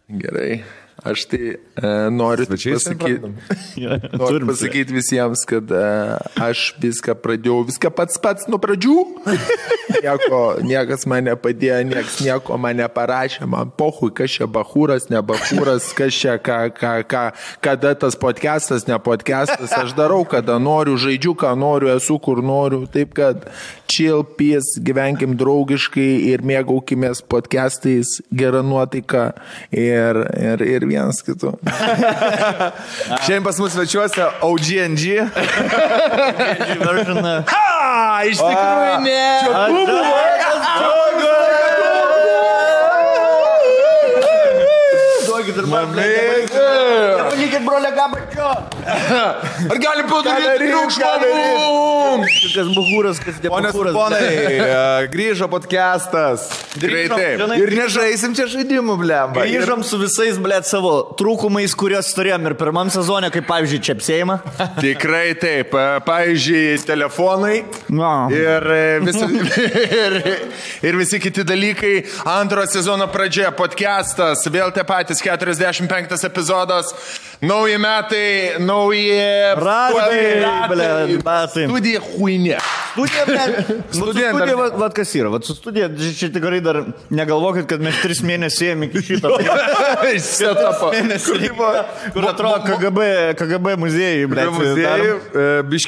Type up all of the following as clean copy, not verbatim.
Gerai. Aš tai noriu pasakyti visiems, kad aš viską pradėjau, viską pats nuo pradžių. Niekas man nepadėjo, niekas nieko man neparašė, man pohui, kas čia bachūras, ne bachūras, kas čia, kada tas podcastas, ne podcastas, aš darau, kada noriu, žaidžiu, ką noriu, esu, kur noriu, taip kad chill, peace, gyvenkim draugiškai ir mėgaukimės podcastais, gerą nuotaiką ir vienas kitų. Šiandien pas mus svečiuose OGNG. Ha! Iš tikrųjų ne! Čia buvo! Duokit ir man. Nepakykit, brolė, gabačio! Ar galim padaryti triukšmą? Kas buhūras, kas Ponas nebūhūras. ponai, grįžo podcastas. Greitai. Ir nežaisim čia žaidimų, blemba. Grįžom su visais, blėt, savo trūkumais, kuriuos turėjom ir pirmam sezone, kaip pavyzdžiui, čepsėjimą. Tikrai taip. Pavyzdžiui, telefonai ir visi kiti dalykai. Antro sezono pradžioje podcastas, vėl tie patys 45 epizodas. Nauji metai, nauji batai. Studija huinė. Studija, vat kas yra. Vat su studija, čia tikrai dar negalvokit, kad mes 3 mėnesius ėjom iki šito. Kur atrodo KGB muziejai, blėt.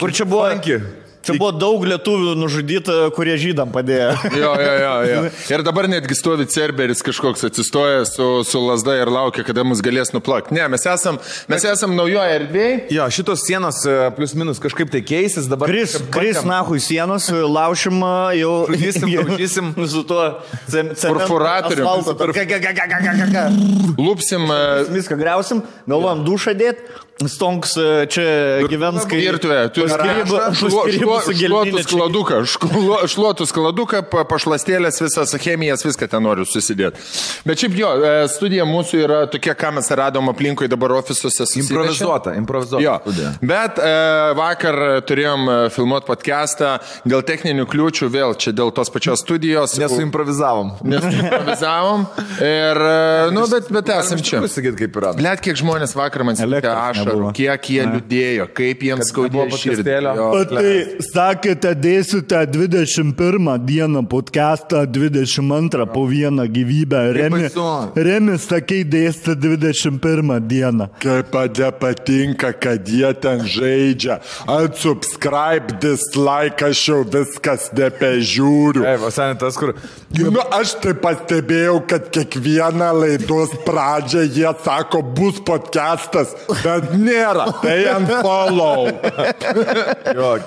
Kur čia buvo? Čia buvo daug lietuvių nužudyta, kurie žydam padėjo. Jo. Ir dabar netgi stovi Cerberis kažkoks atsistojęs su lasda ir laukia, kada mus galės nuplakti. Ne, mes esam naujoje erdvėje. Jo, šitos sienos plius minus kažkaip tai keisis. Dabar Kris nahui sienos, laušim jau. Daužysim. Su tuo Perforatorium. Lupsim. Viską griausim, galvojam dušą dėt. Stonks čia gyvens kaip virtuvė. Šluotus skladuką, pašlastėlės, visas chemijas, viską ten noriu susidėti. Bet šiaip jo, studija mūsų yra tokia, ką mes radom aplinkui dabar ofisuose. Improvizuota jo. studija. Bet vakar turėjom filmuoti podcastą dėl techninių kliūčių, vėl čia dėl tos pačios studijos. Nesuimprovizavom. Ir, bet esam čia. Pasakyti, kaip yra. Blet, kiek žmonės vakar man sakė ašarų, kiek jie liūdėjo, kaip jiems skaudėjo širdį. O tai sakėte, dėsite 21 dieną podcastą, 22 po vieną gyvybę. Remi, sakei, dėsite 21 dieną. Kaip patinka, kad jie ten žaidžia. Unsubscribe, dislike, aš jau viskas nebežiūriu. Tas, kur... Aš tai pastebėjau, kad kiekvieną laidos pradžią jie sako, bus podcastas, bet nėra. Tai unfollow.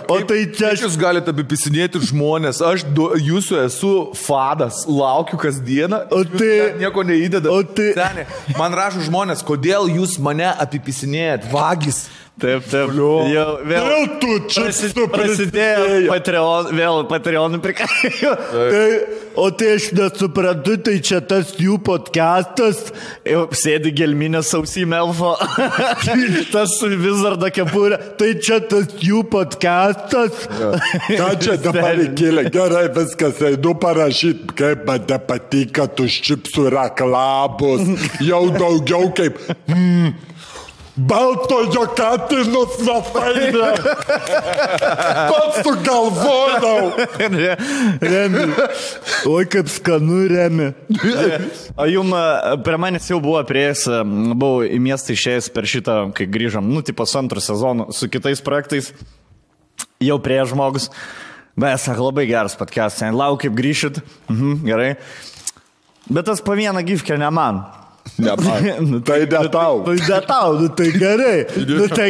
O tai čia jūs galite apipisinėti žmonės. Aš jūsų esu fadas, laukiu kasdieną. O tai nieko neįdeda. O tai Seni, man rašo žmonės, kodėl jūs mane apipisinėjat? Vagis. Taip. Vėl tu čia prasidėjo Patreonų prikaijo. O tai aš nesuprantu, tai čia tas jų podcastas. Jau sėdi gelminės ausime elfo. Tas Wizardo kepurė. Tai čia tas jų podcastas. Ką čia dabar įkėlė? Gerai, viskas, einu parašyti, kaip man nepatinka tus čipsų reklamos. Jau daugiau kaip... Baltojo katinus metaina. Pats sugalvodau. Remi. Oi, kaip skanu, Remi. O jum prie manęs jau buvo prieėjęs, buvau į miestą išėjęs per šitą, kai grįžom, tipo antrą sezoną su kitais projektais. Jau prie žmogus. Bet sako, labai geras podcast. Lauk, kaip grįšit. Gerai. Bet tas po vieną gifkę ne man. Tai detau. Tai gerai. Tai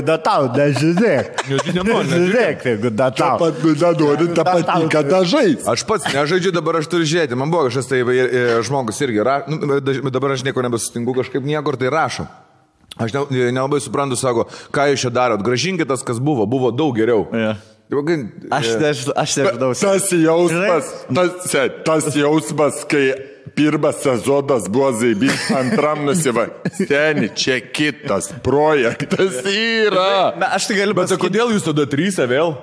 detau, nežiūrėk. Nežiūrėk, jeigu detau. Pat nenori tą patinka dažais. Aš pats nežaidžiu, dabar aš turiu žiūrėti. Man buvo kažkas tai žmogus irgi. Dabar aš nieko nebesutinku kažkaip niekur, tai rašo. Aš nelabai suprantu, sako, ką jūs čia darot. Gražinkit tas, kas buvo. Buvo daug geriau. Aš nežinau. Tas jausmas, kai pirmas sezonas buvo zaibys, antram nusiva. Seni, čia kitas projektas yra. Aš tai galiu Bet pasakyti. kodėl jūs tada trysia vėl?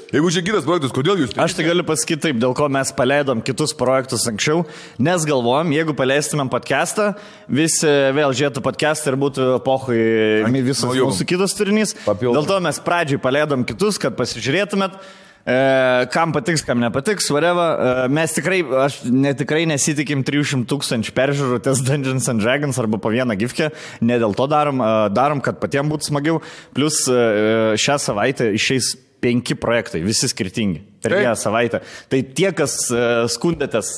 Jeigu čia kitas projektas, kodėl jūs trysia? Aš tai galiu pasakyti taip, dėl ko mes paleidom kitus projektus anksčiau, nes galvojom, jeigu paleistumėm podcastą, visi vėl žiūrėtų podcastą ir būtų epochai visas mūsų kitas turinys. Papildom. Dėl to mes pradžiai paleidom kitus, kad pasižiūrėtumėt. Kam patiks, kam nepatiks, whatever. Mes tikrai, tikrai nesitikim 300 000 peržiūrų ties Dungeons and Dragons arba po vieną gifkę. Ne dėl to darom, kad patiems būtų smagiau. Plus šią savaitę išeis 5 projektai, visi skirtingi. Per vieną savaitę. Tai tie, kas skundėtės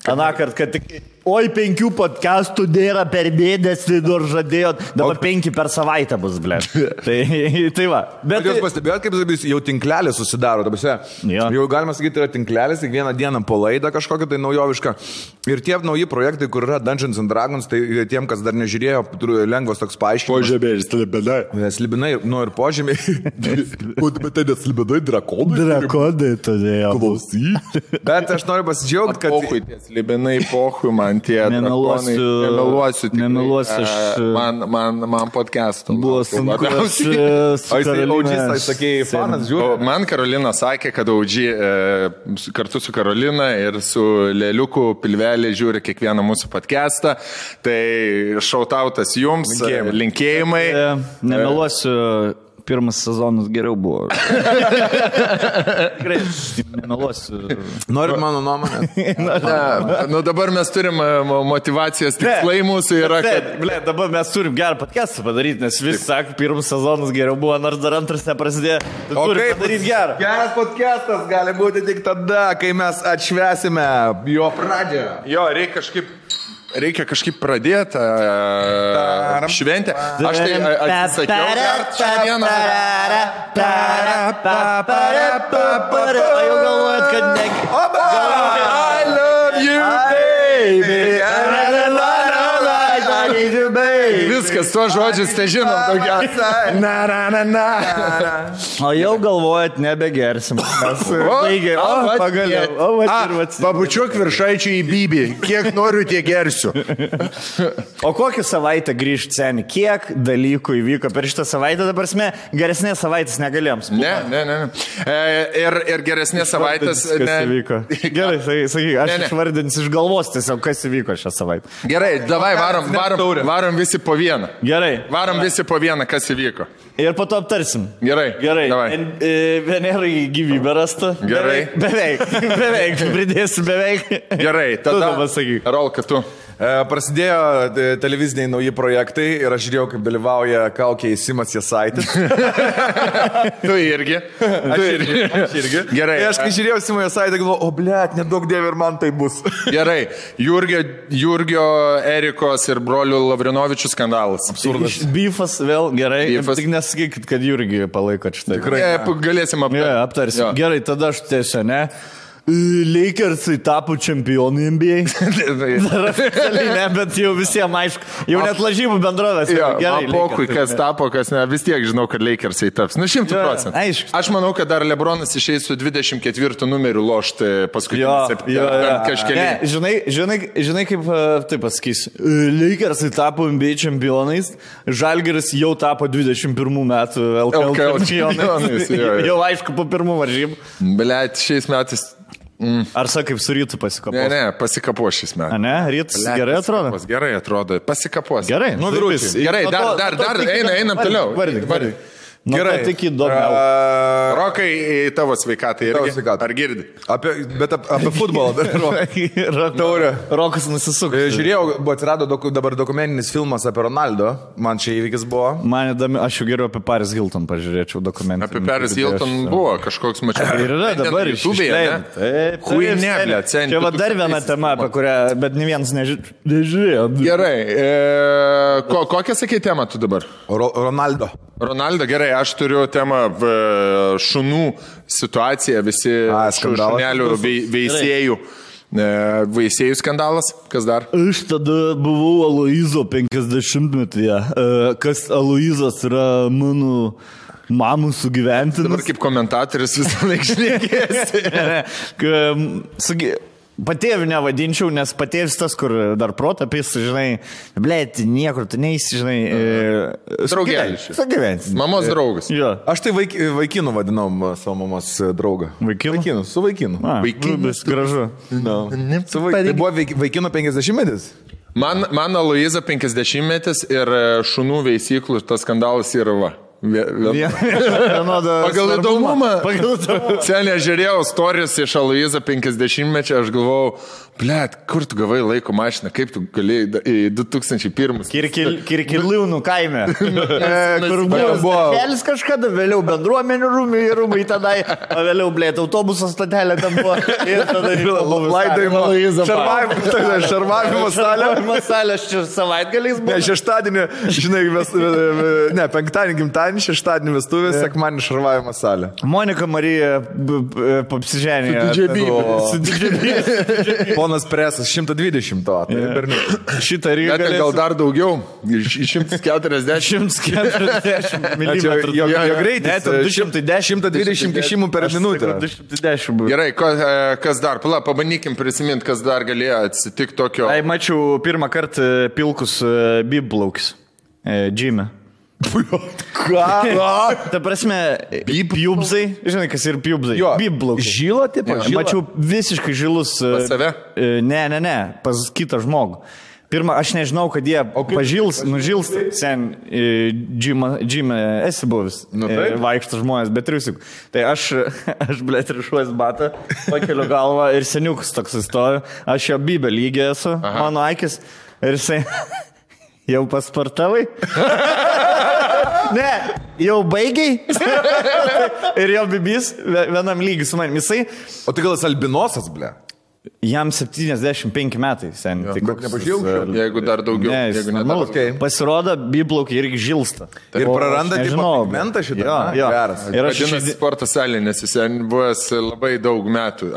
anakart, kad tik... Oi, 5 podcastų nėra per mėnesį, nors žadėjot. Dabar 5 per savaitę bus, ble. Tai va. Bet jūs pastebėjot, kaip jau tinklelis susidaro. Jo. Jau galima sakyti, yra tinklelis, kiekvieną dieną po laidą kažkokią tai naujovišką. Ir tie nauji projektai, kur yra Dungeons and Dragons, tai tiem, kas dar nežiūrėjo, lengvas toks paaiškinimas. Požemiai ir slibinai. Slibinai, ir požemiai. Bet tai neslibinai drakonai. Drakonai todėl. Klausyk. Bet aš noriu pasidžiaugti, kad... Pohui, tie slibinai, pohui, man tie drakonai. Nemeluosiu. Man podcast'o. Buvo sunku. Audžys, sakėjai, fanas, žiūrėjau. Man Karolina sakė, kad Audžy kartu su Karolina ir su Leliuku pilvelė žiūri kiekvieną mūsų podcast'ą. Tai šautautas jums, linkėjimai. Nemeluosiu. Pirmas sezonas geriau buvo. Tikrai, nemeluosiu. Norit mano nuomonę? Nu dabar mes turim motivacijos tikslai mūsų yra, kad... Dabar mes turim gerą podcastą padaryti, nes visi sako, pirmas sezonas geriau buvo, nors dar antras neprasidėjo. Tai turim padaryti gerą. Geras podcastas gali būti tik tada, kai mes atšvesime jo pradžią. Jo, reikia kažkaip pradėti šventę. Aš tai atsisakiau šią dieną. O jau galvojat, kad negi... I love you, baby. Viskas, tuo žodžius tai žinom daugiausia. O jau galvojat, nebegersim. Pagaliau. Pabučiuok viršaičių į bybį. Kiek noriu, tiek gersiu. O kokią savaitę grįžt, seni? Kiek dalykų įvyko per šitą savaitę? Dabar mes geresnės savaitės negalėjom. Ne. Ir geresnės savaitės... Kas įvyko? Gerai, sakyk, aš išvardinsiu iš galvos tiesiog, kas įvyko šią savaitę. Gerai, davai, varom visi po vieną. Gerai. Varom visi po vieną, kas įvyko. Ir po to aptarsim. Gerai. Venerai gyvybė rasta. Gerai. Beveik, pridėsiu beveik. Gerai, tada pasakyk. Rolka, tu. Prasidėjo televiziniai nauji projektai ir aš žiūrėjau, kaip dalyvauja Kaukė Simas Jasaitis. Tu irgi. Aš irgi. Gerai. Ir aš kai žiūrėjau Simą Jasaitį, galvoju, nedaug dievė ir man tai bus. Gerai. Jurgio, Erikos ir brolių Lavrinovičių skandalas. Absurdas. Beefas vėl, gerai. Tik nesakykit, kad Jurgį palaikot šitą. Tikrai. Galėsim aptarti. Aptarsim. Gerai, tada aš tiesiog, ne? Lakersai tapo čempionai NBA. Dar oficialiai ne, bet jau visiems aišku. Jau net lažybų bendrovės. Gerai, pokui, kas tapo, kas ne. Vis tiek žinau, kad Lakersai taps. 100%. Aišku. Aš manau, kad dar LeBronas išeis su 24 numeriu lošti paskutinį kažkelį. Žinai, kaip taip pasakysiu. Lakersai tapo NBA čempionais. Žalgiris jau tapo 21 metų LKL čempionais. Jau aišku, po pirmų varžybų. Blet, šiais metais... Ar sakai, kaip su rytu pasikapos? Ne, pasikapo šis metais. A ne, rytas gerai atrodo? Gerai atrodo, pasikapos. Gerai, Gerai, dar, einam toliau. Vardyk. Gerai, tik įdomiau. Rokai, tavo sveikatai irgi. Ar girdi? Bet apie futbolą. Taurė. Rokas nusisuko. Žiūrėjau, atsirado dabar dokumentinis filmas apie Ronaldo. Man čia įvykis buvo. Man įdomi, aš jau geriau apie Paris Hilton pažiūrėčiau dokumentinį. Apie Paris Hilton buvo kažkoks mačiau. Ir yra dabar išleidžiama. Huineblė, centi. Čia va dar viena tema, apie kurią, bet ne vienas nežiūrėjo. Gerai. Kokią sakai temą tu dabar? Ronaldo, gerai, aš turiu temą šunų situaciją, visi šunelių veisėjų skandalas, kas dar? Aš tada buvau Aloizo 50-metyje, kas Aloizas yra mano mamų sugyventinas. Dabar kaip komentatorius visą laiką šnekėsi. Patėvių nevadinčiau, nes patėvis tas, kur dar protapis, žinai, blėt, niekur tu neįsi, žinai. Draugelis. Sugyvensi. Mamos draugas. Jo. Aš tai vaikinu vadinom savo mamos draugą. Vaikinu? Su vaikinu. Vaikinas. Gražu. No. Tai buvo vaikino 50-metis? Man Aloiza 50-metis ir šunų veisyklų tas skandalas yra va. Pagal įdomumą. Senė žiūrėjau stories iš Aloiza 50-mečio, aš galvojau, blėt, kur tu gavai laiko mašiną, kaip tu galėjai į 2001. Kirkiliūnų kaime. Kur buvo kelis kažkada, vėliau bendruomenių rūmai tenai, o vėliau, blėt, autobuso stotelė ten buvo. Ir tada laidojimo šarvavimo salė. Salė, aš čia savaitgaliais buvo. Ne, šeštadienį, žinai, penktadienį gimtadienį, šeštadienį vestuvės, sekmadienį šarvavimo salė. Monika Marija papsiženė. Su didžiabys. Ponas Presas, 120 to. Šitą Rygą. Gal dar daugiau, 140. 140 mm. Jo greitis. 120 kešimų per minutę. 210. Gerai, kas dar? Pabandykim prisiminti, kas dar galėjo atsitikti tokio. Ai, mačiau pirmą kartą pilkus bibplaukis. Džime. Ką? Ta prasme, pjubzai, žinai, kas ir pjubzai. Bibplaukis. Žylo, taip, mačiau visiškai žilus. Pas save? Ne, pas kitą žmogų. Pirmą, aš nežinau, kad jie nužils, sen džime esi buvęs, vaikšto žmonės, bet triusik. Tai aš blėt, rišuosi batą, pakeliu galvą ir seniukas toks įstoju, aš jo bibę lygiai esu, mano akis, ir jisai, jau pasportavai? Ne, jau baigiai? Ir jo bibys vienam lygiai su manim, jisai. O tai gal jis albinosas, ble? Jam 75 metai, sen. Tai nepažiūrėjau, jeigu dar daugiau. Ne, pasirodo, biblaukiai irgi žilsta. Ir praranda pigmentą šitą. Geras. Ir aš žinau, sporto salė, nes jis buvęs labai daug metų.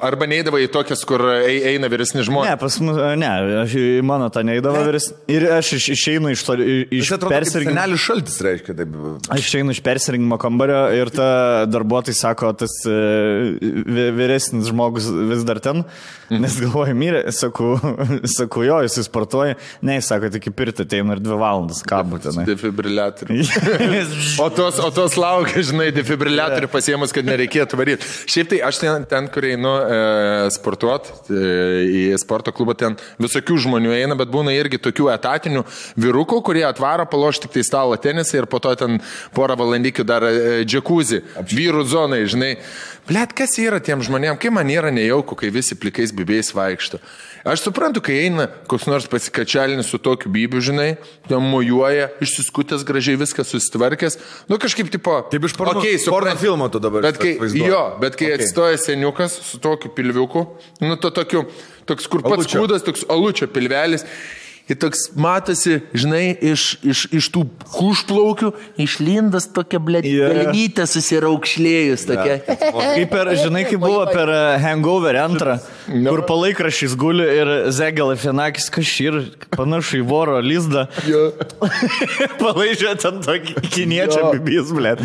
Arba neįdavo į tokias, kur eina vyresni žmonės. Ne, pas mus, aš į mano tą neįdavo vyresni. Ir aš išeinu iš persirinkimo. Senelis šaltis reiškia taip. Aš išeinu iš persirinkimo kambario ir ta darbuotojai sako, tas vyresnis žmogus vis dar ten. Nes galvoju, mirė, sakau, jo, jis sportuoja, ne, jis sako, tik į pirtį ateina ir 2 valandas, ką būtinai. Defibriliatorių. o tos laukia, žinai, defibriliatorių pasiemus, kad nereikėtų varyti. Šiaip tai aš ten kur einu sportuoti, į sporto klubą, ten visokių žmonių eina, bet būna irgi tokių etatinių vyrukų, kurie atvaro paloš tik tai stalo tenisą ir po to ten porą valandykių dar džekuzį, vyrų zonai, žinai. Blet, kas yra tiem žmonėm, kai man yra nejauku, kai visi plikais bibėjais vaikšto. Aš suprantu, kai eina koks nors pasikačialinis su tokiu bibiu, žinai, ten mojuoja, išsiskutęs gražiai viskas susitvarkęs, nu kažkaip tipo... Taip iš porno filmo tu dabar. Bet kai atsistoja seniukas su tokiu pilviuku, nu to toks kur pats kūdas, toks alučio pilvelis, ir toks matosi, žinai, iš tų kušplaukių išlindas tokia, blėt, pelnytė susiraukšlėjus tokia. Kaip buvo per Hangover 2, kur palaikrašys guli ir Zegalafianakis kažkaip panašu į voro lizdą. Palaižė ten tokį kiniečio bibys, blėt.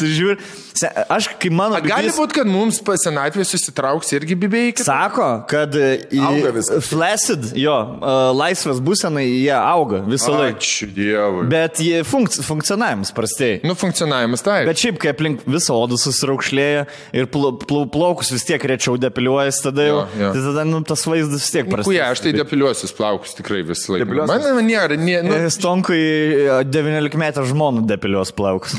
Žiūrė. Aš, kai mano bibys... Gali būti, kad mums senatvė susitrauks irgi bibėjai? Sako, kad flaccid, laisvės būsenai jie auga visą laiką. Ačiū Dievui. Bet jie funkcionavimas prastėja. Nu, funkcionavimas taip. Bet šiaip, kai aplink visą odą susiraukšlėja ir plaukus vis tiek rečiau depiliuojas, tada jau, tai tada tas vaizdas vis tiek prastėja. Aš tai depiliuosius plaukus tikrai visą laiką. Man nėra. Stonkui 19 metų žmonų depiliuos plaukus.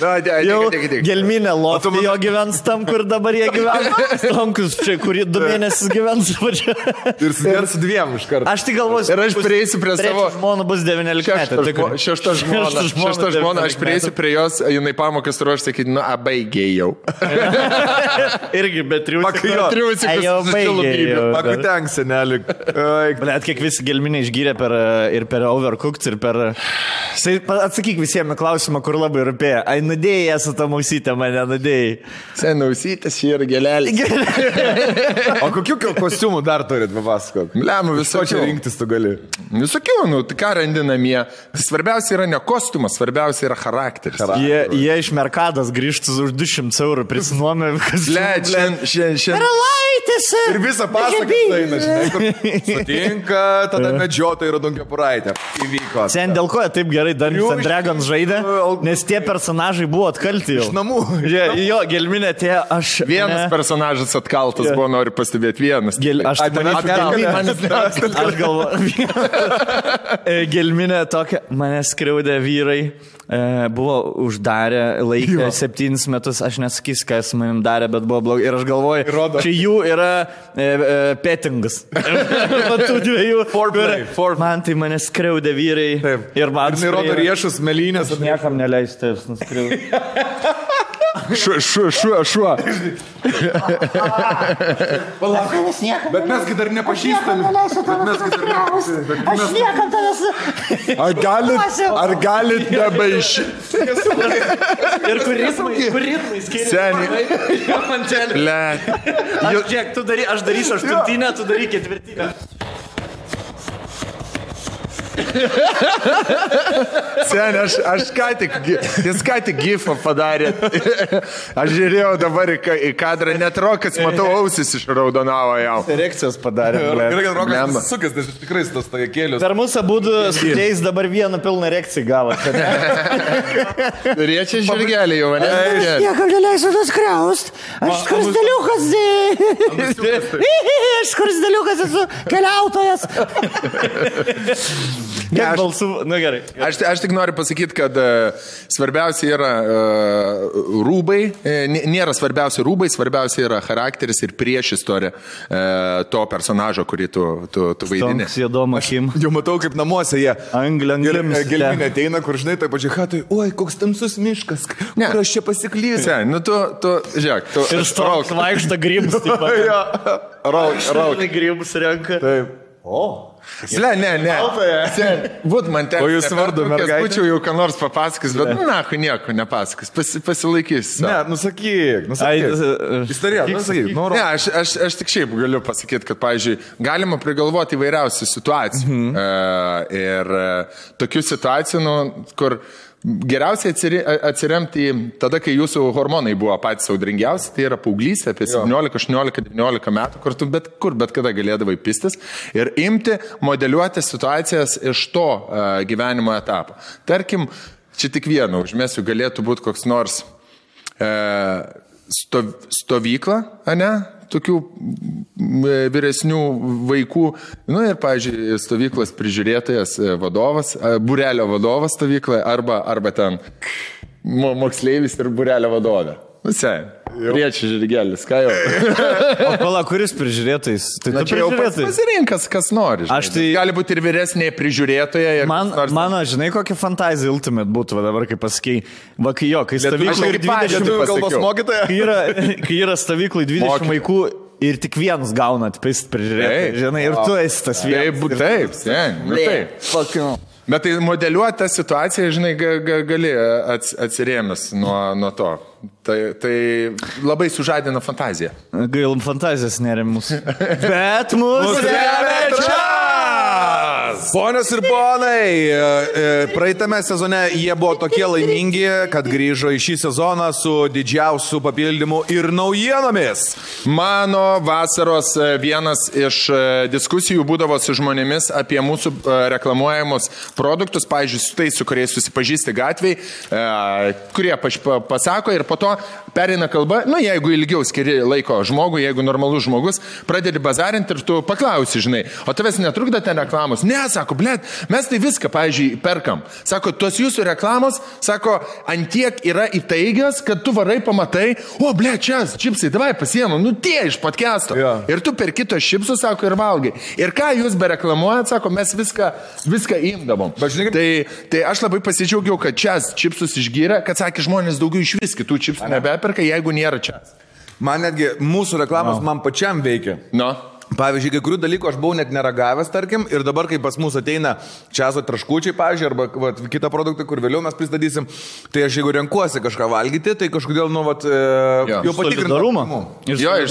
Jau gelminė loftai jo gyvens tam, kur dabar jie gyvena. Stonkus čia, kurį 2 mėnesius gyvens. Ir su 2 iš karto. Aš tik galvosiu. Ir aš prieisiu prie savo... žmona bus 19 metų. Šešta žmona, aš prieisiu prie jos, jinai pamokas ruoš, sakyti, nu, baigėjau. Irgi, bet triusikus. Pakutenk, senelį. Blet, kiek visi gelminė išgyrė ir per Overcooked, ir per... Atsakyk visiems klausimą, kur labai rūpėjo. Ai, nudėjai su tą mausytę, mane nudėjai. Senausytis ir gelelį. O kokių kostiumų dar turit, papasakok? Lemų Ko čia visokių. rinktis tu gali? Visokių, nu, tai ką randi namie. Svarbiausia yra ne kostiumas, svarbiausia yra charakteris. Jie iš Merkados grįžtų už 200 eurų prisinuomė. Šiandien. Karalaitis. Ir visą pasaką eina, žinai, kur sutinka, tada medžiotojai ir Dungiapuraitė. Įvyko. Sen dėl ko jie taip gerai Dungeons and Dragons žaidė, nes tie personažai buvo atkalti jau. Iš namų. Jo, gelminė tie, aš... Vienas personažas atkaltas buvo, noriu pastebėti, vienas. Aš galvoju, gelminė tokia, mane skriaudė vyrai, buvo uždarę laikę 7 metus, aš nesakysiu, kas manim darė, bet buvo blogai. Ir aš galvoju, čia jų yra pettingas. Matų dviejų. Man tai mane skriaudė vyrai. Taip. Ir man Ir rodo riešus, melinės. Aš niekam neleisti jūs nuskriaudti. Šuo. Bet mesgi dar nepažįstami. Aš niekam tavęs. Ar galit nebaišyti? Ir kur ritmai skiriasi. Seniai. Mantelį. Le. Aš darysiu 8, tu daryk 4. Seniai, aš ką tik gifą padarė. Aš žiūrėjau dabar į kadrą, net Rokas, matau, ausis išraudonavo jau. Reakcijos padarė. Gerai, kad Rokas sukės, nes tikrai tas tajekėlius. Per mūsų būdų sudėjus dabar vieną pilną reakciją gavo. Riečia žirgelį jau, ne? Niekam neleisiu nuskriaust. Aš skursdeliukas. Aš skursdeliukas esu keliautojas. Kiek balsų? Na gerai. Aš tik noriu pasakyti, kad svarbiausia yra rūbai, nėra svarbiausia rūbai, svarbiausia yra charakteris ir priešistorė to personažo, kurį tu vaidini. Toks juodom akim. Jau matau, kaip namuose jie. Angliams. Gelminė ateina, kur žinai, taip pačiai hatai, oi, koks tamsus miškas, kur aš čia pasiklysiu. Nu tu, žiūrėk, tu... Ir stoks vaikšta grybus. Rauk. Grybus renka. Taip. Ne. Būt man ten. O jūs vardu, mergaitė? Būčiau jau ką nors papasakys, bet nahu nieko nepasakys. Pasilaikys. Ne, nusakyk. Istorija, nusakyk. Ne, aš tik šiaip galiu pasakyti, kad, pavyzdžiui, galima prigalvoti įvairiausių situacijų. Ir tokių situacijų, kur geriausiai atsiremti tada, kai jūsų hormonai buvo patys audringiausi, tai yra paauglystė apie 17, 18, 19 metų, kur tu bet kada galėdavai pistis ir imti, modeliuoti situacijas iš to gyvenimo etapo. Tarkim, čia tik vieną užmesiu, galėtų būti koks nors stovykla, ne? Tokių vyresnių vaikų, nu ir, pavyzdžiui, stovyklos prižiūrėtojas vadovas, būrelio vadovas stovykloje arba ten moksleivis ir būrelio vadovė. Nu, riečia žirgelis, ką jau. O pala, kuris prižiūrėtais? Tai tu čia jau pasirinkas, kas nori. Gali būti ir vyresnė prižiūrėtoja. Mano, žinai, kokia fantazija ultimate būtų, dabar kaip pasakei. Va, kai stovyklai 20 kai yra stovyklai 20 vaikų ir tik vienas gaunat pist prižiūrėtojai, žinai, ir tu esi tas vienas. Taip. Bet tai modeliuoti tą situaciją, žinai, gali atsirėmęs nuo to. Tai labai sužadina fantaziją. Gailum fantazijas nerėmus. Bet mūsų remia. Ponios ir ponai, praeitame sezone jie buvo tokie laimingi, kad grįžo į šį sezoną su didžiausiu papildymu ir naujienomis. Mano vasaros vienas iš diskusijų būdavo su žmonėmis apie mūsų reklamuojamus produktus, pavyzdžiui, su tais, su kuriais susipažįsti gatviai, kurie pasako ir po to perina kalba, nu jeigu ilgiau skiri laiko žmogui, jeigu normalus žmogus, pradedi bazarinti ir tu paklausi, žinai, o tavęs netrukda ten reklamos. Ne, sako, blėt, mes tai viską, pavyzdžiui, perkam. Sako, tos jūsų reklamos, sako, antiek yra įtaigios, kad tu varai pamatai, o, blėt, čia, čipsai, davai pasiemam, nu tie iš podcast'o. Ja. Ir tu per kitos čipsus, sako, ir valgai. Ir ką jūs bereklamuojat, sako, mes viską imdavom. Tai aš labai pasidžiaugiau, kad čia čipsus išgyrė, kad, sakė, žmonės daugiau iš vis kitų čipsų nebeperka, jeigu nėra čia. Man netgi mūsų reklamos man pačiam veikia. No. Pavyzdžiui, kai kurių dalykų aš buvau net neragavęs, tarkim, ir dabar, kai pas mus ateina čiazo traškučiai, pavyzdžiui, arba kitą produktą, kur vėliau mes pristatysim, tai aš jeigu renkuosi kažką valgyti, tai kažkodėl, jau patikrintas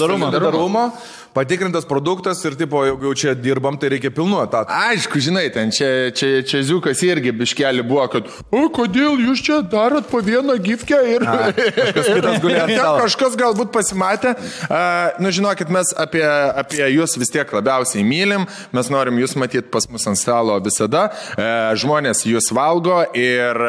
solidarumo, patikrintas produktas ir, tipo, jeigu čia dirbam, tai reikia pilnu etatu. Aišku, žinai, ten čia Ziukas irgi biškelį buvo, kad, kodėl jūs čia darot po vieną gifkę ir kažkas galbūt pasimatė. Žinokit, mes apie jūs vis tiek labiausiai mylim, mes norim jūs matyti pas mus ant stalo visada, žmonės jūs valgo ir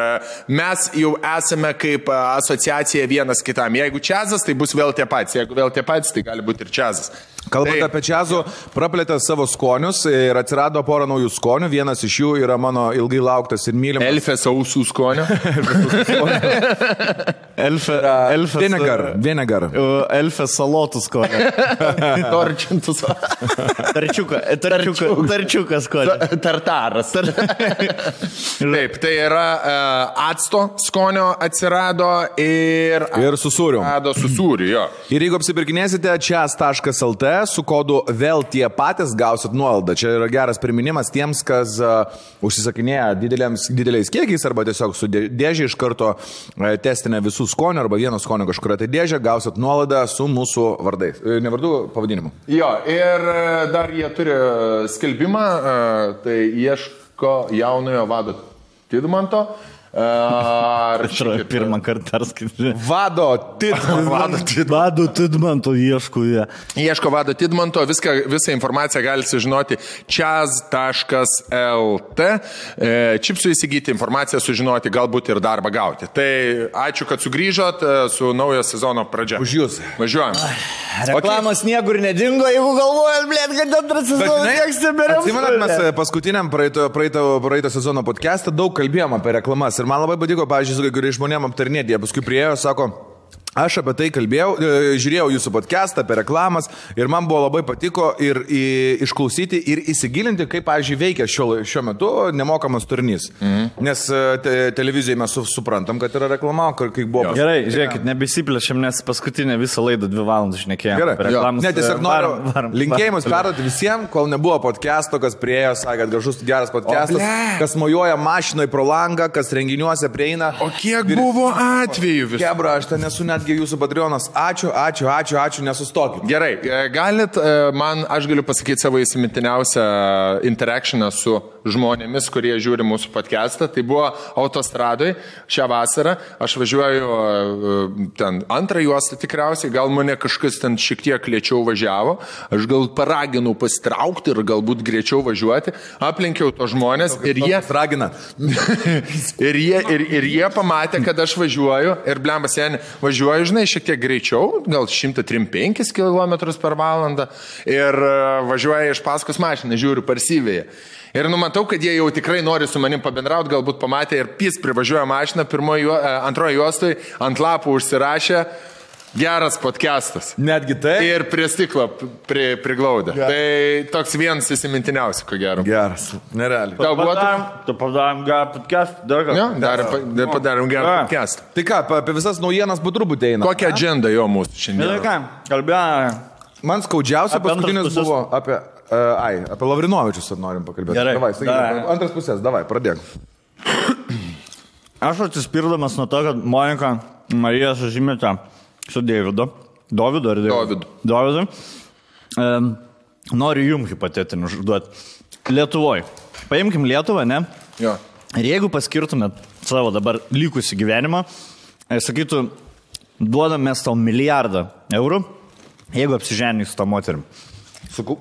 mes jau esame kaip asociacija vienas kitam. Jeigu čiazas, tai bus vėl tie patys, jeigu vėl tie patys, tai gali būti ir čiazas. Kalbant apie čiazų, praplėtė savo skonius ir atsirado porą naujų skonių. Vienas iš jų yra mano ilgai lauktas ir mylimas. Elfės ausų skonio. Vinegar. Elfės salotų skonio. Torčintus. Tarčiukas skonio. Tartaras. Taip, tai yra acto skonio atsirado ir su sūriu. Su sūriu, jo. Ir jeigu apsipirkinėsite čiaz.lt, su kodu vėl tie patys gausit nuolaidą. Čia yra geras priminimas tiems, kas užsisakinėja dideliais kiekiais arba tiesiog su dėžė iš karto testinę visų skonių arba vieno skonio kažkuria tai dėžė, gausit nuolaidą su mūsų vardais. Ne vardų, pavadinimu. Jo, ir dar jie turi skelbimą, tai ieško jaunojo vado Tidmanto. Pirmą kartą perskaityti. Vado Tidmanto ieško jie. Ieško Vado Tidmanto, visą informaciją galite sužinoti čiaz.lt. Čipsų įsigyti informaciją, sužinoti, galbūt ir darbą gauti. Tai ačiū, kad sugrįžot su naujo sezono pradžia. Už jūs. Važiuojam. Reklamos niekur nedingo, jeigu galvojat, kad antras sezonas eksiberiam. Atsimenat, mes paskutiniam praeito sezono podcast'ą daug kalbėjom apie reklamas. Ir man labai patiko, pavyzdžiui, su kai kuriais žmonėm aptarnėti. Jie paskui priėjo, sako, aš apie tai kalbėjau, žiūrėjau jūsų podcastą apie reklamas ir man buvo labai patiko ir išklausyti ir įsigilinti, kaip, pavyzdžiui, veikia šiuo metu nemokamas turinys. Nes televizijoje mes suprantam, kad yra reklama, kaip buvo. Gerai, žiūrėkit, nebesiplešiam, nes paskutinę visą laidą 2 valandas šnekėjom. Gerai, ne, tiesiog noriu linkėjimus perduoti visiems, kol nebuvo podcasto, kas priejo, sakė, kad gražus geras podcastas, kas mojuoja mašinoj pro langą, kas renginiuose prieina. O kiek buvo atvejų visų? Kebra, aš ten nesu netgi jūsų Patreonas. Ačiū, nesustokit. Gerai, galit, aš galiu pasakyti savo įsimintiniausią interakcioną su žmonėmis, kurie žiūri mūsų podcastą. Tai buvo autostradoj šią vasarą. Aš važiuoju ten antrą juostą tikriausiai, gal mane kažkas ten šiek tiek lėčiau važiavo. Aš gal paraginau pasitraukti ir galbūt greičiau važiuoti. Aplenkiau to žmonės ir jie... Ragina. ir jie pamatė, kad aš važiuoju ir blemba seni važiuoju, žinai, šiek tiek greičiau, gal 135 km/h ir važiuoja iš paskos mašiną, žiūriu parsyvėje. Ir numatau, kad jie jau tikrai nori su manim pabendrauti, galbūt pamatė ir privažiuoja mašiną, antrojo juostoj ant lapų užsirašė geras podcastas. Netgi tai. Ir prie stiklo priglaudė. Tai toks vienas įsimintiniausių, ko gero. Geras, nerealiai. Tau buvo Tu padarėm gerą podcastą, dar ką? Jo, padarėm gerą podcastą. Tai ką, apie visas naujienas po truputį eina. Kokią agendą jo mūsų šiandien? Ką, kalbėjome. Man skaudžiausia paskutinis buvo apie Lavrinovičius norim pakalbėti. Gerai. Davai, antras pusės, davai, pradėk. Aš atsispirdamas nuo to, kad Monika Marija sužymėta su Dovydu. Noriu jums hipotetinių užduoti. Lietuvoje. Paimkim Lietuvą, ne? Jo. Ir jeigu paskirtumėt savo dabar likusį gyvenimą, sakytų, duodam mes tau 1 milijardą eurų, jeigu apsiženys su tą moterim.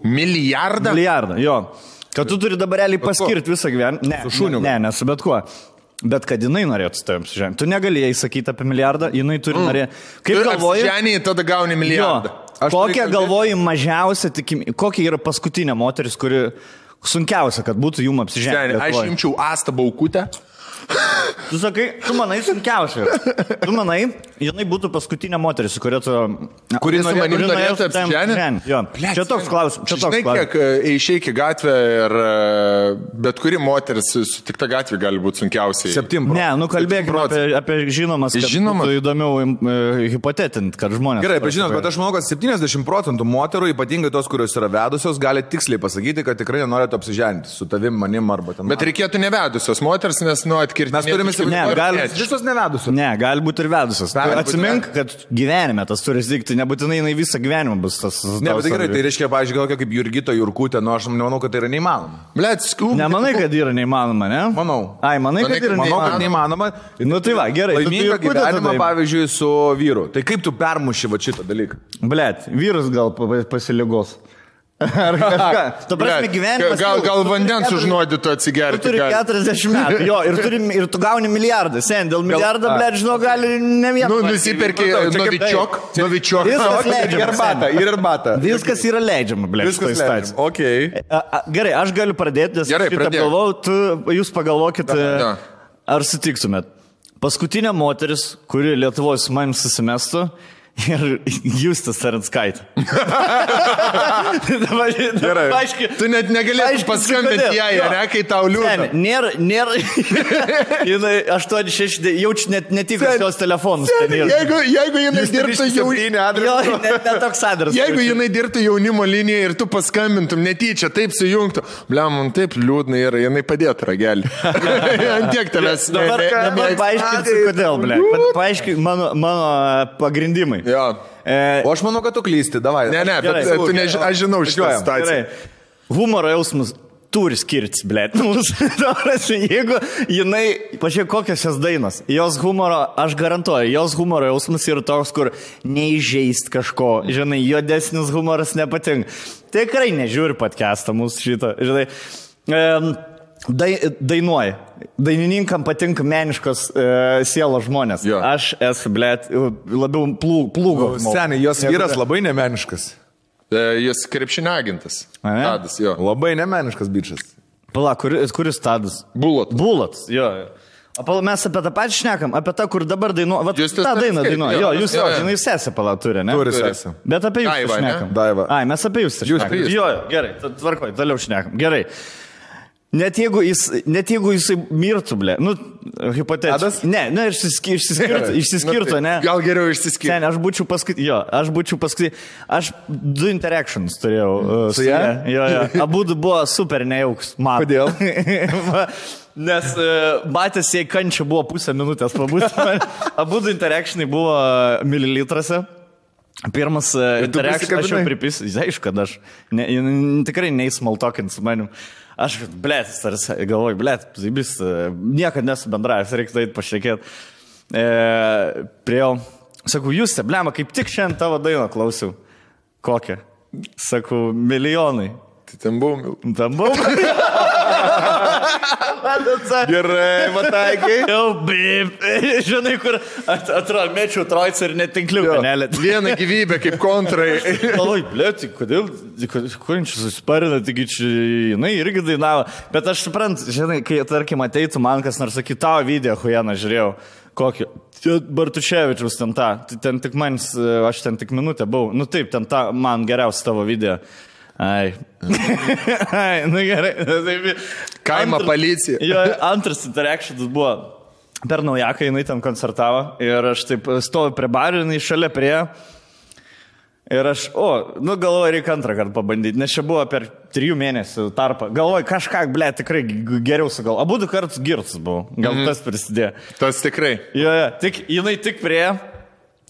Milijardą? Milijardą, jo. Kad tu turi dabar realiai paskirti visą gyvenimą. Su šuniu. Ne, su bet kuo. Bet kad jinai norėtų su tavim apsiženyti. Tu negalėjai sakyti apie milijardą, jinai turi norėti. Kaip galvoji? Apsiženį, tada gauni milijardą. Kokia galvoji mažiausia tikimybė, kokia yra paskutinė moteris, kuri sunkiausia, kad būtų jum apsiženyti? Aš imčiau Astą Baukutę. Tu sakai, tu manai sunkiausia. Tu manai, jinai būtų paskutinė moteris, su kuria tu... Kuri su manim norėtų apsiženyti? Jo. Čia toks klausimas. Žinai, kiek išeik į gatvę ir bet kuri moteris sutikta gatvė gali būti sunkiausiai. 7. Ne, nu kalbėkime apie žinomas, kad būtų įdomiau hipotetinti, kad žmonės... Gerai, bet žinot, bet aš manau, kad 70% moterų, ypatingai tos, kurios yra vedusios, gali tiksliai pasakyti, kad tikrai nenorėtų apsiženti su tavim, manim arba ten. Bet reikėtų nevedusios moters, nes atkirti. Mes turime visos nevedusios. Ne, gali būti ir vedusios. Atsimink, kad gyvenime tas turi įvykti, nebūtinai jinai visą gyvenimą bus tas. Ne, bet tai gerai, tai reiškia, pavyzdžiui, gal kaip Jurgita Jurkutė, nu aš nemanau, kad tai yra neįmanoma. Blet, nemanai, kad yra neįmanoma, ne? Manau. Ai, manai, kad yra neįmanoma. Nu tai va, gerai. Laimingą gyvenimą, pavyzdžiui, su vyru. Tai kaip tu permuši va šitą dalyką? Blet, vyras gal pasiligos. Ar kažką. Tu prasme gyvenimas. Gal vandens užnuodytų atsigerti. Tu turi 40 metų. Jo, ir tu gauni milijardą. Sen, dėl milijardą, blet, žinau, gali ne vieną. Nu, nusipirki novičiok. Ir arbata. Viskas yra leidžiama, blet. Viskas leidžiama. Okay. Gerai, aš galiu pradėti, nes Gerai, šitą galvau, jūs pagalvokit, ar sutiktumėt. Paskutinė moteris, kuri Lietuvoje su manim susimestų, ir Justas Aranskaitė. Gerai. Tu net negalėtum paskambinti jai, ne, kai tau liūdna. Nėra. Jinai 8-6, jaučiu net tikas jos telefonus. Jeigu jinai dirbtų netoks adresas. Jeigu jinai dirbtų jaunimo liniją ir tu paskambintum netyčia, taip sujungtų, blem, man taip liūdna yra, jinai padėtų ragelį. Antiek tavęs. Dabar paaiškinsiu, kodėl, ble. Paaiškink mano pagrindimai. Jo. O aš manau, kad tu klysti, davai. Ne, bet tu aš žinau šitą situaciją. Humoro jausmas turi skirtis, blėt. Jeigu jinai, pažiūrėk, kokios jos dainos, jos humoro, aš garantuoju, jos humoro jausmas yra toks, kur neįžeist kažko, žinai, juodesnis humoras nepatinka. Tikrai nežiūri podcastą mūsų šito, žinai. Dainuoja. Dainininkam patinka meniškos sielos žmonės. Jo. Aš esu, blėt, labiau plūgo. Seniai, jos vyras labai nemeniškas. Jis krepšinio agentas. Tadas, jo. Labai nemeniškas bičas. Pala, kuris Tadas? Bulotas, jo. O mes apie tą patį šnekam, apie tą, kur dabar dainuoja. Jūs tą dainą dainuoja. Jo, jūs jinai sesę pala turi, ne? Turi sesę. Bet apie jūs šnekam. Daiva. Ai, mes apie jūs šnekam. Jo, gerai, tvarkoj, toliau šnekam. Gerai. Net jeigu jisai mirtų, blė, nu, hipotetiškai. Ne, išsiskirtų, ne. Gal geriau išsiskirtų. Sen, aš būčiau paskui, aš 2 interactions turėjau su ją. Jo. Abudu buvo super nejauks. Kodėl? Nes matęs jai kančia buvo pusę minutės pabūti. Abudu interactionai buvo mililitrose. Pirmas interaction, aš jau pripisiu, aišku, kad aš tikrai neįsmaltokint su manim. Aš, blėt, galvoju, blėt, niekad nesu bendravęs, reiktų eiti pašnekėti. Priejau, sakau, Juste, blema, kaip tik šiandien tavo dainą klausiau. Kokią? Sakau, milijonai. Tai ten buvau. Gerai, mataikai. Jau, bip. Žinai, kur atrodo, mečiau trojcą ir netinkliuką nelėt. Vieną gyvybę kaip kontrai. Oi, blėt, kodėl čia susparina, taigi čia jinai irgi dainavo. Bet aš suprantu, žinai, kai, tarkim, ateitų man kas nors sakytų, tavo video, huieną žiūrėjau, kokį. Bartuševičiaus ten tą, ten tik manis, aš ten tik minutę buvau. Nu taip, ten tą man geriausia tavo video. Ai, nu gerai. Kaimo policija. Jo, antras interactionas buvo per naujaką, jinai ten koncertavo ir aš taip stoviu prie bario, jinai šalia prie. Ir aš, galvoju, reikia antrą kartą pabandyti, nes čia buvo per 3 mėnesių tarpą. Galvoju, kažką, ble, tikrai geriau sugal. Abu 2 kartus girtas buvau, gal tas prisidėjo. Tas tikrai. Jo, jinai tik prie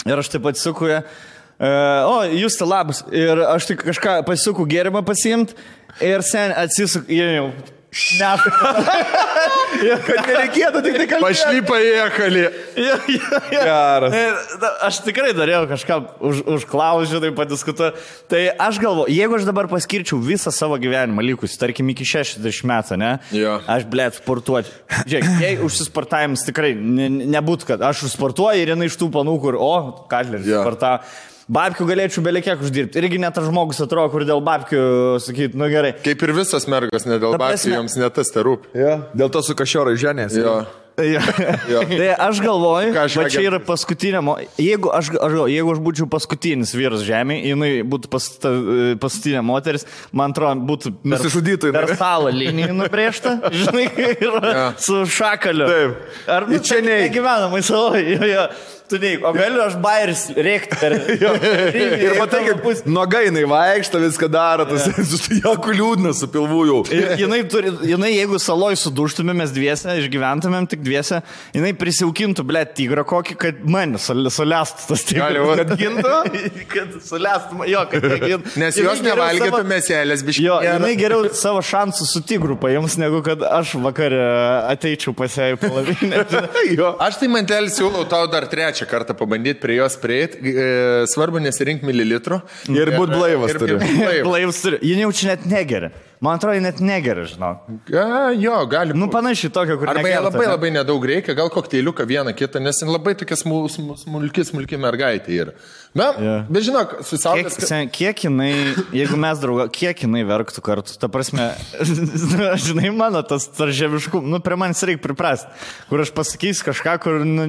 ir aš taip atsisuku ją. Jūs tai labas. Ir aš tik kažką pasisuku gėrimą pasiimt ir sen atsisuku, jau kad nereikėtų tik tai kalbėti. Pašlypa į ekalį. Geras. Aš tikrai norėjau kažką užklausti, tai padiskutuoti. Tai aš galvoju, jeigu aš dabar paskirčiau visą savo gyvenimą likus, tarkim iki 60 metų, ne? Jo. Aš, blėt, sportuoti. Žiūrėk, jei užsisportavimas tikrai nebūtų, kad aš užsportuoju ir jinai iš tų panų, kur, Katleris sportavo. Babkių galėčiau belekiek uždirbti. Irgi net tas žmogus atrodo, kur dėl babkių sakyti, nu gerai. Kaip ir visas mergas, ne dėl babkių, joms ne tas te rūpi. Ja. Dėl to su kašiorai ženės. Jo. Tai aš galvoju, Ką aš kad čia agent- yra paskutinė, jeigu aš būčiau paskutinis vyras žemėje, jinai būtų paskutinė moteris, man atrodo, būtų Nusižudytų jinai. per salą linijų nubrėžta, žinai, ir su šakaliu. Taip. Ar nu, Čia čia neik. negyvenamai savo, tu neik, o galiu aš bairis rėkti per... Ir matai, kaip nuogai jinai vaikšto, viską daro, tas jokių liūdnas su pilvu jau. Ir jinai, jeigu saloj suduštumėm mes dviese, išgyventumėm tik dviese, jinai prisiaukintų, ble, tigrą kokį, kad mane sulestų tas tigras. Gali, Kad gintų? Kad sulestų, jo, kad negintų. Nes jos nevalgytų mėselės, biškai. Jo, jinai geriau savo šansų su tigru paims, negu kad aš vakarę ateičiau pas ją į palavinę. Aš tai mantelį siūlau tau dar trečią kartą pabandyti prie jos prieiti. Svarbu nesirinkti mililitrų. Ir būt blaivas turi. Blaivas turi. Ji jaučia net negeria. Man atrodo, net negeria, žinau. Jo, gali. Nu, panašiai tokio, kur Arba jie negerta, labai ne? labai nedaug reikia, gal kokteiliuką vieną kitą, nes jin labai tokia smulki mergaitė yra. Na, bet žinok, su saulės... Kiek jinai, jeigu mes draugą, kiek jinai verktų kartu, ta prasme, žinai, mano tas tarževiškum, nu, prie manęs reikia priprasti, kur aš pasakysiu kažką, kur, nu,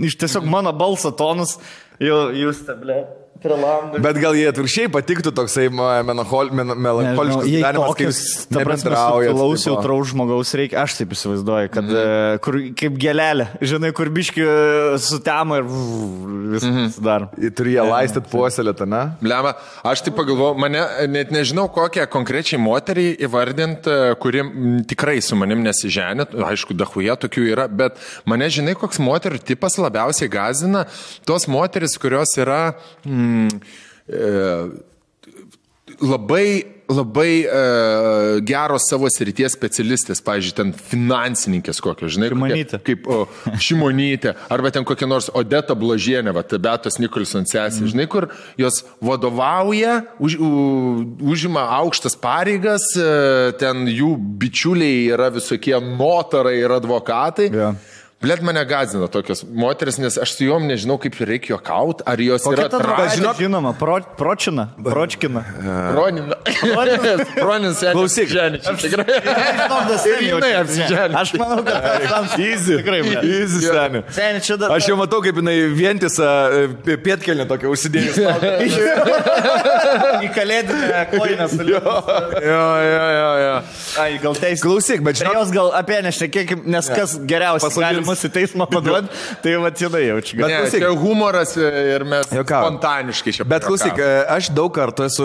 iš tiesiog mano balso tonus, jūs teblė. Bet gal jie atvirkščiai patiktų toksai melancholiškas gyvenimas, kai jūs nebendraujate. Klausiau traus žmogaus reikia, aš taip įsivaizduoju, kad kur, kaip gelelė, žinai, kur biški sutemo ir viskas dar. Turi ją laistyti puoselėtą, ne? Blema, aš tai pagalvoju, mane net nežinau, kokią konkrečiai moterį įvardinti, kuri tikrai su manim nesiženė, aišku, dahuje tokių yra, bet mane, žinai, koks moterų tipas labiausiai gazina, tos moteris, kurios yra labai geros savo srities specialistės, pavyzdžiui, ten finansininkės kokios, žinai, kaip Šimonytė, arba ten kokia nors Odeta Bložienė, Beatos Nikolson sesė, žinai, kur jos vadovauja, užima aukštas pareigas, ten jų bičiuliai yra visokie notarai ir advokatai. Blet, mane gazina tokios moteris, nes aš su juom nežinau, kaip reikia juokauti, ar jos yra tradicija. Žinoma, Pročkina. Proninas, klausyk. Aš manau, kad Easy, seni. Aš jau matau, kaip jinai vientisą pietkelnę tokią užsidėjus. Į kalėdinę koinę suliūdus. Jo. Ai, gal teisė. Klausyk, bet žinok. Jos gal apie nešnekėkim, nes kas geriausiai gali mus į teismą paduoti, tai va jinai jaučia. Bet klausyk, čia humoras ir mes spontaniškai čia. Bet klausyk, aš daug kartų esu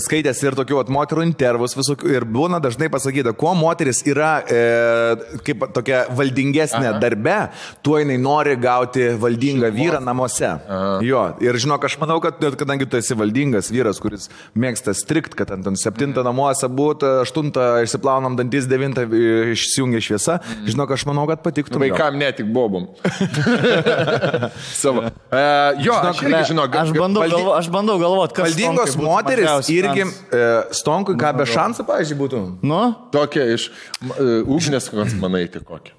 skaitęs ir tokių moterų intervus visokių ir būna dažnai pasakyta, kuo moteris yra kaip tokia valdingesnė darbe, tuo jinai nori gauti valdingą vyrą namuose. Jo, ir žinok, aš manau, kad kadangi tu esi valdingas vyras, kuris mėgsta strikt, kad ant 7 namuose būtų, 8 išsiplaunam dantis, 9 išsijungia šviesa, žinok, aš manau, kad patiktų. Vaikam ne tik bobom. Savo. Jo, aš bandau galvoti, kas valdingos moteris irgi Stonkui, ką be šansų, pavyzdžiui, būtų. Nu? Tokia iš ugnės, kokios manai, tai kokia.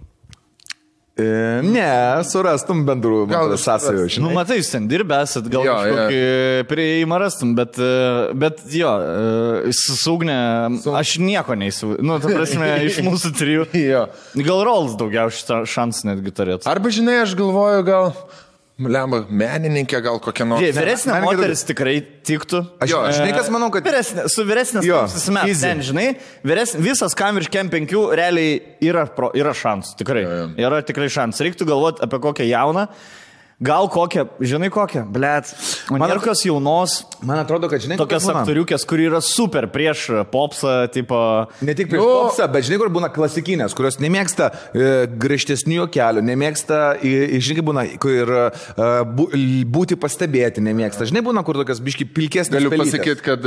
Ne, surastum bendrų sąsajų. Nu, matai, jūs ten dirbėsit, gal kažkokį prieimą rastum, bet jo, sugnė, aš nieko neįsivaizduoju. Nu, ta prasme, iš mūsų 3. Gal Rolls daugiausiai šansų netgi turėtų. Arba, žinai, aš galvoju, gal menininkė, gal kokia nors. Vyresnė moteris tikrai tiktų. Aš žinai, kas manau, kad... Su vyresnės susimet, ten, žinai, visas kam virš kem 5 realiai yra šansų, tikrai. Yra tikrai šansų. Reiktų galvoti apie kokią jauną. Gal kokią, žinai kokią, blėt, kokios jaunos, man atrodo, kad žinai, tokias aktoriukės, kuri yra super prieš popsą, tipo... Ne tik prieš popsą, bet žinai, kur būna klasikinės, kurios nemėgsta griežtesnių juokelių, nemėgsta, žinai, būna, kur būti pastebėti nemėgsta. Žinai, būna, kur tokias biški pilkesnės. Galiu pasakyti, kad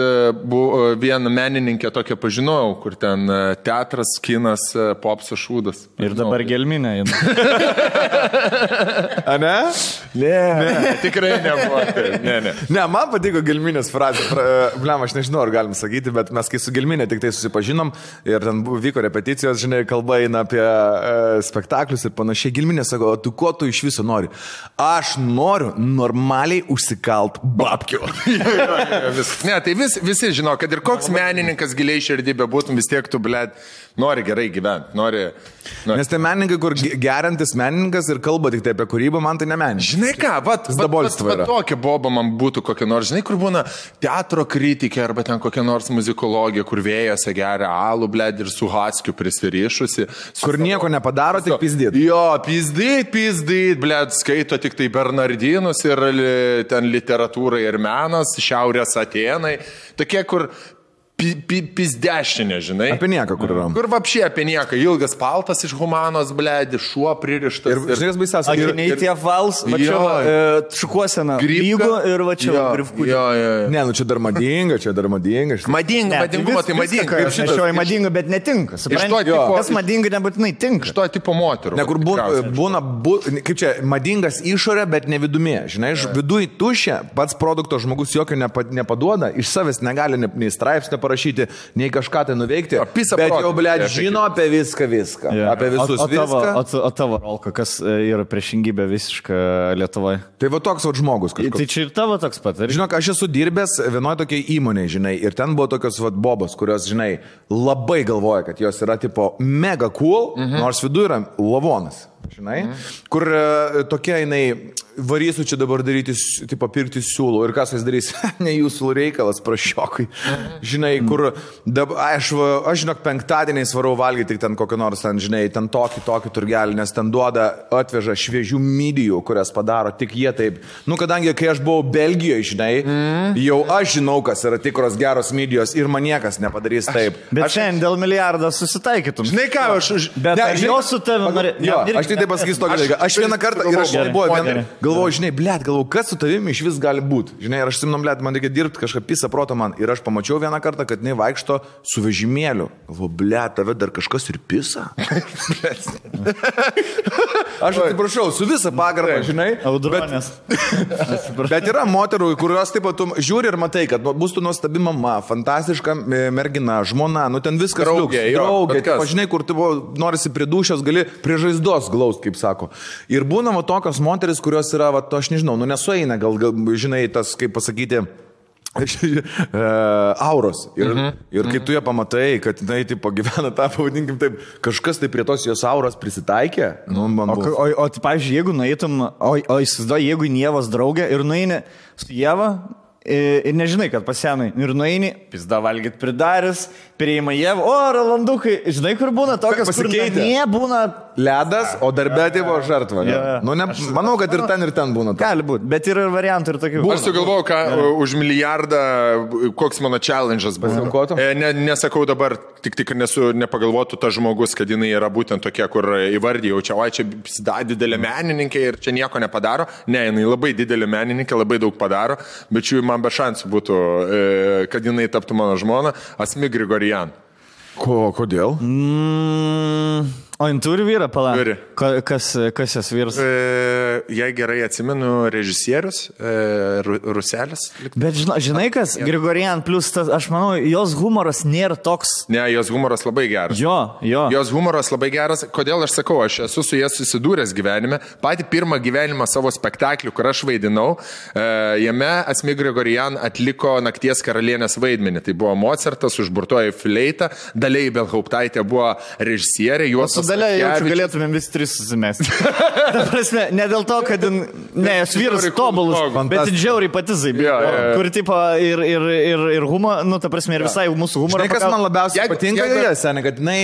vieną menininkę tokią pažinojau, kur ten teatras, kinas, popsas, šūdas. Ir dabar gelminė. A ne? Ne, tikrai nebuvo. Ne. Ne, man patiko Gelminės frazė. Blem, aš nežinau, ar galim sakyti, bet mes kai su Gelminė tik tai susipažinom ir ten vyko repeticijos, žinai, kalba eina apie spektaklius ir panašiai. Gelminė sako, o tu ko tu iš viso nori? Aš noriu normaliai užsikalt babkių. Ne, tai visi žino, kad ir koks menininkas giliai širdį bebūtum, vis tiek tu, blėt, nori gerai gyventi. Nori. Nes tai menininkai, kur geriantis menininkas ir kalba tik tai apie kūrybą, man tai ne menininkas. Žinai ką, vat tokia boba man būtų kokia nors, žinai, kur būna teatro kritikė arba ten kokia nors muzikologija, kur vėjose geria alų, blėd, ir su Haskiu prisirišusi. Kur nieko nepadaro, tik pizdyt. Jo, pizdyt, blėd, skaito tik tai Bernardinus ir ten literatūra ir menas, Šiaurės Atėnai. Tokie, kur pizdešinė, žinai. Apie nieką, kur yra. Kur vapšė apie nieką. Ilgas paltas iš humanos, blėdi, šuo pririštas. Ir žinai, kas baisiausia. Akiniai tie vals, va čia šukuosena. Lygų ir va čia grifkų. Ne, nu čia dar madinga. Madingumo, tai madinga. Aš nešioju madinga, bet netinka. Kas madinga nebūtinai tinka. Iš to tipo moterų. Ne, kur būna, kaip čia, madingas išorė, bet ne vidumė. Žinai, viduj tušia, pats produkto žmogus jokio nepaduoda, iš savęs negali nei straipsnio parašyti, nei kažką tai nuveikti, bet jau, blėt, žino apie viską, apie visus viską. O tavo rolka, kas yra priešingybė visiška Lietuvoje? Tai va toks va žmogus kažkoks. Tai čia ir tavo toks pat. Žinok, aš esu dirbęs vienoje tokiai įmonėje, žinai, ir ten buvo tokios va bobos, kurios, žinai, labai galvoja, kad jos yra tipo mega cool, nors vidu yra lavonas. Žinai, kur tokia jinai varysiu čia dabar daryti, tipo pirkti siūlų ir kas jis darys, ne jūsų reikalas, prašiokai. Žinai, kur, aš žinok, penktadieniais varau valgyti tik ten kokį nors, ten, žinai, ten tokį turgelį, nes ten atveža šviežių midijų, kurias padaro tik jie taip. Nu, kadangi, kai aš buvau Belgijoje, žinai, jau aš žinau, kas yra tikros geros midijos ir man niekas nepadarys taip. Bet šiandien dėl milijardo susitaikytum. Žinai ką, bet jos su tavimi aš tai pasakysiu tokį dalyką. Aš vieną kartą ir aš galvoju, žinai, blėt, kas su tavimi iš vis gali būti. Žinai, ir aš simnom, blėt, man reikia dirbti kažką pisą proto man. Ir aš pamačiau vieną kartą, kad jinai vaikšto su vežimėliu. Galvoju, blėt, tave dar kažkas ir pisa. Aš atsiprašau, su visą pagarbą, žinai. Audronės. Bet yra moterų, kurios taip pat žiūri ir matai, kad bus tu nuostabi mama, fantastiška mergina, žmona, nu ten viskas draugė, žinai, kur tu norisi prie dušios, gali prie žaizdos glaust, kaip sako. Ir būna va tokios moteris, kurios yra, va, aš nežinau, nu nesueina, gal žinai, tas, kaip pasakyti, auros. Ir kai tu ją pamatai, kad jinai tipo gyvena tą, pavadinkim taip, kažkas tai prie tos jos auros prisitaikė. Nu, o tai, pavyzdžiui, jeigu nueitum, o įsivaizduoji, jeigu Ievos draugė ir nueini su Ieva ir nežinai, kad pasienai, ir nueini, pizda valgyt pridaris, prieima Ievą, o Rolandukai, žinai, kur būna tokios, kur nebūna ledas, o darbė buvo žartva. Nu, manau, kad ir ten būna. Gali būti, bet yra ir variantų ir tokių. Aš sugalvojau, ką už milijardą, koks mano challenge'as buvo. Nesakau dabar, tik nepagalvotų tas žmogus, kad jinai yra būtent tokia, kur įvardyjau, čia didelė menininkė ir čia nieko nepadaro. Ne, jinai labai didelė menininkė, labai daug padaro, bet šių man be šansų būtų, kad jinai taptų mano žmona, Asmik Grigorian. Kodėl? O jin turi vyrą, pala? Turi. Kas jas vyras? Jei gerai atsimenu, režisierius, Ruselis. Bet žinai kas, Grigorian plus tas, aš manau, jos humoras nėra toks. Ne, jos humoras labai geras. Jo. Jos humoras labai geras. Kodėl aš sakau, aš esu su jie susidūręs gyvenime. Patį pirmą gyvenimą savo spektaklių, kur aš vaidinau, jame Asmik Grigorian atliko Nakties karalienės vaidmenį. Tai buvo Mozartas, užburtoji fleita, Dalia Ibelhauptaitė buvo režisierė. Su Dalia jaučiu galėtumėm visi tris susimesti. Ta prasme, ne dėl to, kad jos vyras tobulus, bet džiauriai pati zaibė. Kur tipo ir humor, nu ta prasme, ir visai mūsų humorą. Žinai, kas man labiausiai patinka joje, seniai, kad jinai,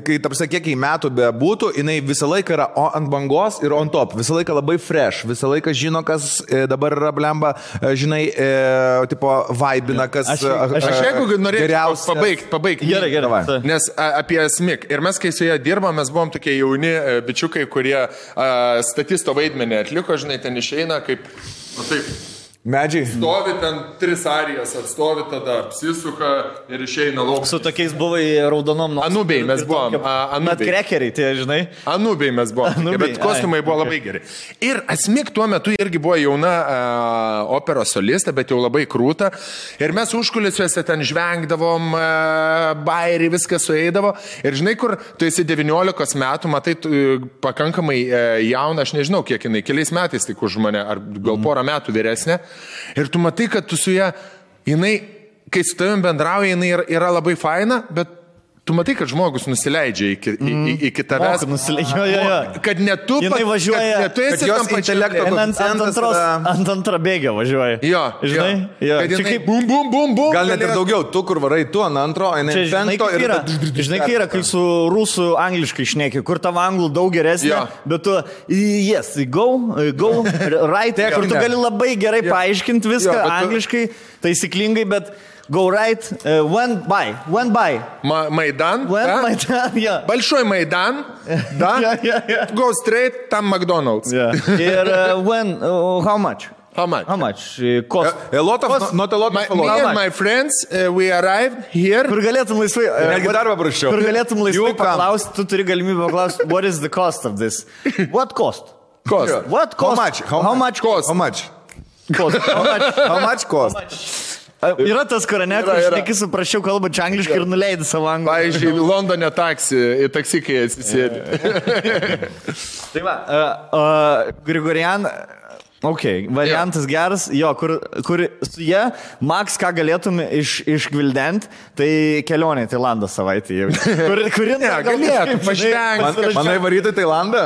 kai tapsa kiek metų be būtų, jinai visą laiką yra ant bangos ir on top. Visą laiką labai fresh, visą laiką žino, kas dabar yra blemba, žinai, tipo vaibina, kas jeigu norėčiau pabaigti. Gerai. Nes apie Asmik. Ir mes, kai su ją dirbom, mes buvom tokie jauni bičiukai, kurie statisto vaidmenį atliko, žinai, ten išeina kaip, nu taip. Medžiai. Stovi ten 3 arijas, atstovi tada, apsisuka ir išeina lauk. Su tokiais buvai raudonom. Anubiai mes buvom. Net krekeriai, tai žinai. Anubiai mes buvom. Bet kostiumai buvo labai geri. Ir Asmik tuo metu irgi buvo jauna operos solistė, bet jau labai krūta. Ir mes užkulisiuose ten žvengdavom, bairį, viskas sueidavo. Ir žinai, kur tu esi 19 metų, matai pakankamai jauna, aš nežinau, kiek jinai, keliais metais tik už mane, ar gal porą metų vyresnė. Ir tu matai, kad tu su ją, jinai, kai su tavim bendrauja, jinai yra labai faina, bet tu matai, kad žmogus nusileidžia iki tavęs. Kad ne tu jinai važiuoja, kad tu esi tam intelekto ant antrabėgio važiuoja. Jo, žinai? Jo. Kad jinai bum, bum, bum, bum. Gal net ir daugiau, tu kur varai, tu ant antro, jinai penkto ir... Žinai, kai yra, kai su rusų angliškai šneki, kur tavo anglų daug geresnė, bet tu, yes, go, right, kur tu gali labai gerai paaiškinti viską angliškai, taisyklingai, bet go right, went by. Майдан, Майдан, yeah. Большой Майдан, да? Go straight, там Макдональдс. Ir how much? How much? Cost. A lot of, not a lot of Me and my friends, we arrived here. Kur galėtum laisvai... Netgi darbą prašiau. Kur galėtum laisvai paklausti, tu turi galimybę paklausti, what is the cost of this? What cost? Cost. What cost? How much cost? How much cost? Yra tas korane, kur šneki suprašiau kalbančią angliškai ir nuleidai savo anglų. Pavyzdžiui, Londone taksi, kai atsisėdi. Tai va, Grigorian, variantas geras, jo, kur su jie, Max, ką galėtum išgvildenti, tai kelionė į Tailandą savaitę jau. Kurin galėtum pažvengti. Manai varyti į Tailandą?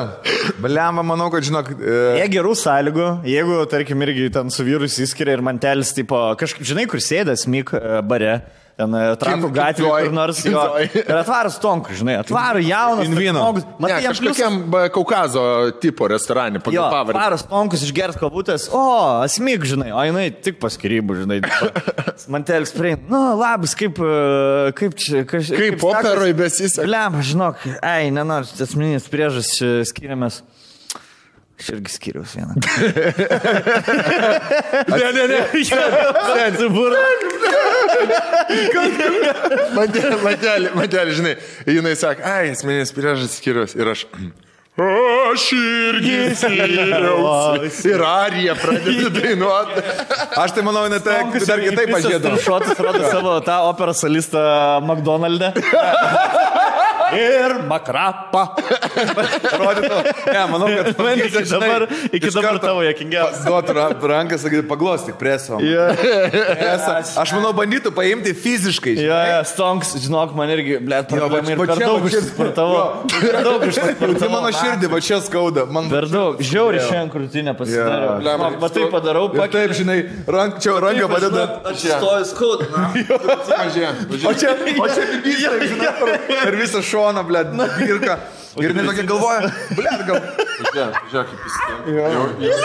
Baliamą, manau, kad žinok... Jie gerų sąlygų, jeigu, tarkim, irgi ten su vyrus įskiria ir mantelis, tipo, kažkaip, žinai, kur sėdės Mik bare, ten Trakų gatvė, kur nors jo. Ir atvaras Tonku, žinai, atvaras jaunas žmogus. Ne, kažkokiam Kaukazo tipo restorane, pagal pavardę. Atvaras Tonkus išgers kabutės, Asmik, žinai, o jinai tik pas skyrybų, žinai. Mantelis prieina, labas, kaip operoj besisek. Bliam, žinok, nenors, asmeninis priežas skiriamės. Aš irgi skiriaus vieną. Ne. Mantelį, žinai, jinai sako, asmeninis priežas skiriaus ir aš irgi skiriausi. Ir Arija pradeda dainuoti. Aš tai manau, net dar kitaip pažiūrėdavau. Šotas rodo savo tą operos solistą McDonald'e. Ir makrapą. Rodytų. Ne, manau, kad iki dabar tavo jokingiausias. Duotų ranką, sakyti, paglostyk preso. Aš manau, bandytų paimti fiziškai. Stonks, žinok, man irgi, blėt, problemai ir per daug išsportavo. Per daug išsportavo. Tai mano širdį, va čia skauda. Per daug. Žiauri šiandien krūtinę pasidariau. Va tai padarau. Taip, žinai, ranką padeda. Aš stoju skauda. O čia per visą šoną, blėt, dirka. Ir jinai tokia galvoja, blėt, gal... Žiūrėk, kaip jis.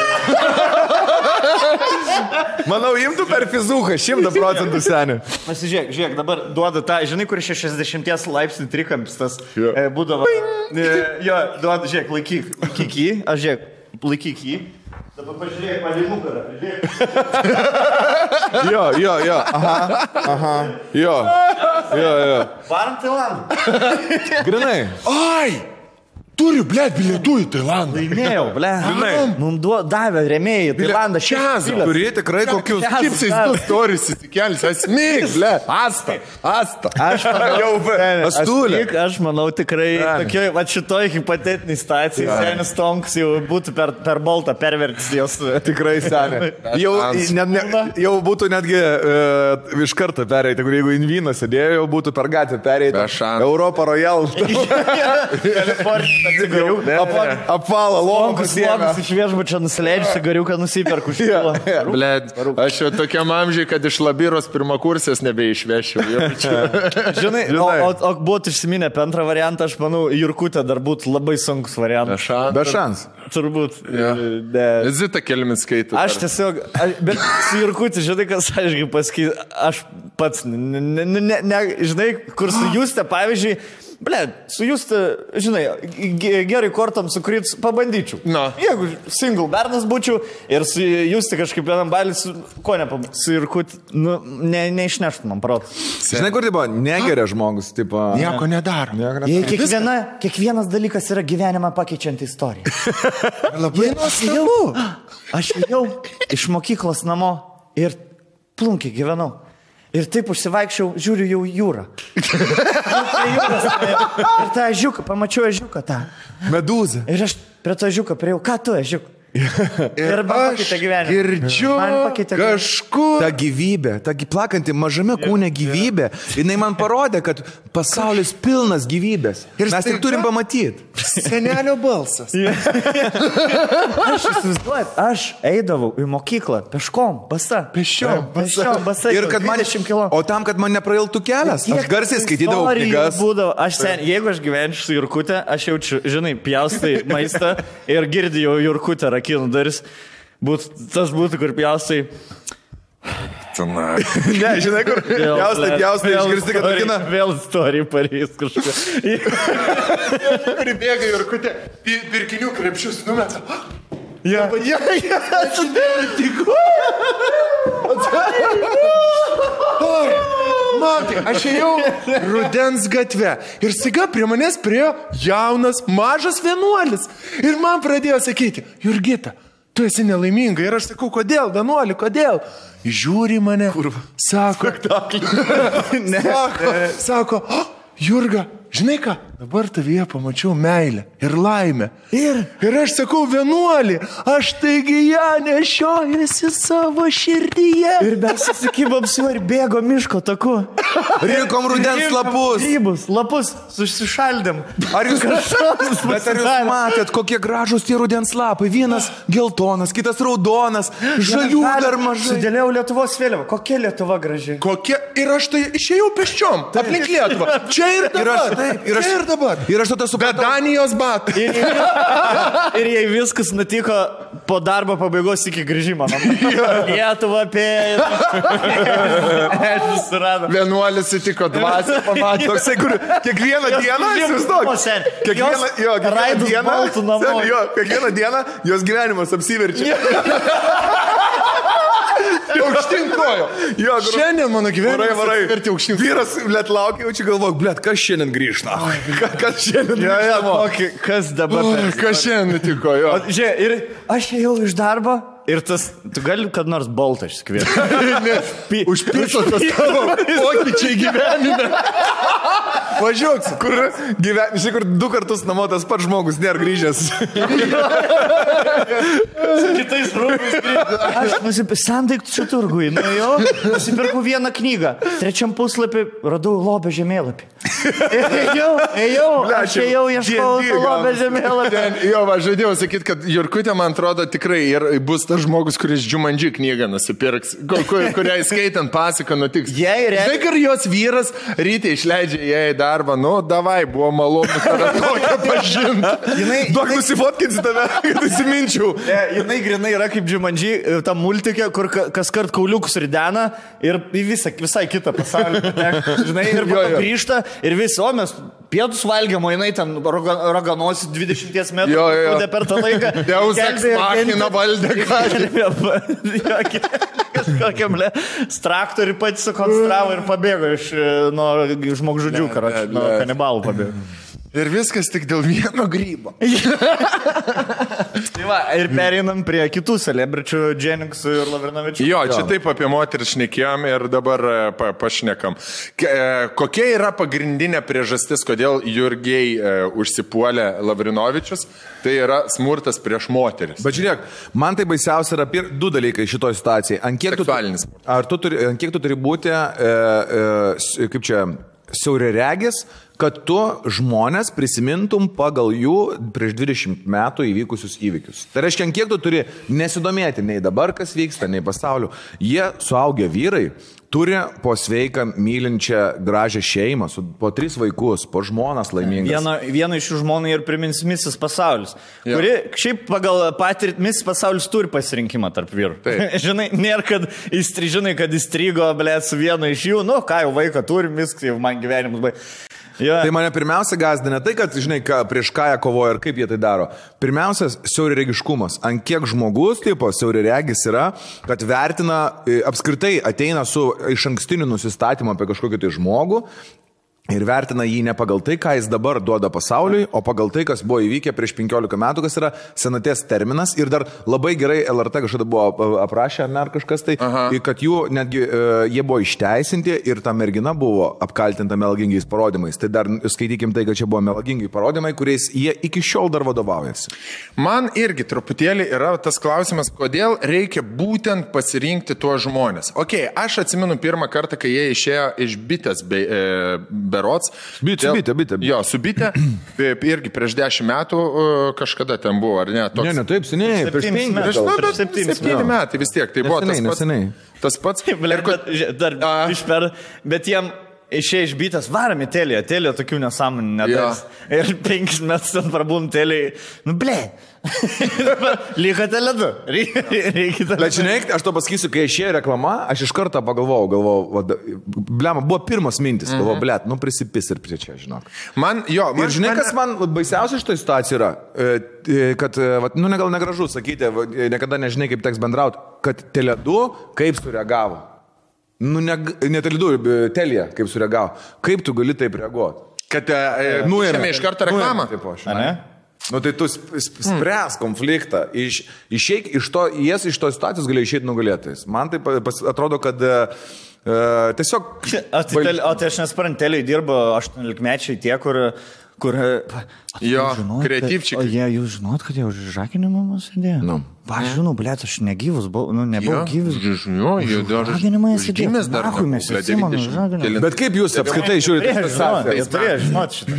Manau, imtų per fizuką 100% senį. Pasižiūrėk, dabar duoda tą, žinai, kur 60 laipsnių trikampis tas būdavo. Jo, duoda, žiūrėk, laikyk jį, aš žiūrėk, laikyk jį. Dabar pažiūrėk, man į nugarą, žiūrėk. Jo, aha, jo. Varam Tailandą. Grinai. Ai! Turiu, blėt, bilietų į Tailandą. Laimėjau, blėt. Mums davė rėmėjai į Tailandą. Turi tikrai kokius Kipsais 2 stories įsikelsi. Asmik, blėt. Asta. Aš manau tikrai tokioj, va šitoj hipotetiniai situacijai, senis Tonks jau būtų per baltą pervertis jos. Tikrai senė. Jau būtų netgi iš karto pereiti, jeigu Invyno sėdėjo, jau būtų per gatvę pereiti. Europa Royal. Kalifornija. Apvalą, logus iš viešbučio nusileidžiu, cigariuką nusiperku. Blėt, aš jau tokiam amžiai, kad iš Labiros pirmakursės nebeišvešiu. Žinai, o būtų išsiminę apie antrą variantą, aš manau, Jurkutė dar būtų labai sunkus variantas. Be šans. Turbūt. Zita Kelmin skaitė. Aš tiesiog, bet su Jurkutė, žinai, kas aiškiai pasakyti, aš pats, žinai, kur su Juste, pavyzdžiui, ble, su jūs, žinai, gerai kortam sukrit, pabandyčiau. Na. Jeigu single bernas būčiau ir su jūs kažkaip vienam balis, ko nepabandžiau, su Jurkut, nu, neišneštų man protą. Žinai, kur tai buvo? Negeria žmogus, tipo. Nieko nedaro. Kiekvienas dalykas yra gyvenimą pakeičianti istorija. Labai nuostabu. Aš jau iš mokyklos namo ir plunkiai gyvenau. Ir taip užsivaikščiau, žiūriu jau jūrą. Ir tą ežiuką, pamačiau ežiuką tą. Medūzą. Ir aš prie to ežiuką priejau, ką tu ežiuk? Ir aš girdžiu kažkur. Ta gyvybė, ta plakanti mažame kūne gyvybė, jinai man parodė, kad pasaulis pilnas gyvybės. Ir mes tik turim pamatyti. Senelio balsas. Aš įsivaizduoju, aš eidavau į mokyklą peškom, basa. Peščiom, basa. Ir kad man, o tam, kad man neprailtų kelias, aš garsiai skaitydavau knygas. Jeigu aš gyvenčiau su Jurkute, aš jaučiu, žinai, pjaustai maistą ir girdėjau Jurkutę rakinų daris. Tas būtų, kur pjaustai. Ne, žinai, kur pjaustai, išgirsti, kad rakina. Vėl istorija pareis kažką. Kur bėga Jurkutė, pirkinių krepšius numeta. Matai, aš ėjau Rudens gatve ir staiga prie manęs priėjo jaunas, mažas vienuolis. Ir man pradėjo sakyti, Jurgita, tu esi nelaiminga. Ir aš sakau, kodėl, vienuoli, kodėl? Žiūri mane, sako, sako, Jurga, žinai ką, dabar tavyje pamačiau meilę ir laimę. Ir aš sakau, vienuolį, aš taigi ją nešiojusi savo širdyje. Ir mes susikibom su ir bėgo miško taku. Rinkom rudens lapus. Grybus, lapus, susišaldėm. Ar jūs matėt, kokie gražus tie rudens lapai? Vienas geltonas, kitas raudonas, žalių dar mažai. Sudėliau Lietuvos vėliavą. Kokia Lietuva graži? Kokia? Ir aš tai išėjau peščiom, aplink Lietuvą. Čia ir dabar. Čia ir dabar. Ir aš tada supratau. Be Danijos batų. Ir jei viskas nutiko po darbo pabaigos iki grįžimo. Lietuva apėjo. Vienuolis sutiko dvasią, pamatė. Toksai, kur kiekvieną dieną, kiekvieną dieną jos gyvenimas apsiverčia. Aukštyn kojo. Šiandien mano gyvenimas apsivertė aukštyn. Vyras, blėt, laukia, jau čia galvok, blėt, kas šiandien grįžta? Kas šiandien grįžta? Kas dabar? Kas šiandien nutiko, jo. Žiūrėk, ir aš ėjau iš darbo ir tas, tu gali kad nors boltą išsikvieti. Užpirso tas tavo pokyčiai gyvenime. Važiuoks, kur 2 kartus namo tas pats žmogus nėra grįžęs. Kitais rūpais grįžęs. Aš sandaiktų turgui, nusipirkau vieną knygą. 3 puslapį radau lobio žemėlapį. Aš ėjau, ieškau lobio žemėlapį. Jo, aš žadėjau sakyti, kad Jurkutė, man atrodo, tikrai ir bus tas žmogus, kuris Džumandži knygą nusipirks, kurią įskaitant pasaką nutiks. Žinai, kad jos vyras ryte išleidžia ją į darbą, davai, buvo malonu tave tokią pažinti. Duok nusifotkinsi tave, kad įsiminčiau. Jinai grinai yra kaip Džumandži, ta multikė, kur kas kart kauliukus ridena ir visai kitą pasaulį. Žinai, ir grįžta ir visi, o mes pietus valgiam, o jinai ten raganosi 20 metrų per tą laiką. Deuseks machina valdė ką. Kažkokiam traktorių pati sukonstravo ir pabėgo iš žmogžudžių, nuo kanibalų pabėgo. Ir viskas tik dėl vieno grybo. Tai va, ir pereinam prie kitų celebričių, Dženiksų ir Lavrinovičių. Jo, čia taip apie moterį šnekėjom ir dabar pašnekam. Kokia yra pagrindinė priežastis, kodėl Jurgiai užsipuolė Lavrinovičius? Tai yra smurtas prieš moteris. Bet žiūrėk, man tai baisiausia yra 2 dalykai šitoje situacijoje. Seksualinis smurtas. Ant kiek tu turi būti, kaip čia, siauriaregis, kad tu žmonės prisimintum pagal jų prieš 20 metų įvykusius įvykius. Tai reiškia, ant kiek tu turi nesidomėti nei dabar, kas vyksta, nei pasauliu. Jie suaugę vyrai turi po sveiką, mylinčią, gražią šeimą, po 3 vaikus, po žmonas laimingas. Viena iš jų žmonų ir primins Misis pasaulis, kuri šiaip pagal patirtį Misis pasaulis turi pasirinkimą tarp vyrų. Žinai, nėra, kad įstrigo, su vienu iš jų, ką jau vaiką turim, viskas jau man gyvenimus baigė. Ja. Tai mane pirmiausia gazdina tai, kad, žinai, prieš ką jie kovoja ir kaip jie tai daro. Pirmiausia, siauriregiškumas. Ant kiek žmogus, tipo, siauriregis yra, kad vertina, apskritai ateina su iš ankstiniu nusistatymu apie kažkokį tai žmogų. Ir vertina jį ne pagal tai, ką jis dabar duoda pasauliui, o pagal tai, kas buvo įvykę prieš 15 metų, kas yra senaties terminas. Ir dar labai gerai LRT kažkada buvo aprašę, ar kažkas tai, kad jų netgi jie buvo išteisinti ir ta mergina buvo apkaltinta melagingiais parodymais. Tai dar skaitykim tai, kad čia buvo melagingi parodymai, kuriais jie iki šiol dar vadovaujasi. Man irgi truputėlį yra tas klausimas, kodėl reikia būtent pasirinkti tuos žmonės. Ok, aš atsimenu pirmą kartą, kai jie išėjo iš bitės berots. Bitė. Jo, su bitė. Irgi prieš 10 metų kažkada ten buvo, ar ne? Toks... Ne, taip seniai. Prieš 7 metai vis tiek. Tai buvo tas pats. Bet jiem išėjo iš bitės, varam į telį tokių nesąmonį nedas. Ir 5 metus ten prabūm teliai, Lyga teledu. Bet žinai, aš to pasakysiu, kai išėjo reklama, aš iš karto pagalvojau, blema, buvo pirmas mintis, galvojau, prisipis ir prie čia, žinok. Ir žinai, kas man baisiausia iš to situacijų yra, kad, gal negražu sakyti, niekada nežinai, kaip teks bendrauti, kad Tele2 kaip sureagavo. Ne Tele2, Telija kaip sureagavo. Kaip tu gali taip reaguoti? Kad nuėmė iš karto reklamą? Tai tu spręs konfliktą, išeik iš to, jis iš to situacijos galėjo išeiti nugalėtais. Man tai atrodo, kad tiesiog... O tai aš nesuprantu, Teliai dirbo 18-mečiai tie, kur jo, kreatyvčiai. O jūs žinot, kad jie už žakinimą mus sėdėjo? Aš žinau, blėt, aš negyvus buvau, nebuvau gyvus. Žakinimą jie sėdėjo. Bet kaip jūs apskritai žiūrite? Jie turėjo žinot šitą.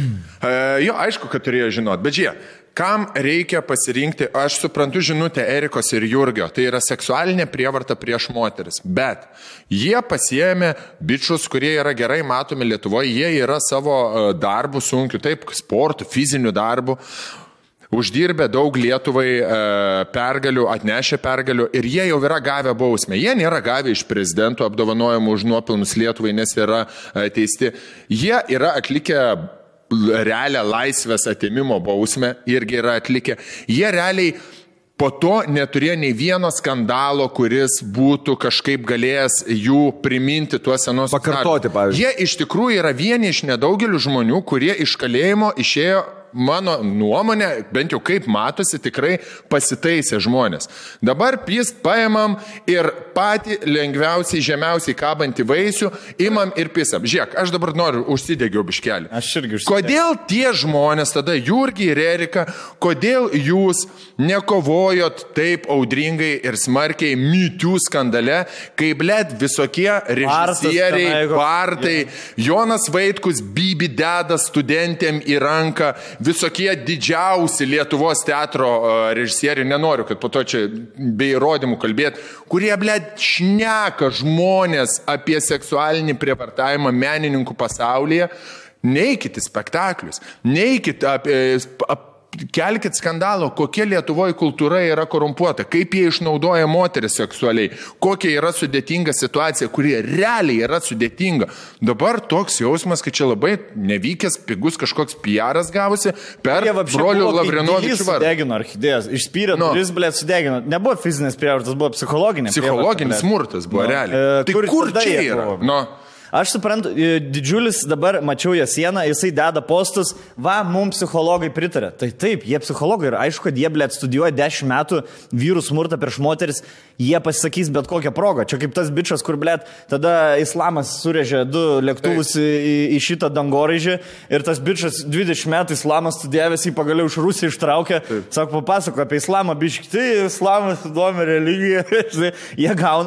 Jo, aišku, kad turėjo žinot, bet žiūrėk. Kam reikia pasirinkti, aš suprantu žinutę Erikos ir Jurgio, tai yra seksualinė prievarta prieš moteris, bet jie pasiėmė bičius, kurie yra gerai matomi Lietuvoje, jie yra savo darbų sunkių, taip, sportų, fizinių darbų, uždirbę daug Lietuvai pergalių, atnešę pergalių ir jie jau yra gavę bausmę. Jie nėra gavę iš prezidento apdovanojimų už nuopelnus Lietuvai, nes yra teisti. Jie yra atlikę realią laisvės atėmimo bausmę, irgi yra atlikę. Jie realiai po to neturėjo nei vieno skandalo, kuris būtų kažkaip galėjęs jų priminti tuos senus. Pakartoti, pavyzdžiui. Jie iš tikrųjų yra vieni iš nedaugelių žmonių, kurie iš kalėjimo išėjo, mano nuomonė, bent jau kaip matosi, tikrai pasitaisė žmonės. Dabar paimam ir patį lengviausiai, žemiausiai kabantį vaisių, imam ir pisam. Žiūrėk, aš dabar noriu užsidegiau biškelį. Aš irgi užsidegiau. Kodėl tie žmonės, tada Jurgi ir Erika, kodėl jūs nekovojot taip audringai ir smarkiai MeToo skandale, kai blėt visokie režisieriai, Bartai, Jonas Vaitkus, Bibi deda studentėm į ranką, visokie didžiausi Lietuvos teatro režisieriai, nenoriu, kad po to čia be įrodymų kalbėti, kurie, blėt, šneka žmonės apie seksualinį prievartavimą menininkų pasaulyje, neikit į spektaklius, neikit kelkit skandalo, kokia Lietuvoje kultūra yra korumpuota, kaip jie išnaudoja moteris seksualiai, kokia yra sudėtinga situacija, kurie realiai yra sudėtinga. Dabar toks jausmas, kad čia labai nevykęs, pigus kažkoks PR'as gavosi per brolių Lavrinovičių vardą. Sudegino orchidėjas, išspyrė, kuris, blėt, sudegino. Nebuvo fizinės prievartas, buvo psichologinis. Psichologinis smurtas buvo realiai. Tai kur čia yra? Aš suprantu, didžiulis dabar, mačiau jo sieną, jisai deda postus, mums psichologai pritarė. Tai taip, jie psichologai ir aišku, kad jie, blėt, studijuoja 10 metų vyrų smurtą prieš moteris, jie pasisakys bet kokią progą. Čia kaip tas bičas, kur, blėt, tada islamas surėžė 2 lėktuvus į šitą dangoraižį ir tas bičas 20 metų islamas studijavęs, jį pagaliau iš Rusijos ištraukė, sako, papasako apie islamą, biški, tai islamas įdomi religija,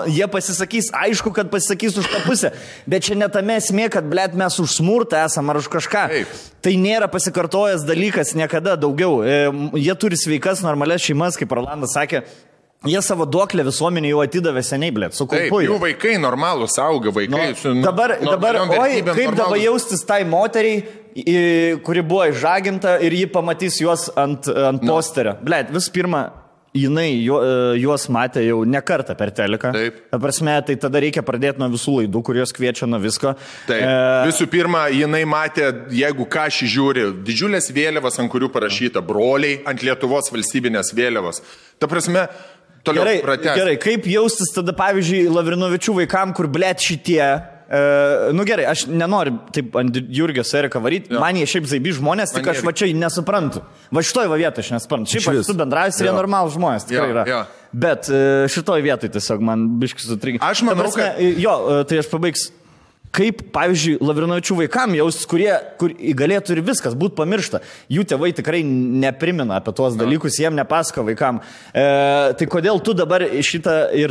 jie pasisakys, aišku, kad pasisakys už tą pusę, bet čia netame esmė, kad, blėt, mes už smurtą esam ar už kažką. Taip. Tai nėra pasikartojęs dalykas niekada daugiau. Jie turi sveikas, normalias šeimas, kaip Rolandas sakė. Jie savo duoklę visuomenį jau atidavė seniai, blėt, su kulpuoju. Taip, jų vaikai normalūs auga, vaikai su... Dabar, kaip dabar jaustis tai moteriai, kuri buvo išžaginta ir ji pamatys juos ant posterio. Blėt, visų pirma, jinai juos matė jau ne kartą per teleką. Taip. Ta prasme, tai tada reikia pradėti nuo visų laidų, kurios kviečia nuo visko. Taip. Visų pirma, jinai matė, jeigu ką šį žiūri, didžiulės vėliavas, ant kurių parašyta broliai, ant Lietuvos valstybinės vėliavos. Ta prasme, toliau pratęs. Gerai, kaip jaustis tada, pavyzdžiui, Lavrinovičių vaikam, kur blėt šitie... nu gerai, aš nenoriu taip ant Jurgio Seriką varyti, man jie šiaip zaibi žmonės, tik aš va čia nesuprantu. Va šitoj va vietoj aš nesuprantu. Šiaip aš su bendrais ir jie normalų žmonės, tikrai yra. Jo. Bet šitoj vietoj tiesiog man biškis sutrikė. Aš manau, kad... Jo, tai aš pabaigs. Kaip, pavyzdžiui, Lavrinovičių vaikam jaustis, kur galėtų ir viskas būti pamiršta. Jų tėvai tikrai neprimena apie tuos dalykus, jiem nepasako vaikam. Tai kodėl tu dabar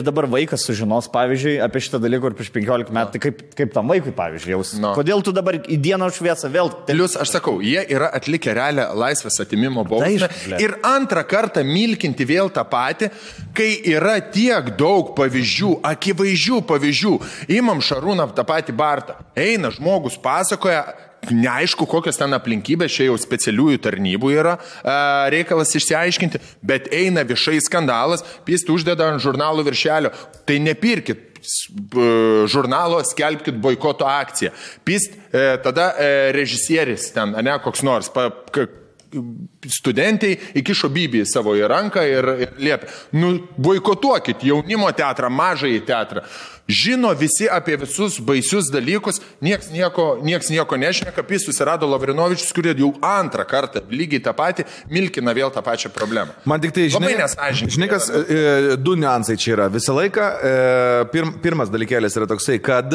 dabar vaikas sužinos, pavyzdžiui, apie šitą dalyką ir prieš 15 metų, tai kaip tam vaikui, pavyzdžiui, jaustis. Kodėl tu dabar į dieną šviesą vėl... Plius, aš sakau, jie yra atlikę realią laisvės atimimo bausmę ir antrą kartą milkinti vėl tą patį, kai yra tiek daug pavyzdžių, akivaizdžių pavyzdžių. Imam Šarūną tą patį eina žmogus, pasakoja, neaišku, kokios ten aplinkybės, čia jau specialiųjų tarnybų yra reikalas išsiaiškinti, bet eina viešai skandalas, pist uždeda ant žurnalų viršelio, tai nepirkit žurnalo, skelbkit boikoto akciją. Pist tada režisieris ten, ne, koks nors, studentai įkišo Bibį savo į ranką ir liepė, nu, boikotuokit jaunimo teatrą, mažąjį teatrą. Žino visi apie visus baisius dalykus, nieks nieko nešneka, pis susirado Lavrinovičius, kurie jau antrą kartą lygiai tą patį milkina vėl tą pačią problemą. Man tik tai, žinai, kas, du niuansai čia yra. Visą laiką, pirmas dalykėlis yra toksai, kad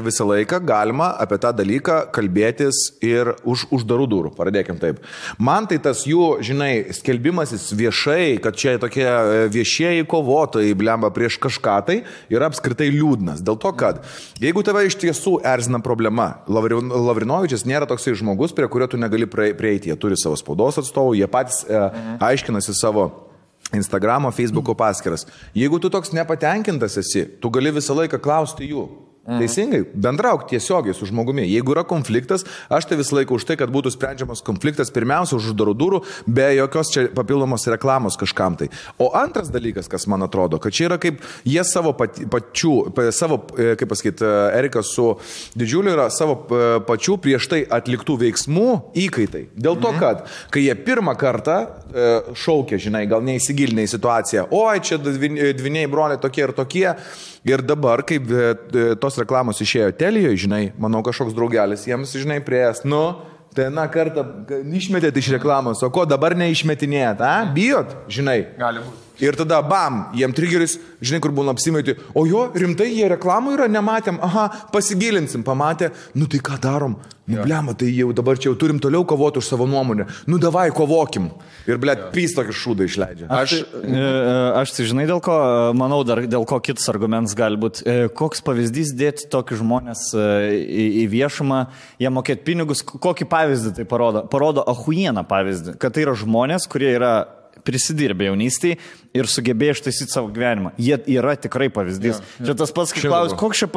visą laiką galima apie tą dalyką kalbėtis ir už uždarų durų, pradėkim taip. Man tai tas jų, žinai, skelbimasis viešai, kad čia tokie viešieji kovotojai blemba prieš kažką, tai yra apskritai liūdnas. Dėl to, kad jeigu tave iš tiesų erzina problema, Lavrinovičius nėra toksai žmogus, prie kurio tu negali prieiti. Jie turi savo spaudos atstovų, jie patys aiškinasi savo Instagramo, Facebooko paskyras. Jeigu tu toks nepatenkintas esi, tu gali visą laiką klausti jų. Teisingai, bendrauk tiesiogiai su žmogumi. Jeigu yra konfliktas, aš tai visą laiką už tai, kad būtų sprendžiamas konfliktas, pirmiausia už uždarų durų, be jokios čia papildomos reklamos kažkam tai. O antras dalykas, kas man atrodo, kad čia yra kaip jie savo kaip pasakyti, Erikas su Didžiuliu yra savo pačių prieš tai atliktų veiksmų įkaitai. Dėl to, kad kai jie pirmą kartą šaukė, žinai, gal neįsigilinę į situaciją, oi, čia dviniai broliai tokie ir tokie, ir dabar, kaip tos reklamos išėjo Telijoje, žinai, manau, kažkoks draugelis jiems, žinai, prieės, nu, tai na kartą išmetėt iš reklamos, o ko dabar neišmetinėjat, bijot, žinai. Gali būti. Ir tada, bam, jiem trigeris, žinai, kur būna apsimaiti, o jo, rimtai, jie reklamų yra, nematėm, pasigilinsim, pamatė, nu tai ką darom, nu blema, tai jau dabar čia jau turim toliau kovoti už savo nuomonę, nu davai, kovokim. Ir, blėt, pys tokį šūdą išleidžia. Aš tai žinai, dėl ko, manau, dar dėl ko kitas argumentas gali būti, koks pavyzdys dėti tokį žmonės į viešumą, jie mokėti pinigus, kokį pavyzdį tai parodo? Parodo ahujieną pavyzdį, kad tai yra žmonės, kurie yra prisidirbė jaunystėje ir sugebėjo ištaisyti savo gyvenimą. Jie yra tikrai pavyzdys. Čia tas pats, kai klaus, koks čia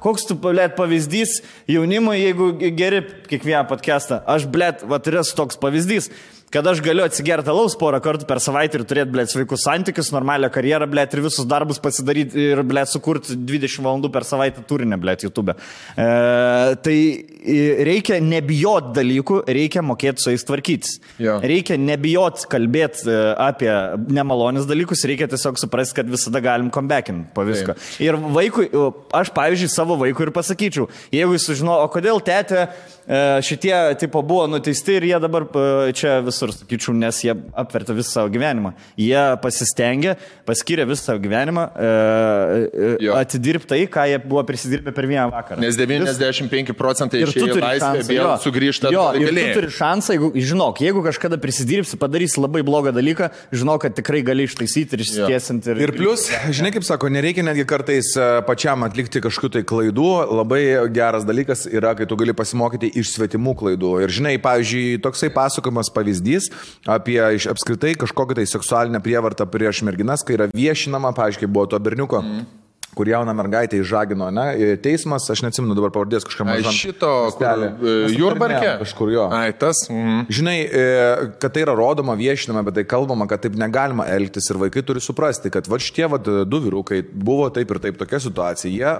koks tu, pavyzdys jaunimui, jeigu geri kiekvieną podcastą. Aš, yra toks pavyzdys, kad aš galiu atsigerti alaus porą kartų per savaitę ir turėti, sveikus santykius, normalią karjerą, ir visus darbus pasidaryti ir, sukurti 20 valandų per savaitę turinę, YouTube. Tai reikia nebijoti dalykų, reikia mokėti su jais tvarkytis. Reikia nebijoti kalbėti apie nemalonius dalykus, reikia tiesiog suprasti, kad visada galim comebackinti po visko. Ir vaikui, aš, pavyzdžiui, savo vaikui ir pasakyčiau, jeigu jis sužino, o kodėl tėtė šitie tipo buvo nuteisti ir jie dabar čia visur, sakyčiau, nes jie apvertė visą savo gyvenimą. Jie pasistengė, paskyrė visą savo gyvenimą, atidirbti tai, ką jie buvo prisidirbę per vieną vakarą. Nes 95% išėjo laisvę, vėl sugrįžta. Ir tu turi šansą, jeigu kažkada prisidirbsi, padarysi labai blogą dalyką, žinok, kad tikrai gali ištaisyti ir išsitiesinti. Ir plus, žinai, kaip sako, nereikia netgi kartais pačiam atlikti kažkokių tai klaidų. Labai geras dalykas yra, kai tu gali pasimokyti iš svetimų klaidų. Ir žinai, pavyzdžiui, toksai pasakojimas pavyzdys apie apskritai kažkokią tai seksualinę prievartą prieš merginas, kai yra viešinama, pavyzdžiui, buvo to berniuko kur jauną mergaitę įžagino, ne, teismas, aš neatsimenu dabar pavardės kažkam mažam. Šito, Jurbarke? Kažkur jo. Ai, tas. Žinai, kad tai yra rodoma, viešinama, bet tai kalbama, kad taip negalima elgtis ir vaikai turi suprasti, kad va šitie du vyrukai buvo taip ir taip tokia situacija. Jie,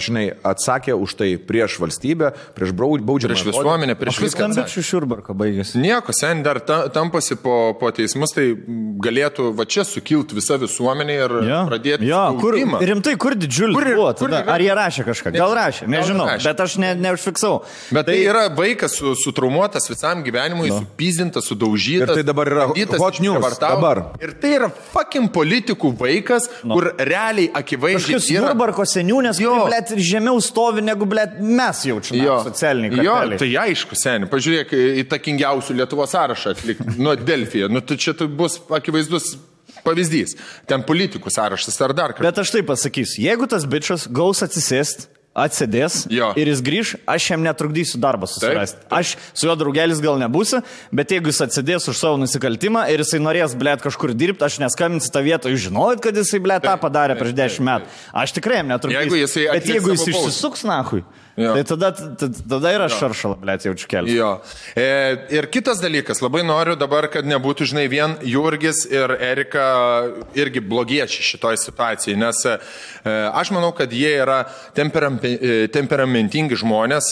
žinai, atsakė už tai prieš valstybę, prieš baudžiamą. Prieš visuomenę, prieš viską. Skambičių iš Jurbarko baigėsi. Nieko, sen dar tampasi po teismus, tai galėtų va čia sukilti visa visuomenė ir pradėti. Rimtai, kur didžiulis buvo tada? Ar jie rašė kažką? Gal rašė, nežinau, bet aš neužfiksau. Bet tai yra vaikas sutraumuotas visam gyvenimui, supyzdintas, sudaužytas. Ir tai dabar yra hot news. Dabar. Ir tai yra fucking politikų vaikas, kur realiai akivaizdžiai kažkas Jurbarko seniūnės, blėt, žemiau stovi negu, blėt, mes jaučiame socialiniai karteliai. Tai aišku, seniai. Pažiūrėk, įtakingiausių Lietuvos sąrašą atlikti nuo Delfijo. Tai čia bus akivaizdus pavyzdys. Ten politikų sąrašas ar dar kažkas. Bet aš taip pasakysiu, jeigu tas bičas gaus atsisėst, atsėdės ir jis grįž, aš jam netrukdysiu darbą susirasti. Aš su juo draugelis gal nebūsiu, bet jeigu jis atsėdės už savo nusikaltimą ir jisai norės, blėt, kažkur dirbti, aš neskambinsiu tą vietą, jūs žinojot, kad jisai, blėt, tą padarė prieš 10 metų. Aš tikrai jam netrukdysiu. Bet jeigu jis išsisuks, nahui, tai tada yra šaršala, blėt, jaučiu kelią. Ir kitas dalykas, labai noriu dabar, kad nebūtų, žinai, vien Jurgis ir Erika irgi blogiečiai šitoj situacijai, nes aš manau, kad jie yra temperamentingi žmonės,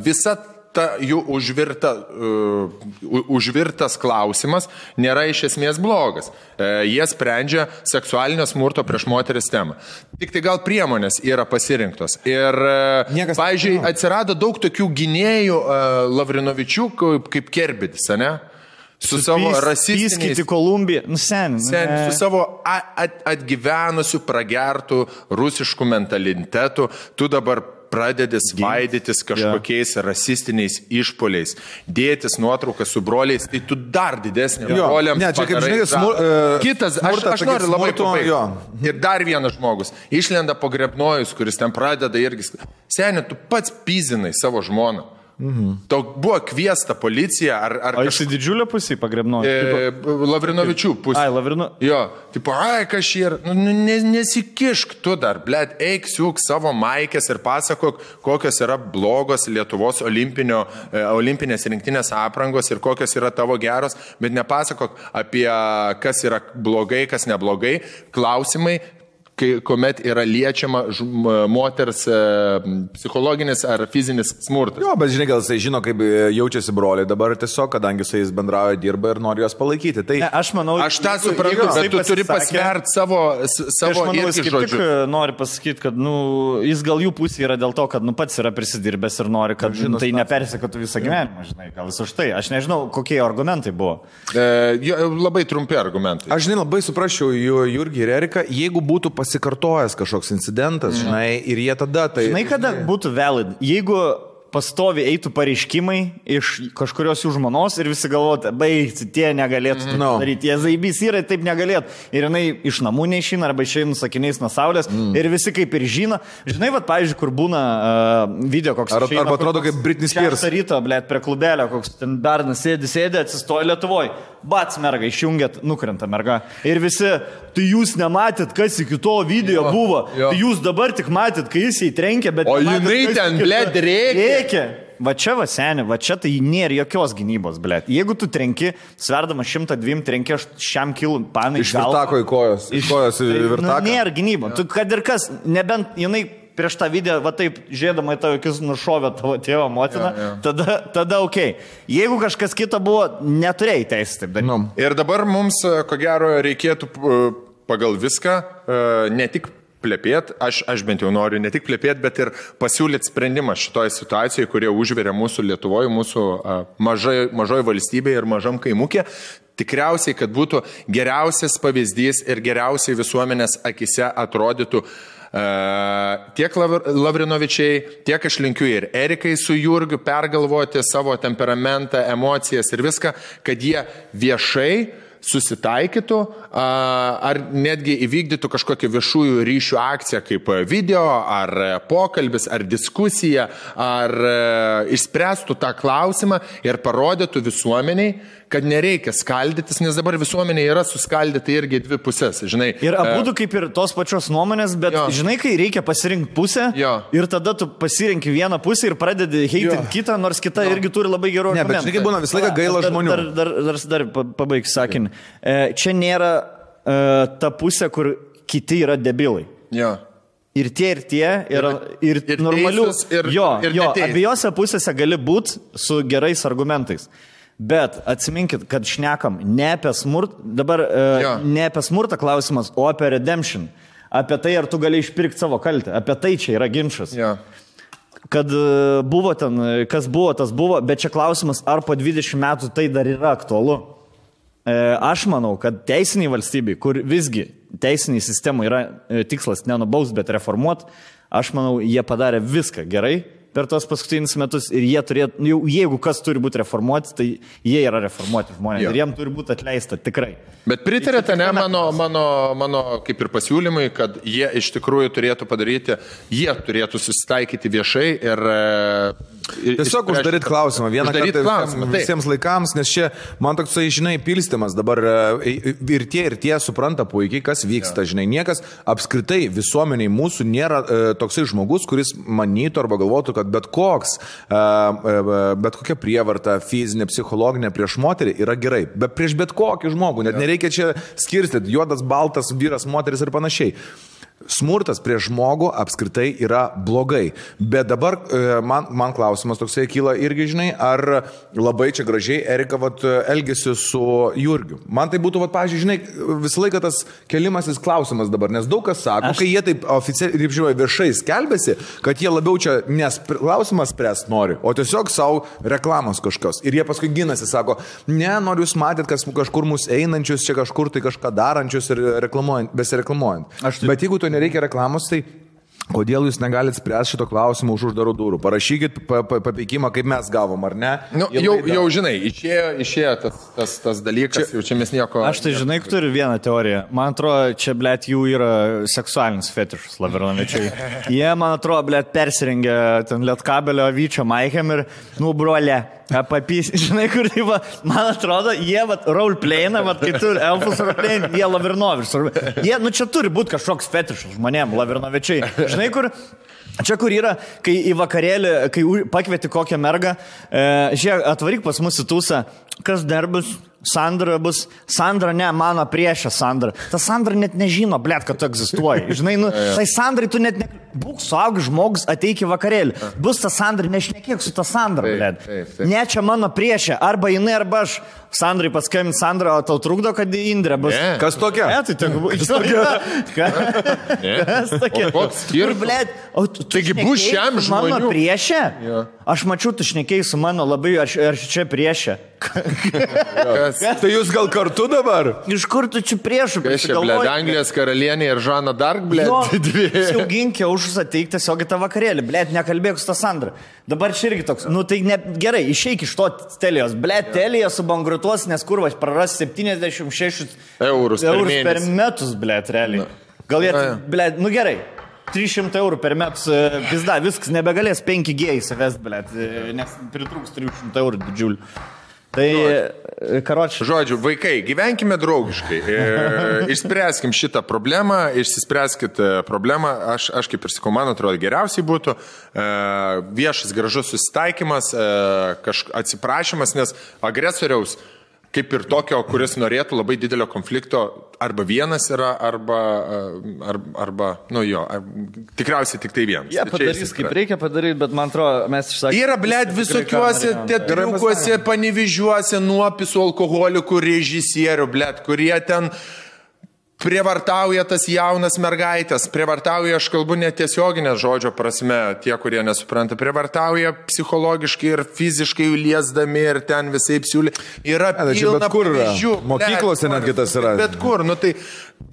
visa ta jų užvirtas klausimas nėra iš esmės blogas. Jie sprendžia seksualinio smurto prieš moteris temą. Tik tai gal priemonės yra pasirinktos. Ir, pavyzdžiui, atsirado daug tokių gynėjų Lavrinovičių kaip Kerbedis, ne? Su savo rasistiniais... Pyskyti Kolumbiją. Su savo atgyvenusių, pragertų rusiškų mentalitetų. Tu dabar pradedi svaidytis kažkokiais rasistiniais išpoliais, dėtis nuotraukas su broliais, tai tu dar didesnį broliams padarai. Kitas, aš noriu labai pabaigti. Ir dar vienas žmogus, išlenda po Grebnojus, kuris ten pradeda irgi. Seniai, tu pats pyzinai savo žmoną. Tau buvo kviesta policija ar o jisai didžiulio pusį pagrebnojo? Lavrinovičių pusė. Jo, tipo, kas šį ir, nesikišk tu dar, blėt, eik siūk savo maikės ir pasakok, kokios yra blogos Lietuvos olimpinės rinktinės aprangos ir kokios yra tavo geros, bet nepasakok apie kas yra blogai, kas neblogai, klausimai, kuomet yra liečiama moters psichologinis ar fizinis smurtas. Jo, bet žinai, gal jisai žino, kaip jaučiasi broliai dabar tiesiog, kadangi su jais bendrauja, dirba ir nori juos palaikyti. Tai... Aš manau, aš tą suprantu, bet tu turi pasverti savo irgi žodžius. Nori pasakyti, kad jis gal jų pusė yra dėl to, kad pats yra prisidirbęs ir nori, kad tai nepersekotų visą gyvenimą, žinai, gal vis už tai. Aš nežinau, kokie argumentai buvo. Labai trumpi argumentai. Aš, žinai, labai suprasčiau Jurgį ir Eriką, jeigu būtų pasikartojęs kažkoks incidentas, žinai, ir jie tada tai... Žinai, kada būtų valid? Jeigu pastovi eitų pareiškimai iš kažkurios jų žmonos ir visi galvotų, baigti, tie negalėtų daryti, jie zaibys yra, taip negalėtų. Ir jinai iš namų neišina arba išeina sakiniais nuo saulės ir visi kaip ir žino. Žinai, vat, pavyzdžiui, kur būna video koks... Arba atrodo kaip Britney Spears. Ryto, blėt, prie klubelio, koks ten bernas sėdi, atsistoja Lietuvoj. Bats merga, išjungėt, nukrenta merga. Ir visi, tai jūs nematėt, kas iki to video buvo. Tai jūs dabar tik matėt, kai jis įtrenkė, bet... O jinai ten, blėt, rėkė. Va čia, va seni, va čia tai nėra jokios gynybos, blėt. Jeigu tu trenki, sverdama 102, trenki šiam kilų panai. Iš virtako į kojos. Iš kojos į virtaką. Nėra gynybos. Tu, kad ir kas, nebent jinai prieš tą video, va taip, žiūrėdama į tavo akis nušovė tavo tėvą motiną, tada okei. Jeigu kažkas kita buvo, neturėjai teisę taip daryti. Ir dabar mums, ko gero, reikėtų pagal viską ne tik plepėti, aš bent jau noriu ne tik plepėti, bet ir pasiūlyti sprendimą šitoje situacijoje, kurie užveria mūsų Lietuvoje, mūsų mažoje valstybėje ir mažam kaimukė. Tikriausiai, kad būtų geriausias pavyzdys ir geriausiai visuomenės akise atrodytų tiek Lavrinovičiai, tiek aš linkiu ir Erikai su Jurgiu pergalvoti savo temperamentą, emocijas ir viską, kad jie viešai susitaikytų, ar netgi įvykdytų kažkokią viešųjų ryšių akciją kaip video, ar pokalbis, ar diskusija, ar išspręstų tą klausimą ir parodytų visuomeniai, kad nereikia skaldytis, nes dabar visuomenė yra suskaldyta irgi dvi pusės, žinai. Ir abudu kaip ir tos pačios nuomonės, bet žinai, kai reikia pasirinkti pusę ir tada tu pasirinki vieną pusę ir pradedi heitinti kitą, nors kita irgi turi labai gerų argumentų. Ne, bet žinai, būna visą laiką gaila žmonių. Dar pabaigsiu sakinį. Čia nėra ta pusė, kur kiti yra debilai. Jo. Ir tie, ir normalių. Abiejose pusėse gali būti su gerais argumentais. Bet atsiminkit, kad šnekam ne apie smurtą, dabar ne apie smurtą klausimas, o apie redemption. Apie tai, ar tu gali išpirkti savo kaltę. Apie tai čia yra ginčas. Ja. Kad buvo ten, kas buvo, tas buvo, bet čia klausimas, ar po 20 metų tai dar yra aktualu. Aš manau, kad teisiniai valstybei, kur visgi teisiniai sistemai yra tikslas nenubaus, bet reformuot, aš manau, jie padarė viską gerai per tos paskutinius metus ir jie turėtų, jeigu kas turi būti reformuoti, tai jie yra reformuoti žmonės ir jiem turi būti atleista tikrai. Bet pritarėte, ne, mano kaip ir pasiūlymai, kad jie iš tikrųjų turėtų padaryti, jie turėtų susitaikyti viešai ir tiesiog uždaryti klausimą vieną kartą visiems laikams, nes čia man toksai, žinai, pilstymas dabar ir tie supranta puikiai, kas vyksta, žinai, niekas apskritai visuomeniai mūsų nėra toksai žmogus, kuris manytų arba galvotų, kad bet kokia prievarta, fizinė, psichologinė prieš moterį yra gerai, bet prieš bet kokį žmogų, net nereikia čia skirstyti juodas, baltas, vyras, moteris ir panašiai. Smurtas prieš žmogų apskritai yra blogai, bet dabar man klausimas toksai kyla irgi, žinai, ar labai čia gražiai Erika elgėsi su Jurgiu. Man tai būtų, pavyzdžiui, žinai, visą laiką tas kelimasis klausimas dabar, nes daug kas sako, kai jie taip oficialiai, kaip žinai, viešai skelbėsi, kad jie labiau čia klausimas spręs nori, o tiesiog savo reklamos kažkas. Ir jie paskui ginasi, sako, ne, noriu jūs matėt, kažkur mus einančius, čia kažkur tai kažką darančius ir besireklamuojant. Bet jeigu to nereikia reklamos, tai kodėl jūs negalit spręsti šito klausimą už uždarų durų? Parašykit papeikimą, kaip mes gavom, ar ne? Nu, jau žinai, išėjo tas dalykas, jau čia mes nieko... Aš tai žinai, turiu vieną teoriją. Man atrodo, čia, blėt, jų yra seksualinis fetišas, Lavrinovičiai. Jie, man atrodo, blėt, persirengia ten Lietkabelio Vyčio Maikem ir, brolė, papys, žinai, kur tai va, man atrodo, jie roleplayina, kai turi elfus roleplayina, jie Lavrinovičius. Jie, čia turi būti kažkoks fetišas žmonėm, Lavrinovičiai. Žinai, kur yra, kai į vakarėlį, kai pakvieti kokią mergą, žiūrėk, atvaryk pas mus į tūsą, kas dar bus? Sandra bus. Sandra, ne, mano priešė Sandra. Ta Sandra net nežino, blėt, kad tu egzistuoji. Žinai, tai Sandrai tu net būk suaugęs žmogus, ateik į vakarėlį. Bus ta Sandra, nešnekėk su ta Sandra, blėt. Ne, čia mano priešė. Arba jinai, arba aš. Sandrai paskambint, Sandra, o tau trukdo, kad Indrė bus. Kas tokia? Ne, tai kas tokia? Koks skirtumas? Taigi bus šiam žmonių. Mano priešė? Aš mačiau, tu šnekėjai su mano labai, aš čia priešė. Tai jūs gal kartu dabar? Iš kur tu čia priešų? Kas čia, blėt, Anglijos karalienė ir Žana Dark, blėt, dvi. Siauginkė už ateik tiesiog į tą vakarėlį, blėt, nekalbėk su tą Sandra. Dabar čia irgi toks, tai ne, gerai, išeik iš to Telijos, blėt, Telija subankrutuos, nes kurvas praras 76 eurus per metus, blėt, realiai. Gal jie, blėt, gerai. 300 eurų per metus, pizda, viskas, nebegalės 5G įsivest, blėt, nes pritrūks 300 eurų didžiulių. Tai, karočiui. Žodžiu, vaikai, gyvenkime draugiškai, išspręskim šitą problemą, išsispręskit problemą, aš kaip ir sakau, man atrodo, geriausiai būtų viešas gražus susitaikymas, atsiprašymas, nes agresoriaus kaip ir tokio, kuris norėtų labai didelio konflikto, arba vienas yra, arba tikriausiai tik tai vienas. Jie padarys, kaip reikia padaryti, bet man atrodo, mes išsakėme. Yra, blėt, visokiuose teatriukuose, Panevėžiuose, nuopisų alkoholikų režisierių, blėt, kurie ten prievartauja tas jaunas mergaitės, prievartauja, aš kalbu netiesioginę žodžio prasme, tie, kurie nesupranta, prievartauja psichologiškai ir fiziškai liesdami ir ten visai siūlė. Yra pilna pavyzdžių. Mokyklose netgi tas yra. Bet kur, nu tai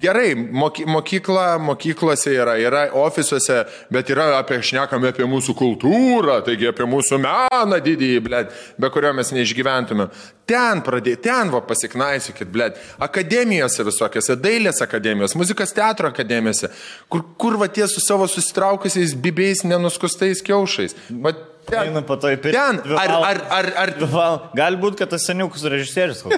gerai, mokyklose yra ofisuose, bet yra šnekame apie mūsų kultūrą, taigi apie mūsų meną didįjį, blėt, be kurio mes neišgyventume. Ten pasiknaisykit, blėt, akademijose visokiose, dailės akademijos, muzikos teatro akademijose, kur va tie su savo susitraukusiais bibiais nenuskustais kiaušais. Va ten, Galbūt, kad tas seniukus režisierius buvo.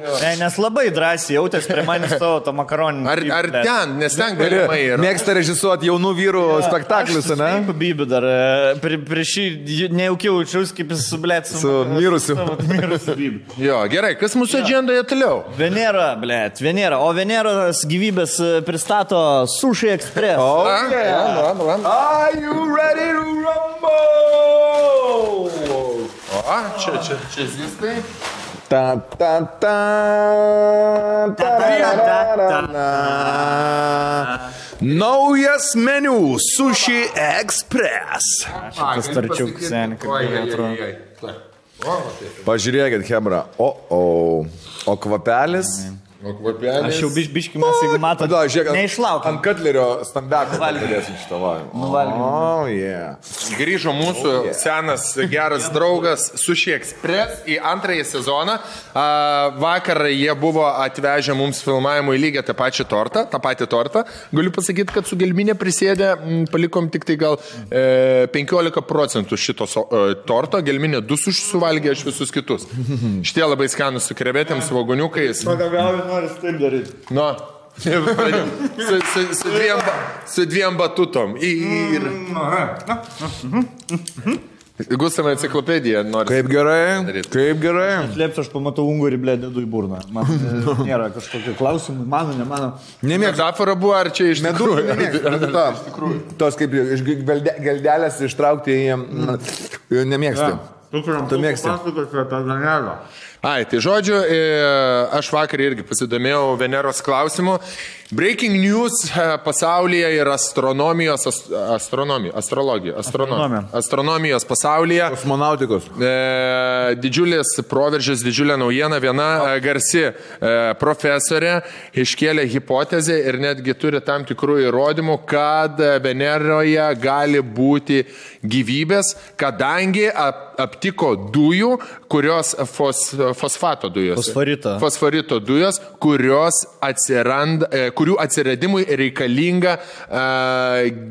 Ne, nes labai drąsiai jautės prie manęs savo to makaroninį. Ar ten, nes ten galimai yra. Mėgsta režisuoti jaunų vyrų spektaklius, ne? Aš bibiu dar, prieš šį nejaukiau jaučiaus, kaip jis su mirusiu. Jo, gerai, kas mūsų agendoje toliau? Venera. O Veneros gyvybės pristato Sushi Express. Are you ready to rumble? Čia zistai. Naujas meniu Sushi Express. Šitas tarčiuk seniai, kaip atrodo. Pažiūrėkit, Hebra. O kvapelis? Aš jau biškį mes, jeigu matot, neišlaukiam. Ant Katlerio stambeko galėsim šitą valgymą. Grįžo mūsų senas geras draugas Sushi Express į antrąjį sezoną. Vakar jie buvo atvežę mums filmavimui lygiai tą patį tortą. Galiu pasakyti, kad su gelminė prisėdė, palikom tik tai gal 15% šito torto. Gelminė 2 suvalgė, aš visus kitus. Šitie labai skanus su krevetėm, su vagoniukais. Noris taip daryti. Nu, su dviem batutom. Gustavai enciklopediją nori. Kaip gerai. Slėpsiu, aš pamatau ungurį, blė, dedu į burną. Man nėra kažkokio klausimų, mano, ne mano. Metafora buvo, ar čia iš tikrųjų? Tos kaip iš geldelės ištraukti nemėgsti. Tu mėgsti. Ai, tai žodžiu, aš vakar irgi pasidomėjau Veneros klausimu. Breaking news pasaulyje ir astronomijos pasaulyje. Kosmonautikos. Didžiulis proveržis, didžiulė naujiena. Viena garsi profesorė iškėlė hipotezę ir netgi turi tam tikrų įrodymų, kad Veneroje gali būti gyvybės, kadangi aptiko dujų, kurios fosfato dujos. Fosforito dujos, kurių atsiradimui reikalinga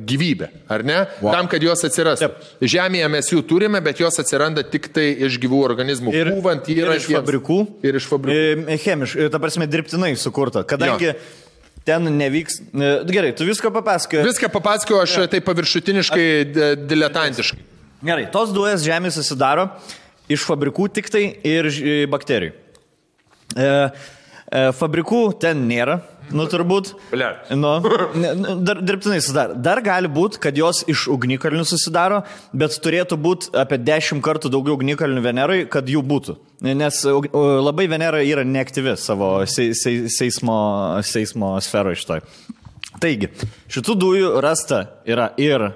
gyvybė, ar ne? Wow. Tam, kad jos atsirastų. Žemėje mes jų turime, bet jos atsiranda tik tai iš gyvų organizmų. Ir iš fabrikų. Ir iš fabrikų. Chemiškai, ta prasme, dirbtinai sukurta. Kadangi ten nevyks... Gerai, tu viską papasakoji. Viską papasakoju, aš tai paviršutiniškai, diletantiškai. Gerai, tos dujas žemė susidaro iš fabrikų tik tai ir bakterijų. Fabrikų ten nėra, turbūt. Dar dirbtinai susidaro. Dar gali būti, kad jos iš ugnikalnių susidaro, bet turėtų būti apie 10 kartų daugiau ugnikalnių Venerai, kad jų būtų. Nes labai Venera yra neaktyvi savo seismo sferoje šitoj. Taigi, šitų dujų rasta yra ir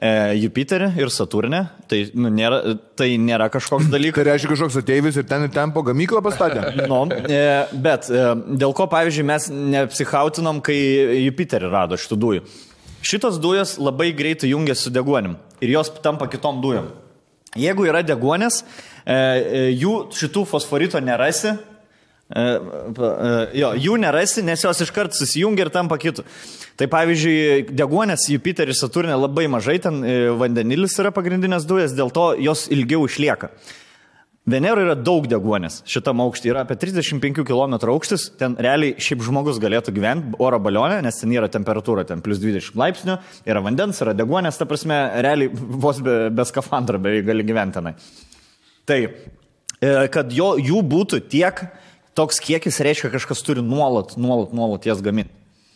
Jupiterį ir Saturnę, tai nėra kažkoks dalykas. Tai reiškia kažkoks ateivis ir ten po gamyklą pastatė? Bet dėl ko, pavyzdžiui, mes neapsichautinom, kai Jupiterį rado šitų dujų. Šitos dujos labai greitai jungiasi su deguonim ir jos tampa kitom dujom. Jeigu yra deguonės, šitų fosforito nerasi, jų nerasi, nes jos iškart susijungia ir tampa kitų. Tai pavyzdžiui, deguonės Jupiteris Saturnė labai mažai, ten vandenilis yra pagrindinės dujas, dėl to jos ilgiau išlieka. Veneroje yra daug deguonės, šitam aukštį yra apie 35 km aukštis, ten realiai šiaip žmogus galėtų gyventi oro balionė, nes ten yra temperatūra, ten plus 20 laipsnių, yra vandens, yra deguonės, ta prasme, realiai vos be skafandro beveik gali gyventi tenai. Tai, kad jų būtų tiek, toks kiekis reiškia, kažkas turi nuolat jas gaminti.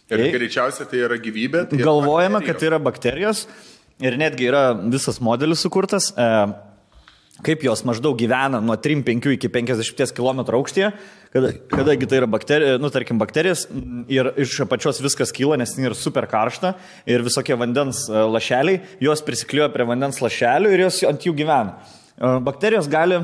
Ir greičiausiai tai yra gyvybė. Tai galvojame, kad tai yra bakterijos ir netgi yra visas modelis sukurtas. kaip jos maždaug gyvena nuo 3-5 iki 50 km aukštyje, kadangi tai yra bakterijos ir iš apačios viskas kyla, nes tai yra super karšta ir visokie vandens lašeliai, jos prisikliuoja prie vandens lašelių ir jos ant jų gyvena. Bakterijos gali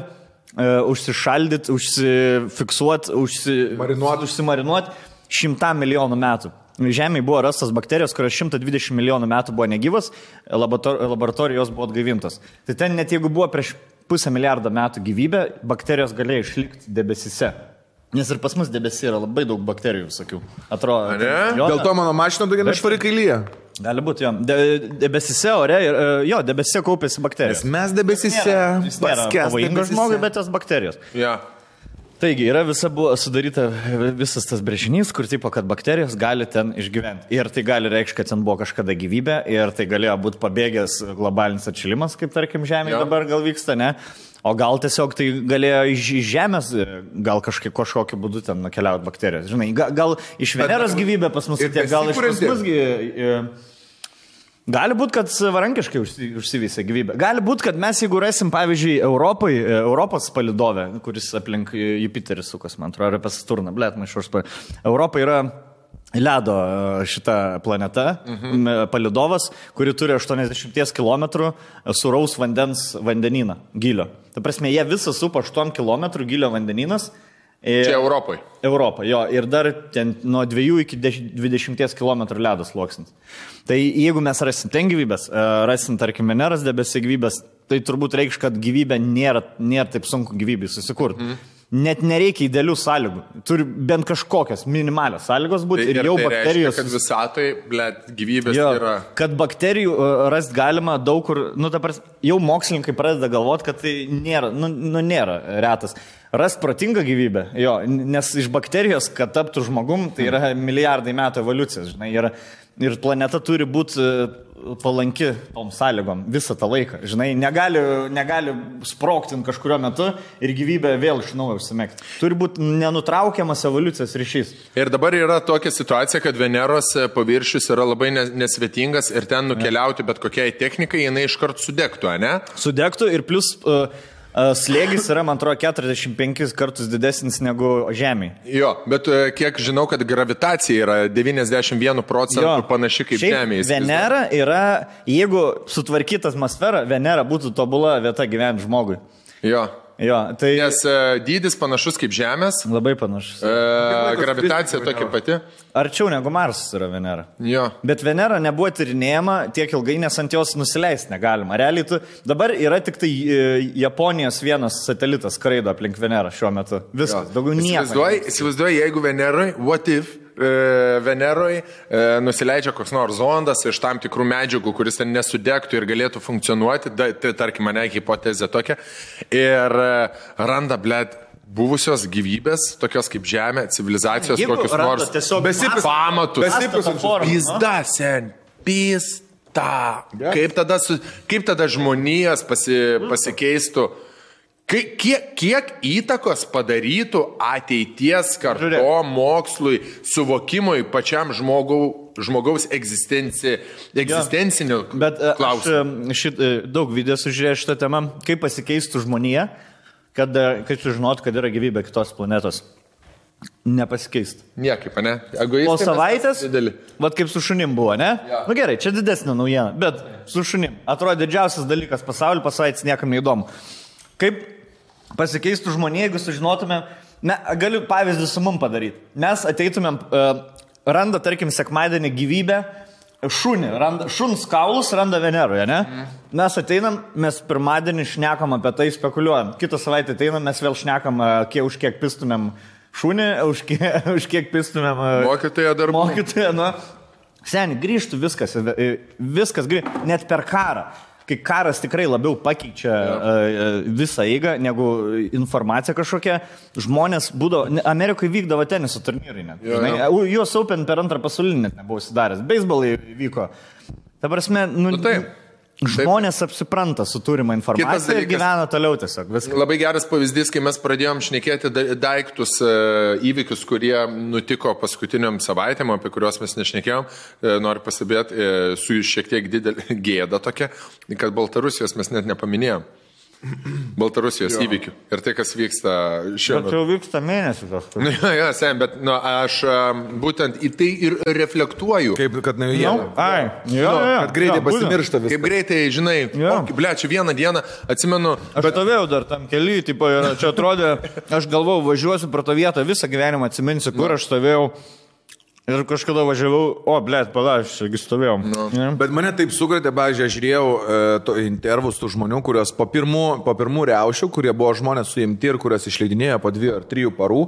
užsišaldyti, užsifiksuoti, užsimarinuoti 100 milijonų metų. Žemėje buvo rastas bakterijos, kurios 120 milijonų metų buvo negyvas, laboratorijos buvo atgaivintos. Tai ten net jeigu buvo prieš 500 milijardą metų gyvybė, bakterijos galėjo išlikti debesise. Nes ir pas mus debesį yra labai daug bakterijų visokių. Atrodo. Dėl to mano mašina tokia nešvari kailyje. Gali būti, jo. Debesise ore, debesise kaupėsi bakterijos. Nes mes debesise pavojingas žmogui, bet tos bakterijos. Ja. Taigi, buvo sudaryta visas tas brėžinys, kur tipo, kad bakterijos gali ten išgyventi. Ir tai gali reikšti, kad ten buvo kažkada gyvybė ir tai galėjo būti pabėgęs globalinis atšilimas, kaip tarkim Žemėje dabar gal vyksta, ne? O gal tiesiog tai galėjo iš Žemės, gal kažkokiu būdu ten nukeliauti bakterijos. Žinai, gal iš Veneros gyvybė pas mus atėjo, gal iš pas mus gali būti, kad savarankiškai užsivysė gyvybė. Gali būti, kad mes, jeigu rasim, pavyzdžiui, Europos palidovę, kuris aplink Jupiterį sukas, man atrodo, apie Saturną, Europa yra ledo šita planeta, palidovas, kuri turi 80 km sūraus vandenyną gylio. Ta prasme, jie visą supa 8 km gylio vandenynas. Čia Europai. Europa, jo, ir dar ten nuo 2 iki 20 km ledas sluoksnis. Tai jeigu mes rasim ten gyvybės, rasim, tarkim, Veneros debesį gyvybės, tai turbūt reikš, kad gyvybė nėra taip sunku gyvybei susikurti. Net nereikia idealių sąlygų. Turi bent kažkokios minimalios sąlygos būti ir jau tai bakterijos... Reiškia, kad visatai, gyvybės yra... Kad bakterijų rast galima daug kur... Jau mokslininkai pradeda galvoti, kad tai nėra, nėra retas. Rast protingą gyvybę, nes iš bakterijos, kad taptų žmogum, tai yra milijardai metų evoliucijos, žinai, ir planeta turi būti palanki tom sąlygom visą tą laiką, žinai, negali sprogti kažkurio metu ir gyvybė vėl iš naujo užsimegti. Turi būti nenutraukiamas evoliucijos ryšys. Ir dabar yra tokia situacija, kad Veneros paviršius yra labai nesvetingas ir ten nukeliauti bet kokiai technikai, jinai iškart sudegtų, ne? Sudegtų ir plus... slėgis yra, man atrodo, 45 kartus didesnis negu Žemėje. Jo, bet kiek žinau, kad gravitacija yra 91% panaši kaip Žemėje. Venera yra, jeigu sutvarkyta atmosfera, Venera būtų tobula vieta gyventi žmogui. Jo. Tai... Nes dydis panašus kaip Žemės. Labai panašus. Gravitacija tokia pati. Arčiau negu Marsas yra Venera. Jo. Bet Venera nebuvo tyrinėjama tiek ilgai, nes ant jos nusileisti negalima. Realiai dabar yra tik tai Japonijos vienas satelitas skraido aplink Venerą šiuo metu. Viskas, daugiau nieko. Įsivaizduoju, jeigu Veneroje, what if Veneroje nusileidžia koks nors zondas iš tam tikrų medžiagų, kuris ten nesudegtų ir galėtų funkcionuoti, tai tarkim mane hipotezė tokia, ir randa, buvusios gyvybės, tokios kaip Žemė, civilizacijos, kokius nors pamatus. Pizda, sen, pizda. Kaip tada žmonijos pasikeistų? Kiek įtakos padarytų ateities karto mokslui, suvokimui pačiam žmogaus egzistencinių klausimų? Bet daug video sužiūrėjau šitą temą, kaip pasikeistų žmonija, kad sužinotų, kad yra gyvybė kitos planetos. Nepasikeistų. Niekaip, ne? Po savaitės, vat kaip su šunim buvo, ne? Ja. Nu gerai, čia didesnė naujiena, bet su šunim. Atrodo didžiausias dalykas pasaulyje, po savaitės niekam neįdomu. Kaip pasikeistų žmonė, jeigu sužinotumėm, galiu pavyzdį su mum padaryti. Mes ateitumėm, randa, tarkim, sekmadienį gyvybę, šuns kaulus randa Veneroje, ne? Mes ateinam, mes pirmadienį šnekam apie tai, spekuliuojam. Kitą savaitę ateinam, mes vėl šnekam, už kiek pistumėm šunį, už kiek pistumėm... Mokytoją darbų. Mokytoją, Seni, grįžtų viskas grįžtų, net per karą. Kai karas tikrai labiau pakeičia visą eigą negu informacija kažkokia, žmonės būdavo, Amerikoje vykdavo teniso turnyrai net. US Open per antrą pasaulinį net nebuvo įsidaręs, beisbolai vyko. Ta prasme, žmonės apsipranta su turima informacija ir gyvena toliau tiesiog. Viskas. Labai geras pavyzdys, kai mes pradėjom šnekėti daiktus, įvykius, kurie nutiko paskutiniam savaitėm, apie kuriuos mes nešnekėjom. Noriu pasibėti su šiek tiek didelė gėda tokia, kad Baltarusijos mes net nepaminėjom. Baltarusijos įvykių. Ir tai, kas vyksta šiuo Bet metu. jau vyksta mėnesį kažkas. Jo, sen, bet aš būtent į tai ir reflektuoju. Kaip, kad ne jie. Ai, jo, Kad greitai pasimiršta viskas. Kaip greitai, žinai, Jo. ble, čia vieną dieną, atsimenu, Aš stovėjau dar tam keli, tipo, ir čia atrodė, aš galvojau, važiuosiu pro tą vietą, visą gyvenimą atsiminsiu, kur aš stovėjau. Ir kažkada važiavau, blėt, palaš, aš stovėjau. Ja. Bet mane taip sukretė, pavyzdžiui, aš žiūrėjau intervus tų žmonių, kurios po pirmų riaušių, kurie buvo žmonės suimti ir kurios išleidinėjo po 2 ar 3 parų,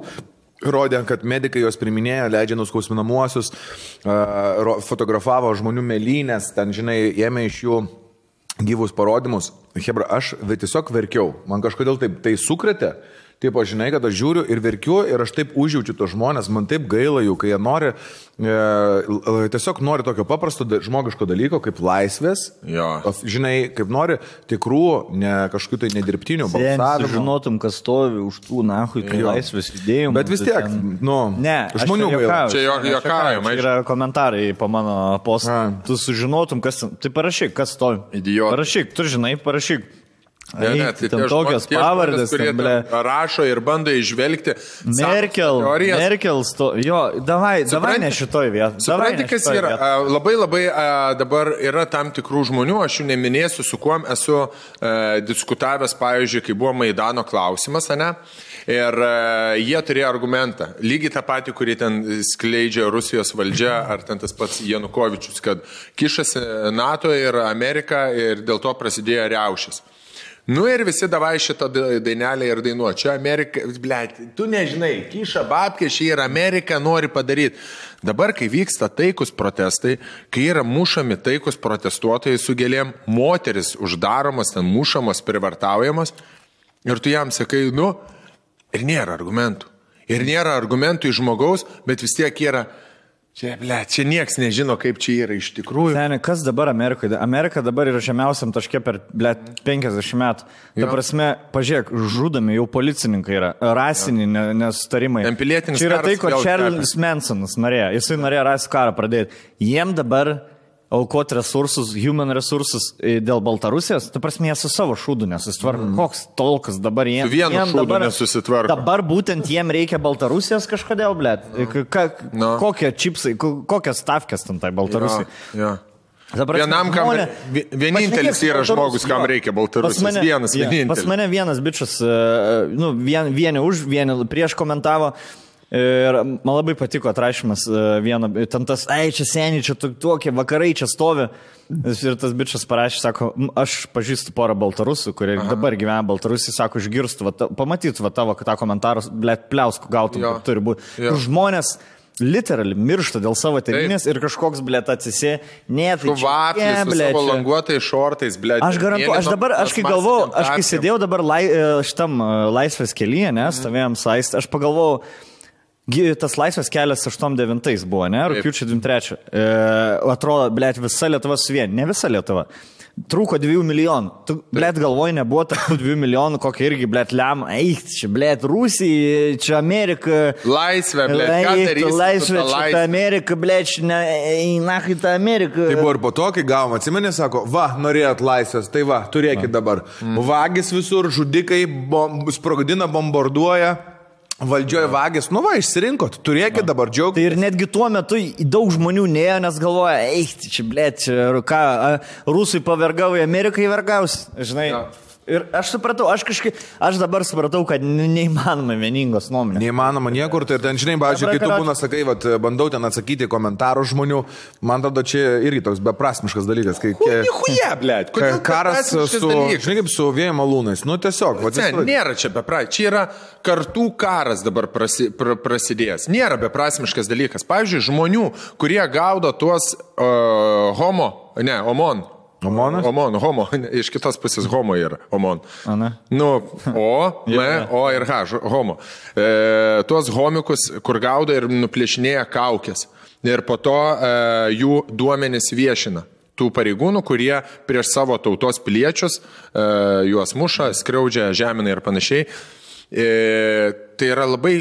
rodė, kad medikai juos priminėjo, leidžia nuskausminamuosius, fotografavo žmonių melynės, ten, žinai, ėmė iš jų gyvus parodymus. Hebra, aš tiesiog verkiau. Man kažkodėl taip tai sukretė. Taip, aš žinai, kad aš žiūriu ir verkiu ir aš taip užjaučiu tos žmonės, man taip gaila jų, kai jie nori, tiesiog nori tokio paprasto žmogiško dalyko, kaip laisvės, Jo. Žinai, kaip nori tikrų, ne kažkokių tai nedirbtinių balsavimų. Žinotum, kas stovi už tų nahui, kai laisvės judėjimų. Bet vis tiek, Ne, žmonių gaila. Čia juokaujama, Čia yra komentarai po mano postą. Tu sužinotum, kas... Tai parašyk, kas stovi. Idiotas. Parašyk, tu žinai, parašyk. Ne, tai ten tie tokios tie pavardės, kurie ten, ble. rašo ir bando išvelgti Merkel, jo, davai ne šitoj vietoj. Supranti, kas yra. Labai dabar yra tam tikrų žmonių, aš jų neminėsiu, su kuom esu diskutavęs, pavyzdžiui, kai buvo Maidano klausimas, ne? Ir jie turėjo argumentą, lygiai tą patį, kurį ten skleidžia Rusijos valdžia, ar ten tas pats Janukovičius, kad kišasi NATO ir Amerika ir dėl to prasidėjo riaušės. Nu ir visi davai šitą dainelę ir dainuo. Čia Amerika, blėt, tu nežinai, kiša babkė, šį ir Amerika nori padaryti. Dabar, kai vyksta taikus protestai, kai yra mušami taikus protestuotojai su gėlėm, moteris uždaromos, ten mušamos, privartaujamos, ir tu jam sakai, ir nėra argumentų. Ir nėra argumentų iš žmogaus, bet vis tiek yra... Čia nieks nežino, kaip čia yra iš tikrųjų. Seniai, kas dabar Amerikoje? Amerika dabar yra žemiausiam taške per 50 metų. Ta prasme, pažiūrėk, žudomi jau policininkai yra, rasiniai nesutarimai. Pilietinis čia yra tai, ko karas Charles Mansonas norėjo. Jisai norėjo rasų karą pradėti. Jiem dabar aukoti resursus, human resursus dėl Baltarusijos, ta prasme, jie su savo šūdu nesusitvarko. Koks tolkas dabar jiem? Su vienu šūdu nesusitvarko. Dabar būtent jiem reikia Baltarusijos kažkodėl, blėt. Kokie čipsai, kokias stavkės ten tai Baltarusijai. Ja. Vienam, kam vienintelis yra žmogus, kam reikia Baltarusijos. Vienintelis. Pas mane vienas bičas, vieni už, vieni prieš komentavo. Ir man labai patiko atrašymas vieno, ten tas, čia seniai, čia tokie vakarai čia stovi. Ir tas bičas parašė, sako, aš pažįstu porą baltarusų, kurie dabar gyvena Baltarusijai, sako, išgirstų, pamatytų tavo tą komentarą, blėt, pliauskų gautum, kaip turi būti. Žmonės literally miršta dėl savo tėvynės ir kažkoks, blėt, atsisė, su vaflis, su savo languotais šortais, blėt. Aš garantuoju, aš kai galvojau, aš kai sėdėjau dabar šitam laisvės kelyje, stovėjom saistą, aš pagalvojau, tas laisvės kelias 8-9 buvo, ne? Rugpjūčio 23. Atrodo, blėt, visa Lietuva suvien. Ne visa Lietuva. Trūko 2 milijonų. Tu, blėt, galvoj, nebuvo tarp 2 milijonų, kokia irgi, blėt, lem. Čia, blėt, Rusija, čia Amerika. Laisvė, blėt, ką darysi? Laisvė, čia Amerika, blėt, nahai ta Amerika. Tai buvo ir po to, kai gavom, atsimenė, sako, norėjot laisvės, tai turėkit dabar. Vagis visur, žudikai, sprogdina, bombarduoja. Valdžioje vagės, išsirinkot, turėkit dabar džiaugtis. Tai ir netgi tuo metu daug žmonių nėjo, nes galvoja, čia, blėt, ką, rusai pavergavo, Amerikai vergaus, žinai. Ja. Ir aš supratau, aš dabar supratau, kad neįmanoma vieningos nuomonės. Neįmanoma niekur, tai ten, žinai, pavyzdžiui, kai tu būna, sakai, bandau ten atsakyti komentarų žmonių, man tada čia irgi toks beprasmiškas dalykas. Nichuja, blėt, kodėl karas žinai, kaip su vėjo malūnais, tiesiog. Nėra čia beprasmiškas, čia yra kartų karas dabar prasidėjęs. Nėra beprasmiškas dalykas. Pavyzdžiui, žmonių, kurie gaudo tuos homo, iš kitos pusės homo yra, omon. O ir H, homo. Tuos homikus, kur gaudo ir nuplėšinėja kaukės. Ir po to jų duomenys viešina. Tų pareigūnų, kurie prieš savo tautos piliečius juos muša, skriaudžia, žemina ir panašiai. Tai yra labai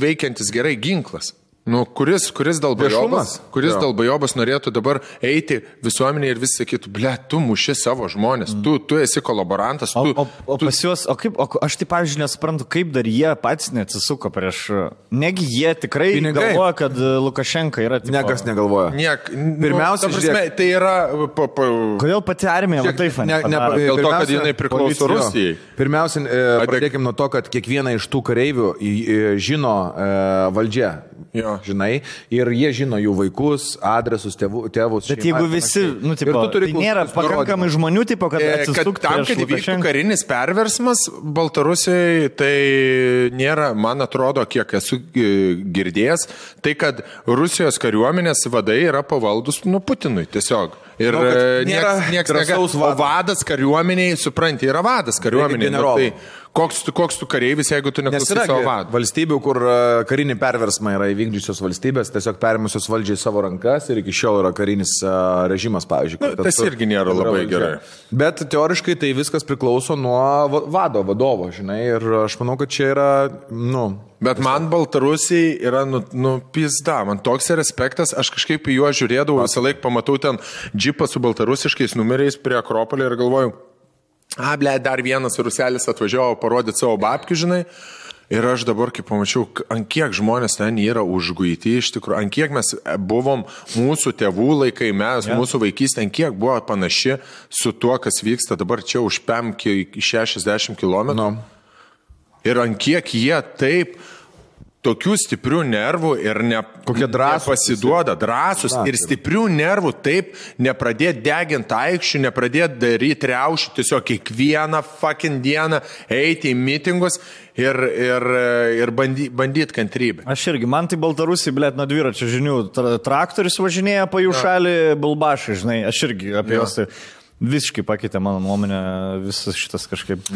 veikiantis gerai ginklas. Nu, kuris Viešumas. dėl bajobas norėtų dabar eiti visuomenėje ir vis sakytų, ble, tu muši savo žmonės, tu esi kolaborantas. O pas juos, aš tai, pavyzdžiui, nesuprantu, kaip dar jie patys neatsisuko prieš... Negi jie tikrai galvoja, kad Lukašenka yra... Niekas negalvoja. Pirmiausia, tai yra... Kodėl pati armija taip dėl to, kad jinai priklauso Rusijai. Pirmiausia, pradėkime nuo to, kad kiekvieną iš tų kareivių žino valdžia. Žinai, ir jie žino jų vaikus, adresus, tėvus. Bet jeigu visi, tai nėra pakankamai žmonių, kad atsistuktų tam, kad įvyktų karinis perversmas Baltarusijoje, tai nėra, man atrodo, kiek esu girdėjęs, tai kad Rusijos kariuomenės vadai yra pavaldus Putinui tiesiog. Ir nieks negali. O vadas kariuomeniai, supranti, yra vadas kariuomeniai. Koks tu kareivis, jeigu tu neklausai savo vadų? Valstybių, kur karinį perversmą yra įvykdžiusios valstybės, tiesiog perimusios valdžiai savo rankas ir iki šiol yra karinis režimas, pavyzdžiui. Tas irgi nėra labai gerai. Bet teoriškai tai viskas priklauso nuo vadovo, žinai, ir aš manau, kad čia yra, Bet man Baltarusiai yra, pizda, man toks respektas, aš kažkaip į juos žiūrėdavau, visą laiką pamatau ten džipą su baltarusiškais numeriais prie Akropolio ir galvoju, dar vienas ruselis atvažiavo parodyti savo babkių, žinai. Ir aš dabar, kai pamačiau, ant kiek žmonės ten yra užguiti, iš tikrųjų, ant kiek mes buvom mūsų tėvų laikai, mūsų vaikystė, ant kiek buvo panaši su tuo, kas vyksta dabar čia už 60 km. Ir ant kiek jie taip tokių stiprių nervų ir nepasiduoda, drąsus ir stiprių nervų taip nepradėti deginti aikščių, nepradėti daryti riaušių, tiesiog kiekvieną fucking dieną eiti į mitingus ir bandyti kantrybę. Aš irgi, man tai Baltarusiai, blėt, nuo dviračio žinių, traktorius važinėja po jų šalį, bulbašai, žinai, aš irgi apie juos tai... Visiškai pakeitė mano nuomonę visas šitas kažkaip.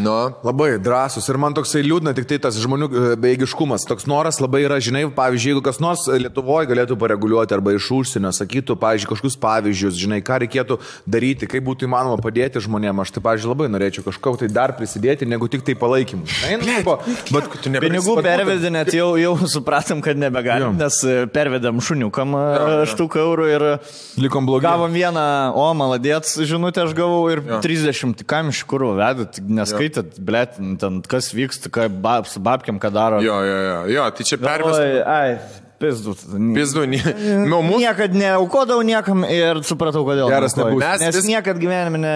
Labai drąsus ir man toksai liūdna tik tai tas žmonių bejėgiškumas. Toks noras labai yra, žinai, pavyzdžiui, jeigu kas nors Lietuvoje galėtų pareguliuoti arba iš užsienio, sakytų, pavyzdžiui, kažkokius pavyzdžius, žinai, ką reikėtų daryti, kaip būtų įmanoma padėti žmonėms. Aš tai, pavyzdžiui, labai norėčiau kažko tai dar prisidėti, negu tik tai palaikymu. Pinigų pervedinėt jau supratom, kad nebegalim, nes pervedėm šuniukam 1 eurų ir likom blogai. Gavom vieną, maladėts žinutę, gavau ir 30, kam iš kur vedat, neskaitat, blėt, ten kas vyksta, su babkiam, ką daro. Jo, tai čia pervestas. Pizdu. Niekad neaukodavau niekam ir supratau, kodėl. Geras nebūs. Nes niekad gyvenime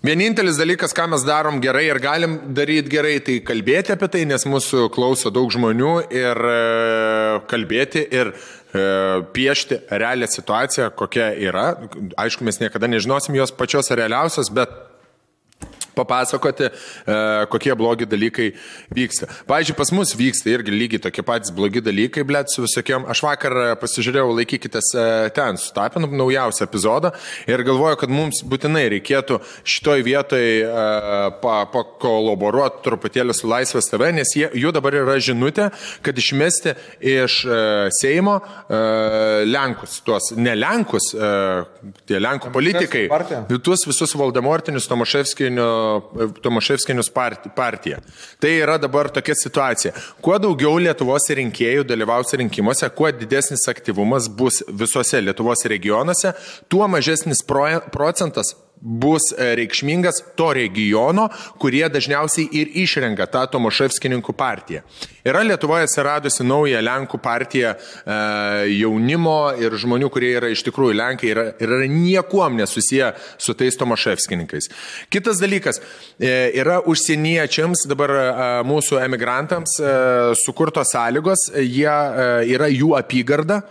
Vienintelis dalykas, ką mes darom gerai ir galim daryti gerai, tai kalbėti apie tai, nes mūsų klauso daug žmonių ir kalbėti ir piešti realią situaciją, kokia yra. Aišku, mes niekada nežinosim jos pačios realiausios, bet papasakoti, kokie blogi dalykai vyksta. Pavyzdžiui, pas mus vyksta irgi lygiai tokie patys blogi dalykai, blėt, su visokiom. Aš vakar pasižiūrėjau, laikykitės ten, sutapinam naujausią epizodą ir galvoju, kad mums būtinai reikėtų šitoj vietoj pakolaboruoti truputėlį su Laisvės TV, nes jų dabar yra žinutė, kad išmesti iš Seimo Lenkus, tuos ne Lenkus, tie Lenkų politikai, tuos visus Voldemortinius Tomaševskinius partiją. Tai yra dabar tokia situacija. Kuo daugiau Lietuvos rinkėjų dalyvaus rinkimuose, kuo didesnis aktyvumas bus visose Lietuvos regionuose, tuo mažesnis procentas bus reikšmingas to regiono, kurie dažniausiai ir išrenka tą Tomaševskininkų partiją. Yra Lietuvoje atsiradusi nauja Lenkų partija jaunimo ir žmonių, kurie yra iš tikrųjų Lenkai ir yra niekuom nesusiję su tais Tomaševskininkais. Kitas dalykas, yra užsieniečiams, dabar mūsų emigrantams sukurtos sąlygos, jie yra jų apygarda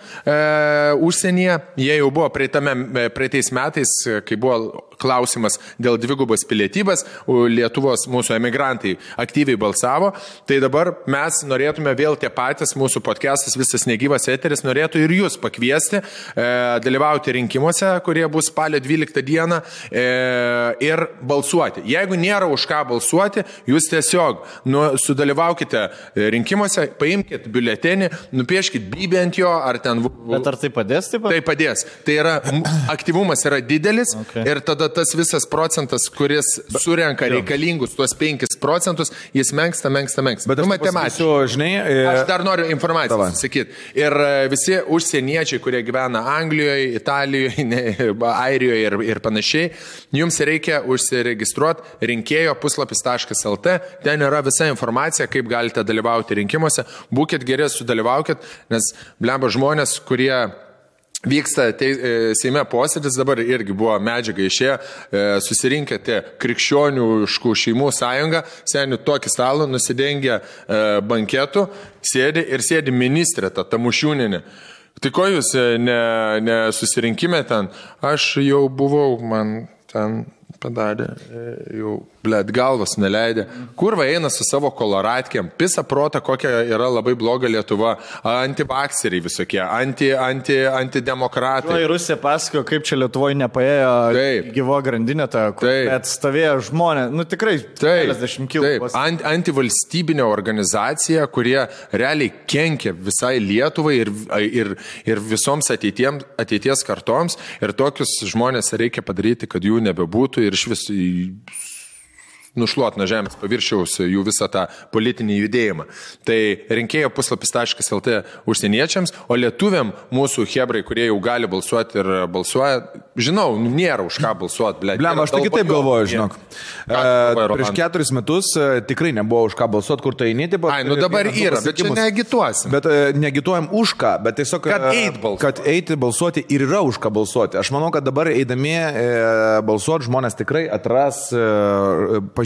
užsienyje, jie jau buvo praeitais metais, kai buvo klausimas dėl dvigubos pilietybės, Lietuvos mūsų emigrantai aktyviai balsavo, tai dabar mes norėtume vėl tie patys, mūsų podcastas, visas negyvas eteris, norėtų ir jūs pakviesti, dalyvauti rinkimuose, kurie bus spalio 12 dieną ir balsuoti. Jeigu nėra už ką balsuoti, jūs tiesiog sudalyvaukite rinkimuose, paimkite biuletenį, nupieškite bybę ant jo, ar ten... Bet ar tai padės taip pat? Tai padės. Tai yra, aktyvumas yra didelis ir tada tada tas visas procentas, kuris surenka reikalingus tuos 5%, jis menksta. Bet aš matematysiu, žinai... Aš dar noriu informaciją sakyti. Ir visi užsieniečiai, kurie gyvena Anglijoje, Italijoje, Airijoje ir panašiai, jums reikia užsiregistruoti rinkėjo puslapis.lt. Ten yra visa informacija, kaip galite dalyvauti rinkimuose. Būkit geri, sudalyvaukit, nes blemba žmonės, kurie vyksta Seime posėdis, dabar irgi buvo medžiaga išėję, susirinkę tie krikščioniškų šeimų sąjunga, senių tokį stalą, nusidengę banketų, sėdi ministrė, ta Tamušiūnienė. Tai ko jūs nesusirinkime ten? Aš jau buvau, man ten padarė, jau, blėt, galvas neleidė. Kurva eina su savo koloratkėm, pisa prota, kokia yra labai bloga Lietuva, antivakseriai visokie, antidemokratai. Į Rusiją pasakojo, kaip čia Lietuvoje nepaėjo gyvo grandinė, kur atstovėjo žmonės, nu tikrai, 50 kilų. Antivalstybinė organizacija, kurie realiai kenkia visai Lietuvai ir visoms ateities kartoms, ir tokius žmonės reikia padaryti, kad jų nebebūtų ir iš vis nušluot nuo žemės paviršiaus jų visą tą politinį judėjimą. Tai rinkėjo puslapis.lt užsieniečiams, o lietuviam mūsų hebrai, kurie jau gali balsuoti ir balsuoja, žinau, nėra už ką balsuoti. Blem, aš tai kitaip galvoju, žinok. Prieš 4 metus tikrai nebuvo už ką balsuoti, kur tai eini. Nu dabar yra, bet čia neagituosim. Bet negituojam už ką, bet tiesiog, kad eiti balsuoti ir yra už ką balsuoti. Aš manau, kad dabar eidami balsuoti žmonės tikrai atras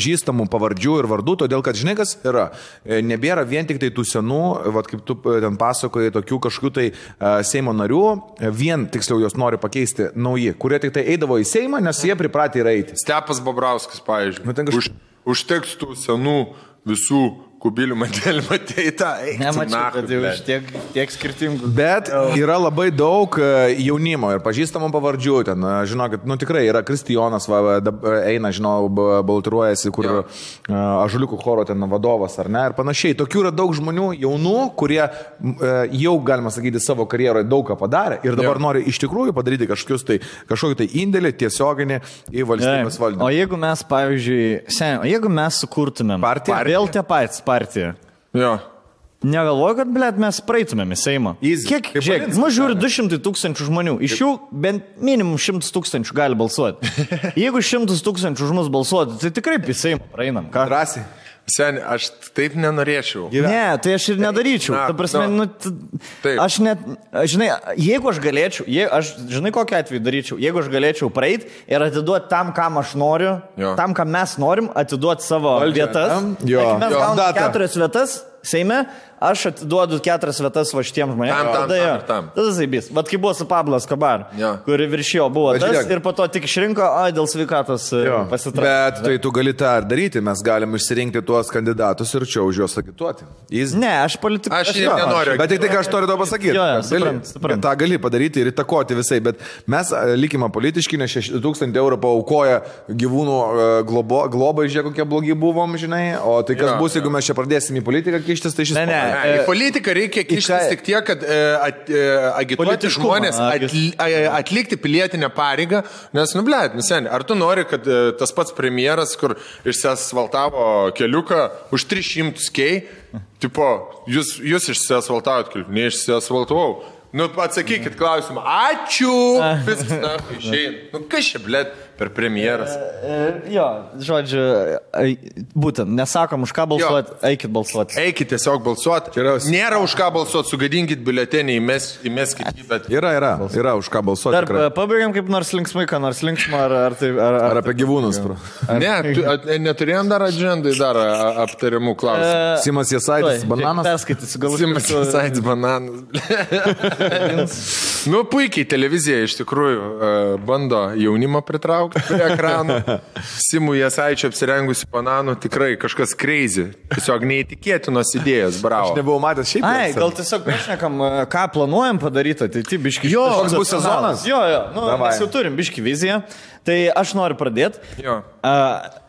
pažįstamų pavardžių ir vardų, todėl kad žinai, kas yra. Nebėra vien tik tai tų senų, vat, kaip tu ten pasakojai, tokių kažkokių tai Seimo narių, vien tiksliau jos nori pakeisti nauji, kurie tik tai eidavo į Seimą, nes jie pripratę yra eiti. Stepas Bobrauskas, pavyzdžiui. Užteks tų senų visų kubilių mantelį matėjai. Nemačiau, kad jau iš tiek skirtingų. Bet yra labai daug jaunimo ir pažįstamų pavardžių. Ten, žinokit, nu tikrai yra Kristijonas, eina, žinau, baltiruojasi, kur Ąžuoliukų choro ten vadovas ar ne, ir panašiai. Tokių yra daug žmonių jaunų, kurie jau, galima sakyti, savo karjeroje daug ką padarė ir dabar nori iš tikrųjų padaryti kažkokį tai indėlį tiesioginį į valstybės valdymą. O jeigu mes, pavyzdžiui, jeigu mes sukurtumėm partiją, vėl tie patys partiją. Jo. Negalvoju, kad, blėt, mes praeitumėm į Seimą. Kiek, žiūrėk, mus žiūri 200 000 žmonių. Iš jų bent minimum 100 000 gali balsuoti. Jeigu 100 000 už mus balsuoti, tai tikrai į Seimą praeinam. Ką? Drąsiai. Seni, aš taip nenorėčiau. Ne, tai aš ir nedaryčiau. Ta prasme, aš net, žinai, jeigu aš galėčiau, žinai, kokią atveju daryčiau, jeigu aš galėčiau praeiti ir atiduoti tam, kam aš noriu, tam, kam mes norim, atiduoti savo vietas. Mes gauname 4 vietas Seime, aš atiduodu 4 vietas va šitiem žmonėms. Tada zaibys. Vat kaip buvo su Pablo Escobar, kuri viršijo buvo tas ir po to tik išrinko, dėl sveikatos pasitraukė. Bet tai tu gali tą ir daryti, mes galim išsirinkti tuos kandidatus ir čia už juos agituoti. Ne, aš politikai. Aš nenoriu. Bet tik tai, ką aš noriu to pasakyti. Ta gali padaryti ir įtakoti visai, bet mes likime politiški, nes 6 000 eurų paaukoja gyvūnų globai, žiūrėk, kokie blogi buvom, žinai, o tai kas bus, jeigu mes čia pradėsim į politiką kištis, tai šis... Į politiką reikia kištis tik tiek, kad agituoti žmonės atlikti pilietinę pareigą, nes, nu, blėt, seni, ar tu nori, kad tas pats premjeras, kur išsiasfaltavo keliuką už 300 kei, tipo, jūs išsiasfaltavot keliuką, neišsiasfaltavau. Nu, atsakykit klausimą. Ačiū! Viskas, na, išeina. Nu, kas čia, blėt, per premjeras? Jo, žodžiu, būtent, nesakom už ką balsuoti, eikit balsuoti. Eikit tiesiog balsuoti. Nėra už ką balsuoti, sugadinkit biuletenį, įmeskit jį, bet... Yra už ką balsuoti. Dar pabaigiam kaip nors linksmai, ką nors linksmą, ar apie gyvūnus. Ne, neturėjom dar agendai, dar aptariamų klausimų. Simas Jasaitis, bananas. Perskaitysiu, galbūt. Simas Jasaitis, bananas. Nu, puikiai televizija iš tikrųjų bando jaunimą pritraukti prie ekranų. Simų Jasaičio apsirengusi bananų, tikrai kažkas crazy. Tiesiog neįtikėtinos idėjos, bravo. Aš nebuvau matęs šiaip. Gal tiesiog pašnekam, ką planuojam padaryti, tai biški. Jo, koks bus sezonas? Jo, mes jau turim biški viziją. Tai aš noriu pradėti.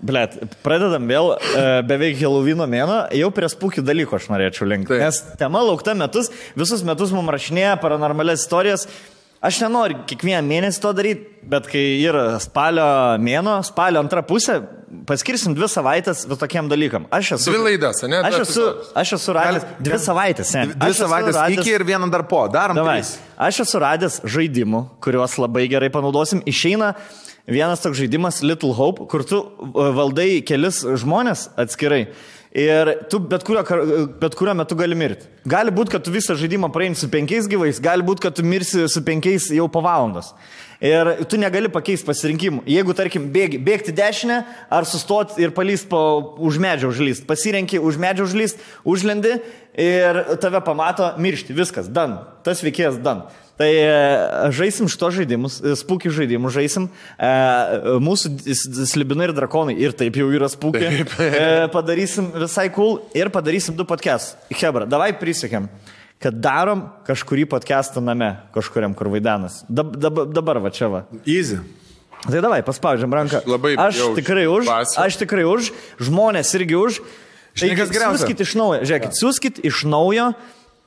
Blet, pradedam vėl beveik Helovyno mėno, jau prie spūkių dalykų aš norėčiau linkti. Nes tema laukta metus, visus metus mums rašinėja paranormalias istorijas. Aš nenoriu kiekvieną mėnesį to daryti, bet kai yra spalio mėno, spalio antra pusė, paskirsim 2 savaitės tokiem dalykam. 2 laidas, ne? Aš esu radęs 2 savaitės, ne? 2 savaitės iki ir vieną dar po. Darom 3. Aš esu radęs žaidimų, kuriuos labai gerai panaudosim. Išeina vienas toks žaidimas Little Hope, kur tu valdai kelis žmonės atskirai. Ir tu bet kurio metu gali mirti. Gali būti, kad tu visą žaidimą praeini su 5 gyvais, gali būti, kad tu mirsi su 5 jau po valandos. Ir tu negali pakeisti pasirinkimų. Jeigu, tarkim, bėgti dešinę, ar sustoti ir palyst už medžio užlyst. Pasirenki už medžio užlyst, užlendi ir tave pamato miršti. Viskas, dan. Tas veikėjas dan. Tai žaisim šito žaidimus, spūkių žaidimus žaisim. Mūsų slibinai ir drakonai ir taip jau yra spūkiai. Padarysim visai cool ir padarysim 2 podcastus. Hebra, davai prisiekėm, kad darom kažkurį podcastą name, kažkuriam, kur vaidenas. Dabar va čia va. Easy. Tai davai, paspaudžiam ranką. Aš tikrai už, žmonės irgi už. Siūskit iš naujo, žiūrėkit, siūskit iš naujo.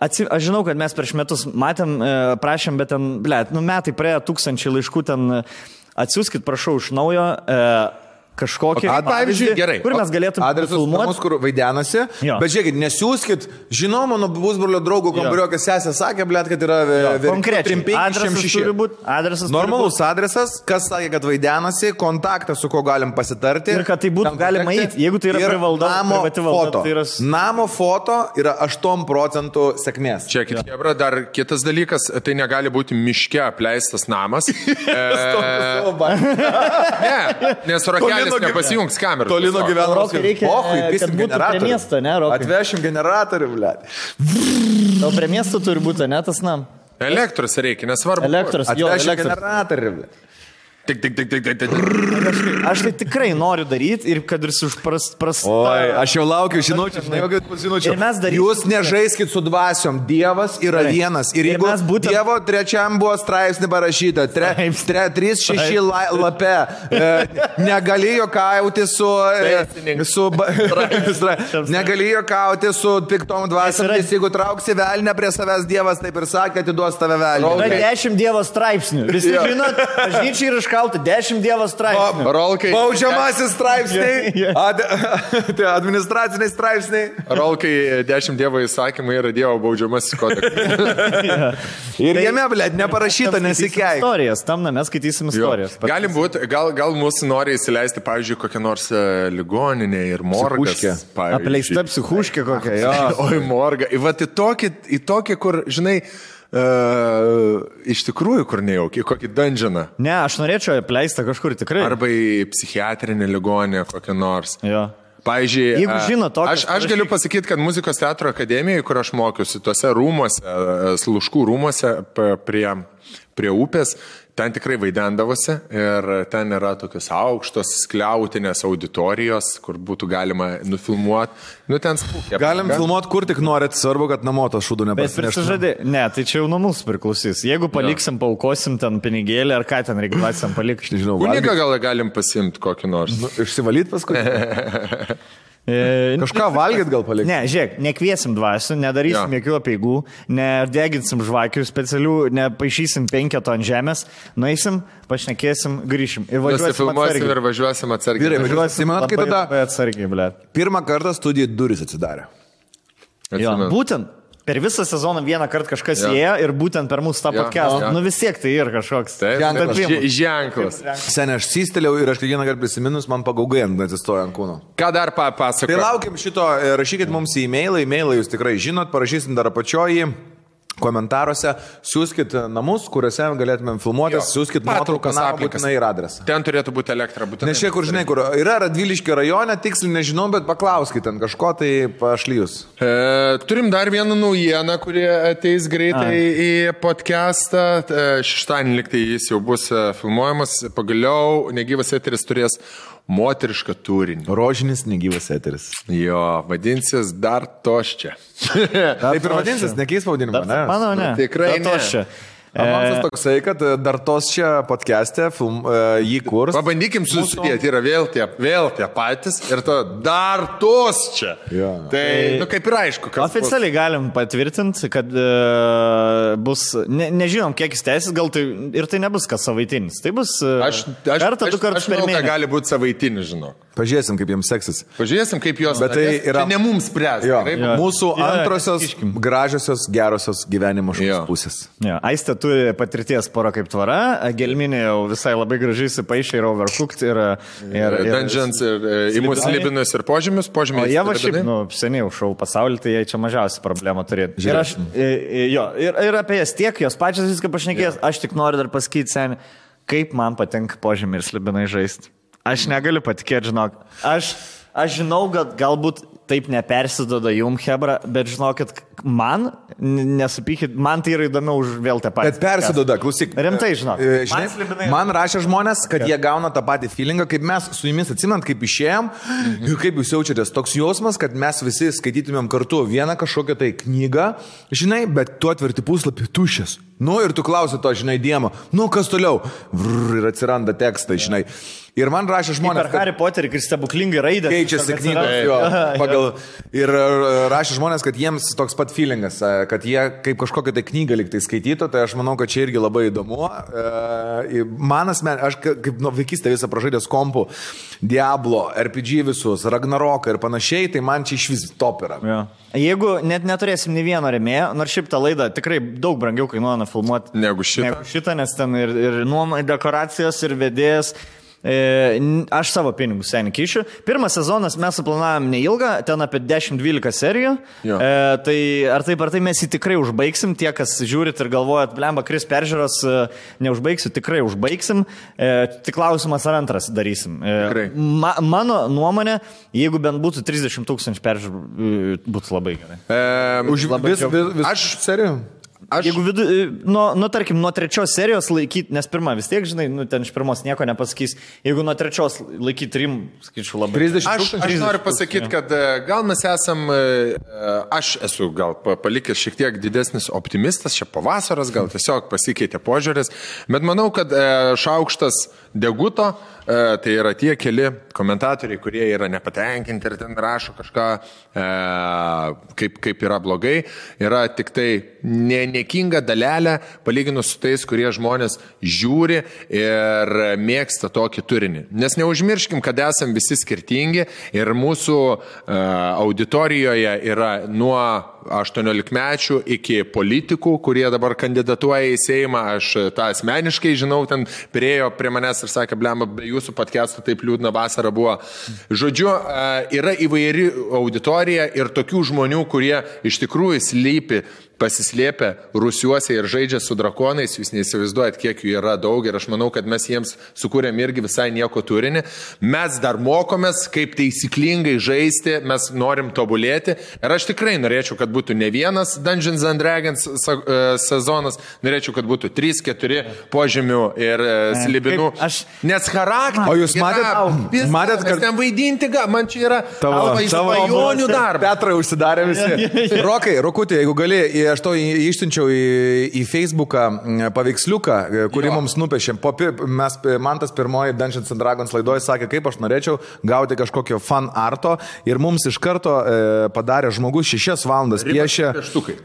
Aš žinau, kad mes prieš metus matėm, prašėm, bet ten, metai praėjo 1000 laiškų, ten atsiųskit, prašau, iš naujo kažkokį pavyzdžiui, gerai. Kur mes galėtume filmuoti. Adresas, kur vaidenasi, bet žiūrėkit, nesiūskit, žinau, mano pusbrolio draugų kambariokas sesė sakė, kad yra konkrečiai. Adresas turi būti. Normalus adresas, kas sakė, kad vaidenasi, kontaktas, su ko galim pasitarti. Ir kad tai būtų galima eiti, jeigu tai yra privati valda. Namo foto yra 8% sėkmės. Čia, Hebra, dar kitas dalykas, tai negali būti miške apleistas namas. Ne, nes Rokelis nepasijungs kamerą. Tolino gyvenimas. Reikia, kad būtų prie miesto, ne, Rokai? Atvešim generatorių, blėt. O prie miesto turi būti, ne, tas nam? Elektros reikia, nesvarbu. Atvešim generatorių, blėt. Tik. Aš tai tikrai noriu daryti ir kad ir Oi, aš jau laukiu žinučių. Jūs nežaiskit su dvasiom. Dievas yra vienas. Ir jeigu Dievo 3 buvo straipsnį parašyta, 3-6 lape, negalėjo kauti negalėjo kauti su piktom dvasiomis. Jeigu trauksi velnę prie savęs, Dievas taip ir sakė, atiduos tave velnę. Yra 10 Dievo straipsnių. Visi žinot, bažnyčiai ir 10 Dievo straipsnių. Baudžiamasis straipsniai, administraciniai straipsniai. Rolkai 10 Dievo įsakymai yra Dievo baudžiamasis kodeksas. Ir jame, blėt, neparašyta, nesikeik. Istorijas, tam mes skaitysim istorijas. Galim būti, gal mūsų nori įsileisti, pavyzdžiui, kokią nors ligoninę ir morgas. Apleista psichuškė kokia, jo. Oi, morga. Vat į tokį, kur, žinai, iš tikrųjų, kur nejaukiai, kokį dungeoną. Ne, aš norėčiau apleistą kažkur tikrai. Arba į psichiatrinę ligonę kokią nors. Jo. Pavyzdžiui, jeigu žino tokias, aš galiu pasakyti, kad muzikos teatro akademijoje, kur aš mokiausi, tuose rūmuose, Sluškų rūmuose prie upės, ten tikrai vaidendavosi ir ten yra tokios aukštos skliautinės auditorijos, kur būtų galima nufilmuoti. Nu, ten spūkė. Galim filmuoti kur tik norit, svarbu, kad namo tas šūdų nepasineštų. Ne, tai čia jau nuo mūsų priklausys. Jeigu paliksim, paukosim ten pinigėlį ar ką ten reikalasim palikti. Kunigą gal galim pasimti kokį nors. Išsivalyt paskui. Kažką valgyt gal palikti? Ne, žiūrėk, nekviesim dvasių, nedarysim jokių apeigų, nedeginsim žvakių specialių, nepaišysim 5 ant žemės, nueisim, pašnekėsim, grįšim. Ir važiuosim atsargiai. Vyrai, važiuosim, manat, kai tada atsargiai, blėt. Pirmą kartą studijų durys atsidarė. Jo, būtent. Per visą sezoną vieną kartą kažkas ėjo ir būtent per mūsų tą podcastą. Nu vis tiek tai yra kažkoks ženklas. Seniai, aš systelėjau ir aš kiekvieną kartą prisiminus, man pagaugai atsistoja ant kūno. Ką dar pasakoju? Tai laukiam šito, rašykit mums į e-mailą jūs tikrai žinot, parašysim dar apačioji. Komentaruose siūskit namus, kuriuose galėtumėm filmuotis, siūskit nuotraukas, būtinai ir adresą. Ten turėtų būti elektra, būtinai. Nes čia, kur žinai, kur yra Radviliškio rajone, tiksliai nežinau, bet paklauskit ten kažko, tai pašlyjus. Turim dar vieną naujieną, kurie ateis greitai į podcastą. Šeštadienį liktai jis jau bus filmuojamas. Pagaliau negyvas eteris turės moterišką turinį. Rožinis negyvas eteris. Jo, vadinsis dar toščia. Taip ir vadinsis, nekeis pavadinimą, ne? Manau, ne. Tikrai toščia. Avansas toksai, kad dar tos čia podcast'e jį kurs. Pabandykim susidėti, yra vėl tie patys ir to dar tos čia. Jo. Tai, kaip ir aišku, kad... Oficialiai galim patvirtinti, kad bus, nežinom, kiek jis tęsis, gal tai ir tai nebus kas savaitinis. Tai bus kartą, du kartus per mėnesį. Aš gali būti savaitinis, žinau. Pažiūrėsim, kaip jiems seksis. Pažiūrėsim, kaip jos... Bet tai yra... Čia ne mums spręs. Mūsų antrosios, gražiosios, gerosios gyvenimo pusės. Aistė turi patirties pora kaip tvara, Gelminė jau visai labai gražiai įsipaišė ir Overcooked ir Dungeons ir Imus Slibinus ir požymius. O jie va šiaip, seniai šau pasaulį, tai jie čia mažiausiai problemą turėtų. Ir aš, ir apie jas tiek, jos pačias viską pašnekės, aš tik noriu dar pasakyti, seniai, kaip man patinka požymiai ir slibinai žaisti. Aš negaliu patikėti, žinok. Aš žinau, kad galbūt taip nepersidoda jum, hebra, bet žinokit, man, nesupykit, man tai yra įdomiau už vėl tą patį. Bet persidoda, klausyk. Rimtai, žinok. Man rašė žmonės, kad jie gauna tą patį feelingą, kaip mes su jumis atsimant, kaip išėjom ir kaip jūs jaučiatės. Toks jausmas, kad mes visi skaitytumėm kartu vieną kažkokią tai knygą, žinai, bet tu atverti puslapį tuščias. Ir tu klausi to, žinai, Diemo, kas toliau? Ir atsiranda tekstai, žinai. Ir man rašė žmonės, kad... Harry Potterį, kai stebuklingai raidė. Keičiasi knygos, ir rašė žmonės, kad jiems toks pat feelingas, kad jie kaip kažkokią tai knygą liktai skaitytų, tai aš manau, kad čia irgi labai įdomu. Aš kaip vaikystę visą pražaidęs kompų, Diablo, RPG visus, Ragnaroką ir panašiai, tai man čia iš vis top yra. Ja. Jeigu net neturėsim nei vieno rėmėjo, nors šiaip tą laidą tikrai daug brangiau kainuoja nufilmuoti negu šitą, nes ten ir nuomai dekoracijos, ir vedėjas. Aš savo pinigus seniai kišiu. Pirmas sezonas mes suplanavom neilgą, ten apie 10-12 serijų. Tai ar tai mes jį tikrai užbaigsim, tie, kas žiūrit ir galvojat, blemba, Kris peržiūros neužbaigsiu, tikrai užbaigsim. Tik klausimas, ar antras darysim. Mano nuomonė, jeigu bent būtų 30 000 peržiūrų, būtų labai gerai. Aš serijų? Jeigu tarkim, nuo 3 serijos laikyti, nes pirma vis tiek, žinai, ten iš pirmos nieko nepasakys, jeigu nuo 3 laikyti 3, skaičiu labai. 30 000. Aš noriu pasakyti, kad gal mes esam, aš esu gal palikęs šiek tiek didesnis optimistas, čia pavasaras, gal tiesiog pasikeitė požiūris, bet manau, kad Šaukštas deguto, tai yra tie keli komentatoriai, kurie yra nepatenkinti ir ten rašo kažką, kaip yra blogai, yra tik tai nekinga dalelė, palyginus su tais, kurie žmonės žiūri ir mėgsta tokį turinį. Nes neužmirškim, kad esam visi skirtingi ir mūsų auditorijoje yra nuo 18-mečių iki politikų, kurie dabar kandidatuoja į Seimą. Aš tą asmeniškai žinau, ten priejo prie manęs ir sakė, blemba, be jūsų podcastų taip liūdna vasara buvo. Žodžiu, yra įvairi auditorija ir tokių žmonių, kurie iš tikrųjų pasislėpę rusiuose ir žaidžia su drakonais, jūs neįsivaizduojat, kiek jų yra daug ir aš manau, kad mes jiems sukūrėm irgi visai nieko turinį. Mes dar mokomės, kaip taisyklingai žaisti, mes norim tobulėti ir aš tikrai norėčiau, kad būtų ne vienas Dungeons and Dragons sezonas, norėčiau, kad būtų 3-4 požemių ir slibinų. Nes charakteris... O jūs matėt, kad ten vaidinti, man čia yra svajonių darbas. Petrai užsidarė visi. Rokutė, jeigu gali, aš to išsiunčiau į Facebooką paveiksliuką, kurį mums nupiešėm. Man tas pirmoji Dungeons and Dragons laidoje sakė, kaip aš norėčiau gauti kažkokio fan arto ir mums iš karto padarė žmogus 6 valandas piešė.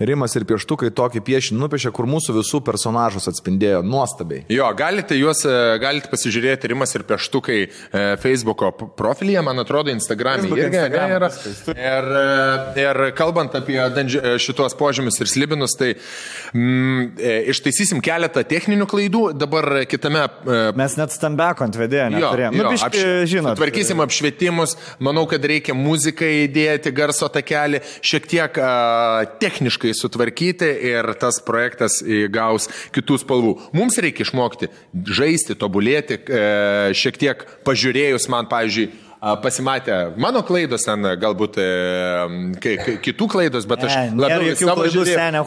Rimas ir pieštukai tokį piešinį nupiešė, kur mūsų visų personažus atspindėjo nuostabiai. Jo, galite pasižiūrėti Rimas ir pieštukai Facebooko profilyje, man atrodo, Instagram'e irgi yra. Ir kalbant apie šitos požymius ir slibinus, tai ištaisysim keletą techninių klaidų, dabar kitame... Mes net stambeko ant vedėjo neturėjom. Tvarkysim apšvietimus, manau, kad reikia muziką įdėti, garso takelį, šiek tiek techniškai sutvarkyti ir tas projektas įgaus kitų spalvų. Mums reikia išmokti žaisti, tobulėti, šiek tiek pažiūrėjus man, pavyzdžiui, pasimatė mano klaidos, ten galbūt kitų klaidos, bet aš labiau savo žiūrėjau.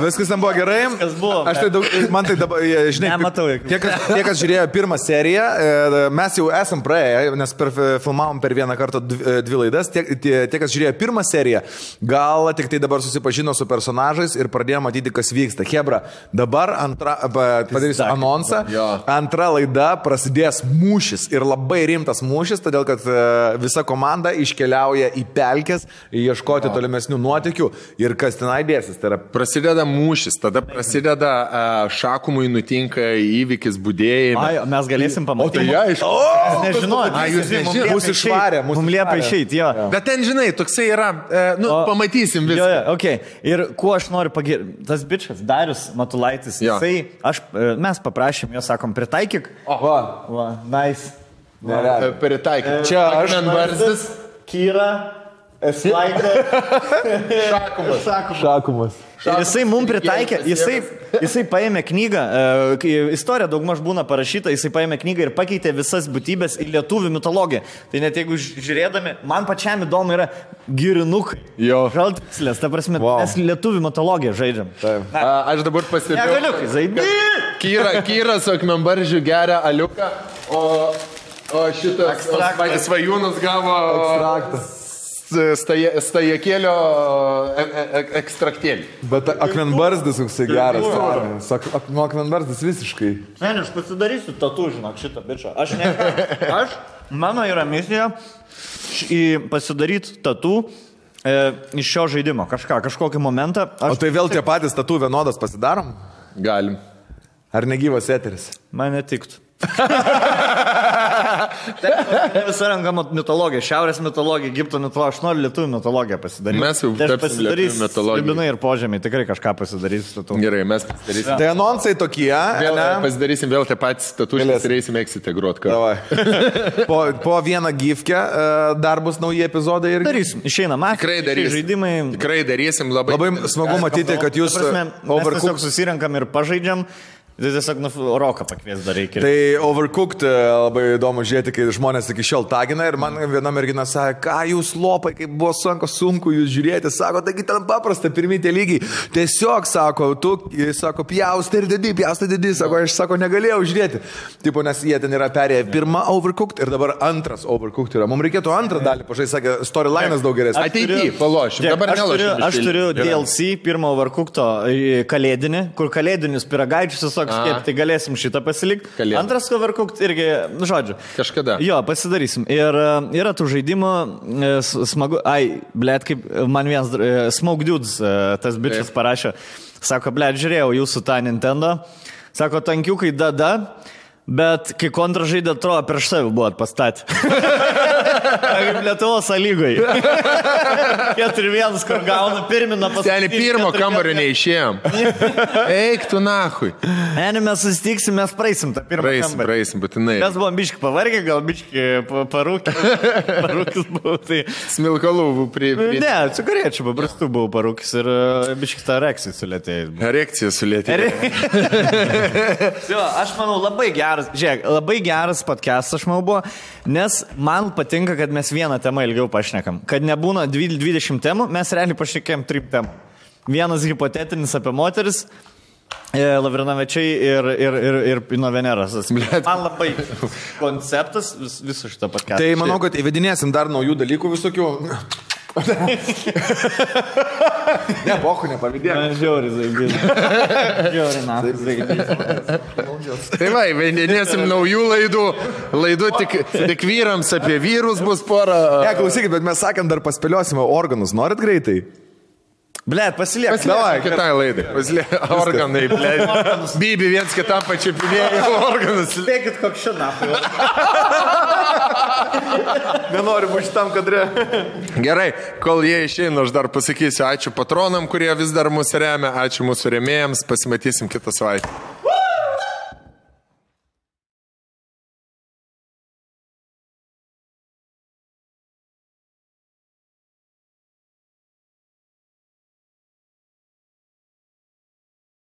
Viskas ten buvo gerai. Aš tai daug, man tai dabar, žinai, tie, kas žiūrėjo pirmą seriją, mes jau esam praėję, nes filmavom per vieną kartą 2 laidas, tie, kas žiūrėjo pirmą seriją, gal tik tai dabar susipažino su personažais ir pradėjo matyti, kas vyksta. Hebra, dabar padarysiu anonsą, antra laida prasidės mūšis ir labai rimtas mūšis, todėl kad visa komanda iškeliauja į pelkes, ieškoti tolimesnių nuotykių ir kas tenai dėsis. Tai yra... Prasideda mūšis, tada prasideda Šakumui nutinka įvykis budėjime. Ai, mes galėsim pamatyti. O tai aišku. Nežinau, jūs nežinot. Mūsų išvarė, mums liepia išeiti, jo. Bet ten, žinai, toksai yra, pamatysim viską. Jo, okay. Ir kuo aš noriu pagirti, tas bičias, Darius Matulaitis, mes paprašėm, jo sakom, pritaikyk. Nice. Pritaikyk. Čia aš Akmenbarzdis. Kyra. Šakumas. Ir jisai mums pritaikė, jisai paėmė knygą, istorija daugmaž būna parašyta, jisai paėmė knygą ir pakeitė visas būtybės į lietuvių mitologiją. Tai net jeigu žiūrėdami, man pačiam įdomu yra girinukai. Žaltikslės, ta prasme, mes lietuvių mitologiją žaidžiam. Aš dabar pastebėjau. Negaliukai, zaibė. Kyra su Akmenbarzdžiu geria aliuką, o šitas Svajūnas gavo stajakėlio ekstraktėlį. Bet Akmenbarzdis koksai geras. Nuo Akmenbarzdis visiškai. Ne, aš pasidarysiu tatu, žinok, šitą bičą. Mano yra misija pasidaryti tatu iš šio žaidimo. Kažkokį momentą. O tai vėl tie patys tatu vienodas pasidarom? Galim. Ar negyvas eteris? Man netiktų. Visa renkama mitologija, šiaurės mitologija, Egipto mitologija, aš noriu lietuvių mitologiją pasidaryti. Mes jau tapsim lietuvių mitologiją. Libinai ir požemiai, tikrai kažką pasidarysiu. Gerai, mes pasidarysim. Tai anonsai tokie. Pasidarysim vėl tą patį statusą, turėsim eksite grot kartu. Po vieną gifkę dar bus nauji epizodai ir... Darysim, išeina mafija, žaidimai. Tikrai darysim, labai smagu matyti, kad jūs... Mes tiesiog susirenkam ir pažaidžiam. Tai tiesiog roką pakvies dar reikia. Tai Overcooked labai įdomu žiūrėti, kai žmonės iki šiol tagina ir man viena mergina sakė, ką jūs lopai, kaip buvo sunku jūs žiūrėti, sako, taigi ten paprasta, pirmi tie lygiai. Tiesiog, sako, pjaustai ir didi, sako, aš negalėjau žiūrėti. Tipo, nes jie ten yra perėję pirmą Overcooked ir dabar antras Overcooked yra. Mums reikėtų antrą dalį, pažai, sakė, storyline'as daug geresnis. Ateity, palošim, dabar nelošim. Aš turiu DLC pirmo Overcooked'o kalėdinį, kur kalėdinius pyragaičius tai galėsim šitą pasilikti. Antras Overcooked irgi, žodžiu. Kažkada. Jo, pasidarysim. Ir yra tų žaidimų smagu. Kaip man vienas Smoke Dudes, tas bičias parašė. Sako, žiūrėjau jūsų tą Nintendo. Sako, tankiukai dada, bet kai kontražaidė atrodo prieš save buvot pastatę. Kaip Lietuvos lygoj. 4-1, kur gauna pirminą pasakyti. Seniai pirmo kambario neišėjom. Eik tu nahui. Mes susitiksim, mes praeisim tą pirmą kambarį. Praeisim, būtinai. Mes buvom biški pavargę, gal biški parūkis buvau. Tai... Smilkalų buvau Ne, cigarečių paprastų buvau parūkis ir biški tą erekciją sulėtėjai. Erekciją sulėtėjai. Aš manau, labai geras podcast, aš manau, buvo, nes man patinka, kad mes vieną temą ilgiau pašnekam. Kad nebūna 20 temų, mes realiai pašnekėjom 3 temų. Vienas hipotetinis apie moteris, Lavrinovičiai ir Pino Veneras. Man labai konceptas viso šito podcast'o. Tai manau, kad įvedinėsim dar naujų dalykų visokių. Ne, bohu, nepavydėk. Žiauri zaibys. Tai va, įvedinėsim naujų laidų tik vyrams, apie vyrus bus pora. Ne, klausykit, bet mes sakėm, dar paspėliosime organus. Norit greitai? Blet, pasiliek. Davai, kitai laidai. Pasiliek organai, blet. Bibi viens kitam pačiupinėjo organus. Spėkit, koks šiandien. Nenoriu būti šitam kadre. Gerai, kol jie išeina, aš dar pasakysiu ačiū patronam, kurie vis dar mūsų remia. Ačiū mūsų rėmėjams. Pasimatysim kitą savaitę.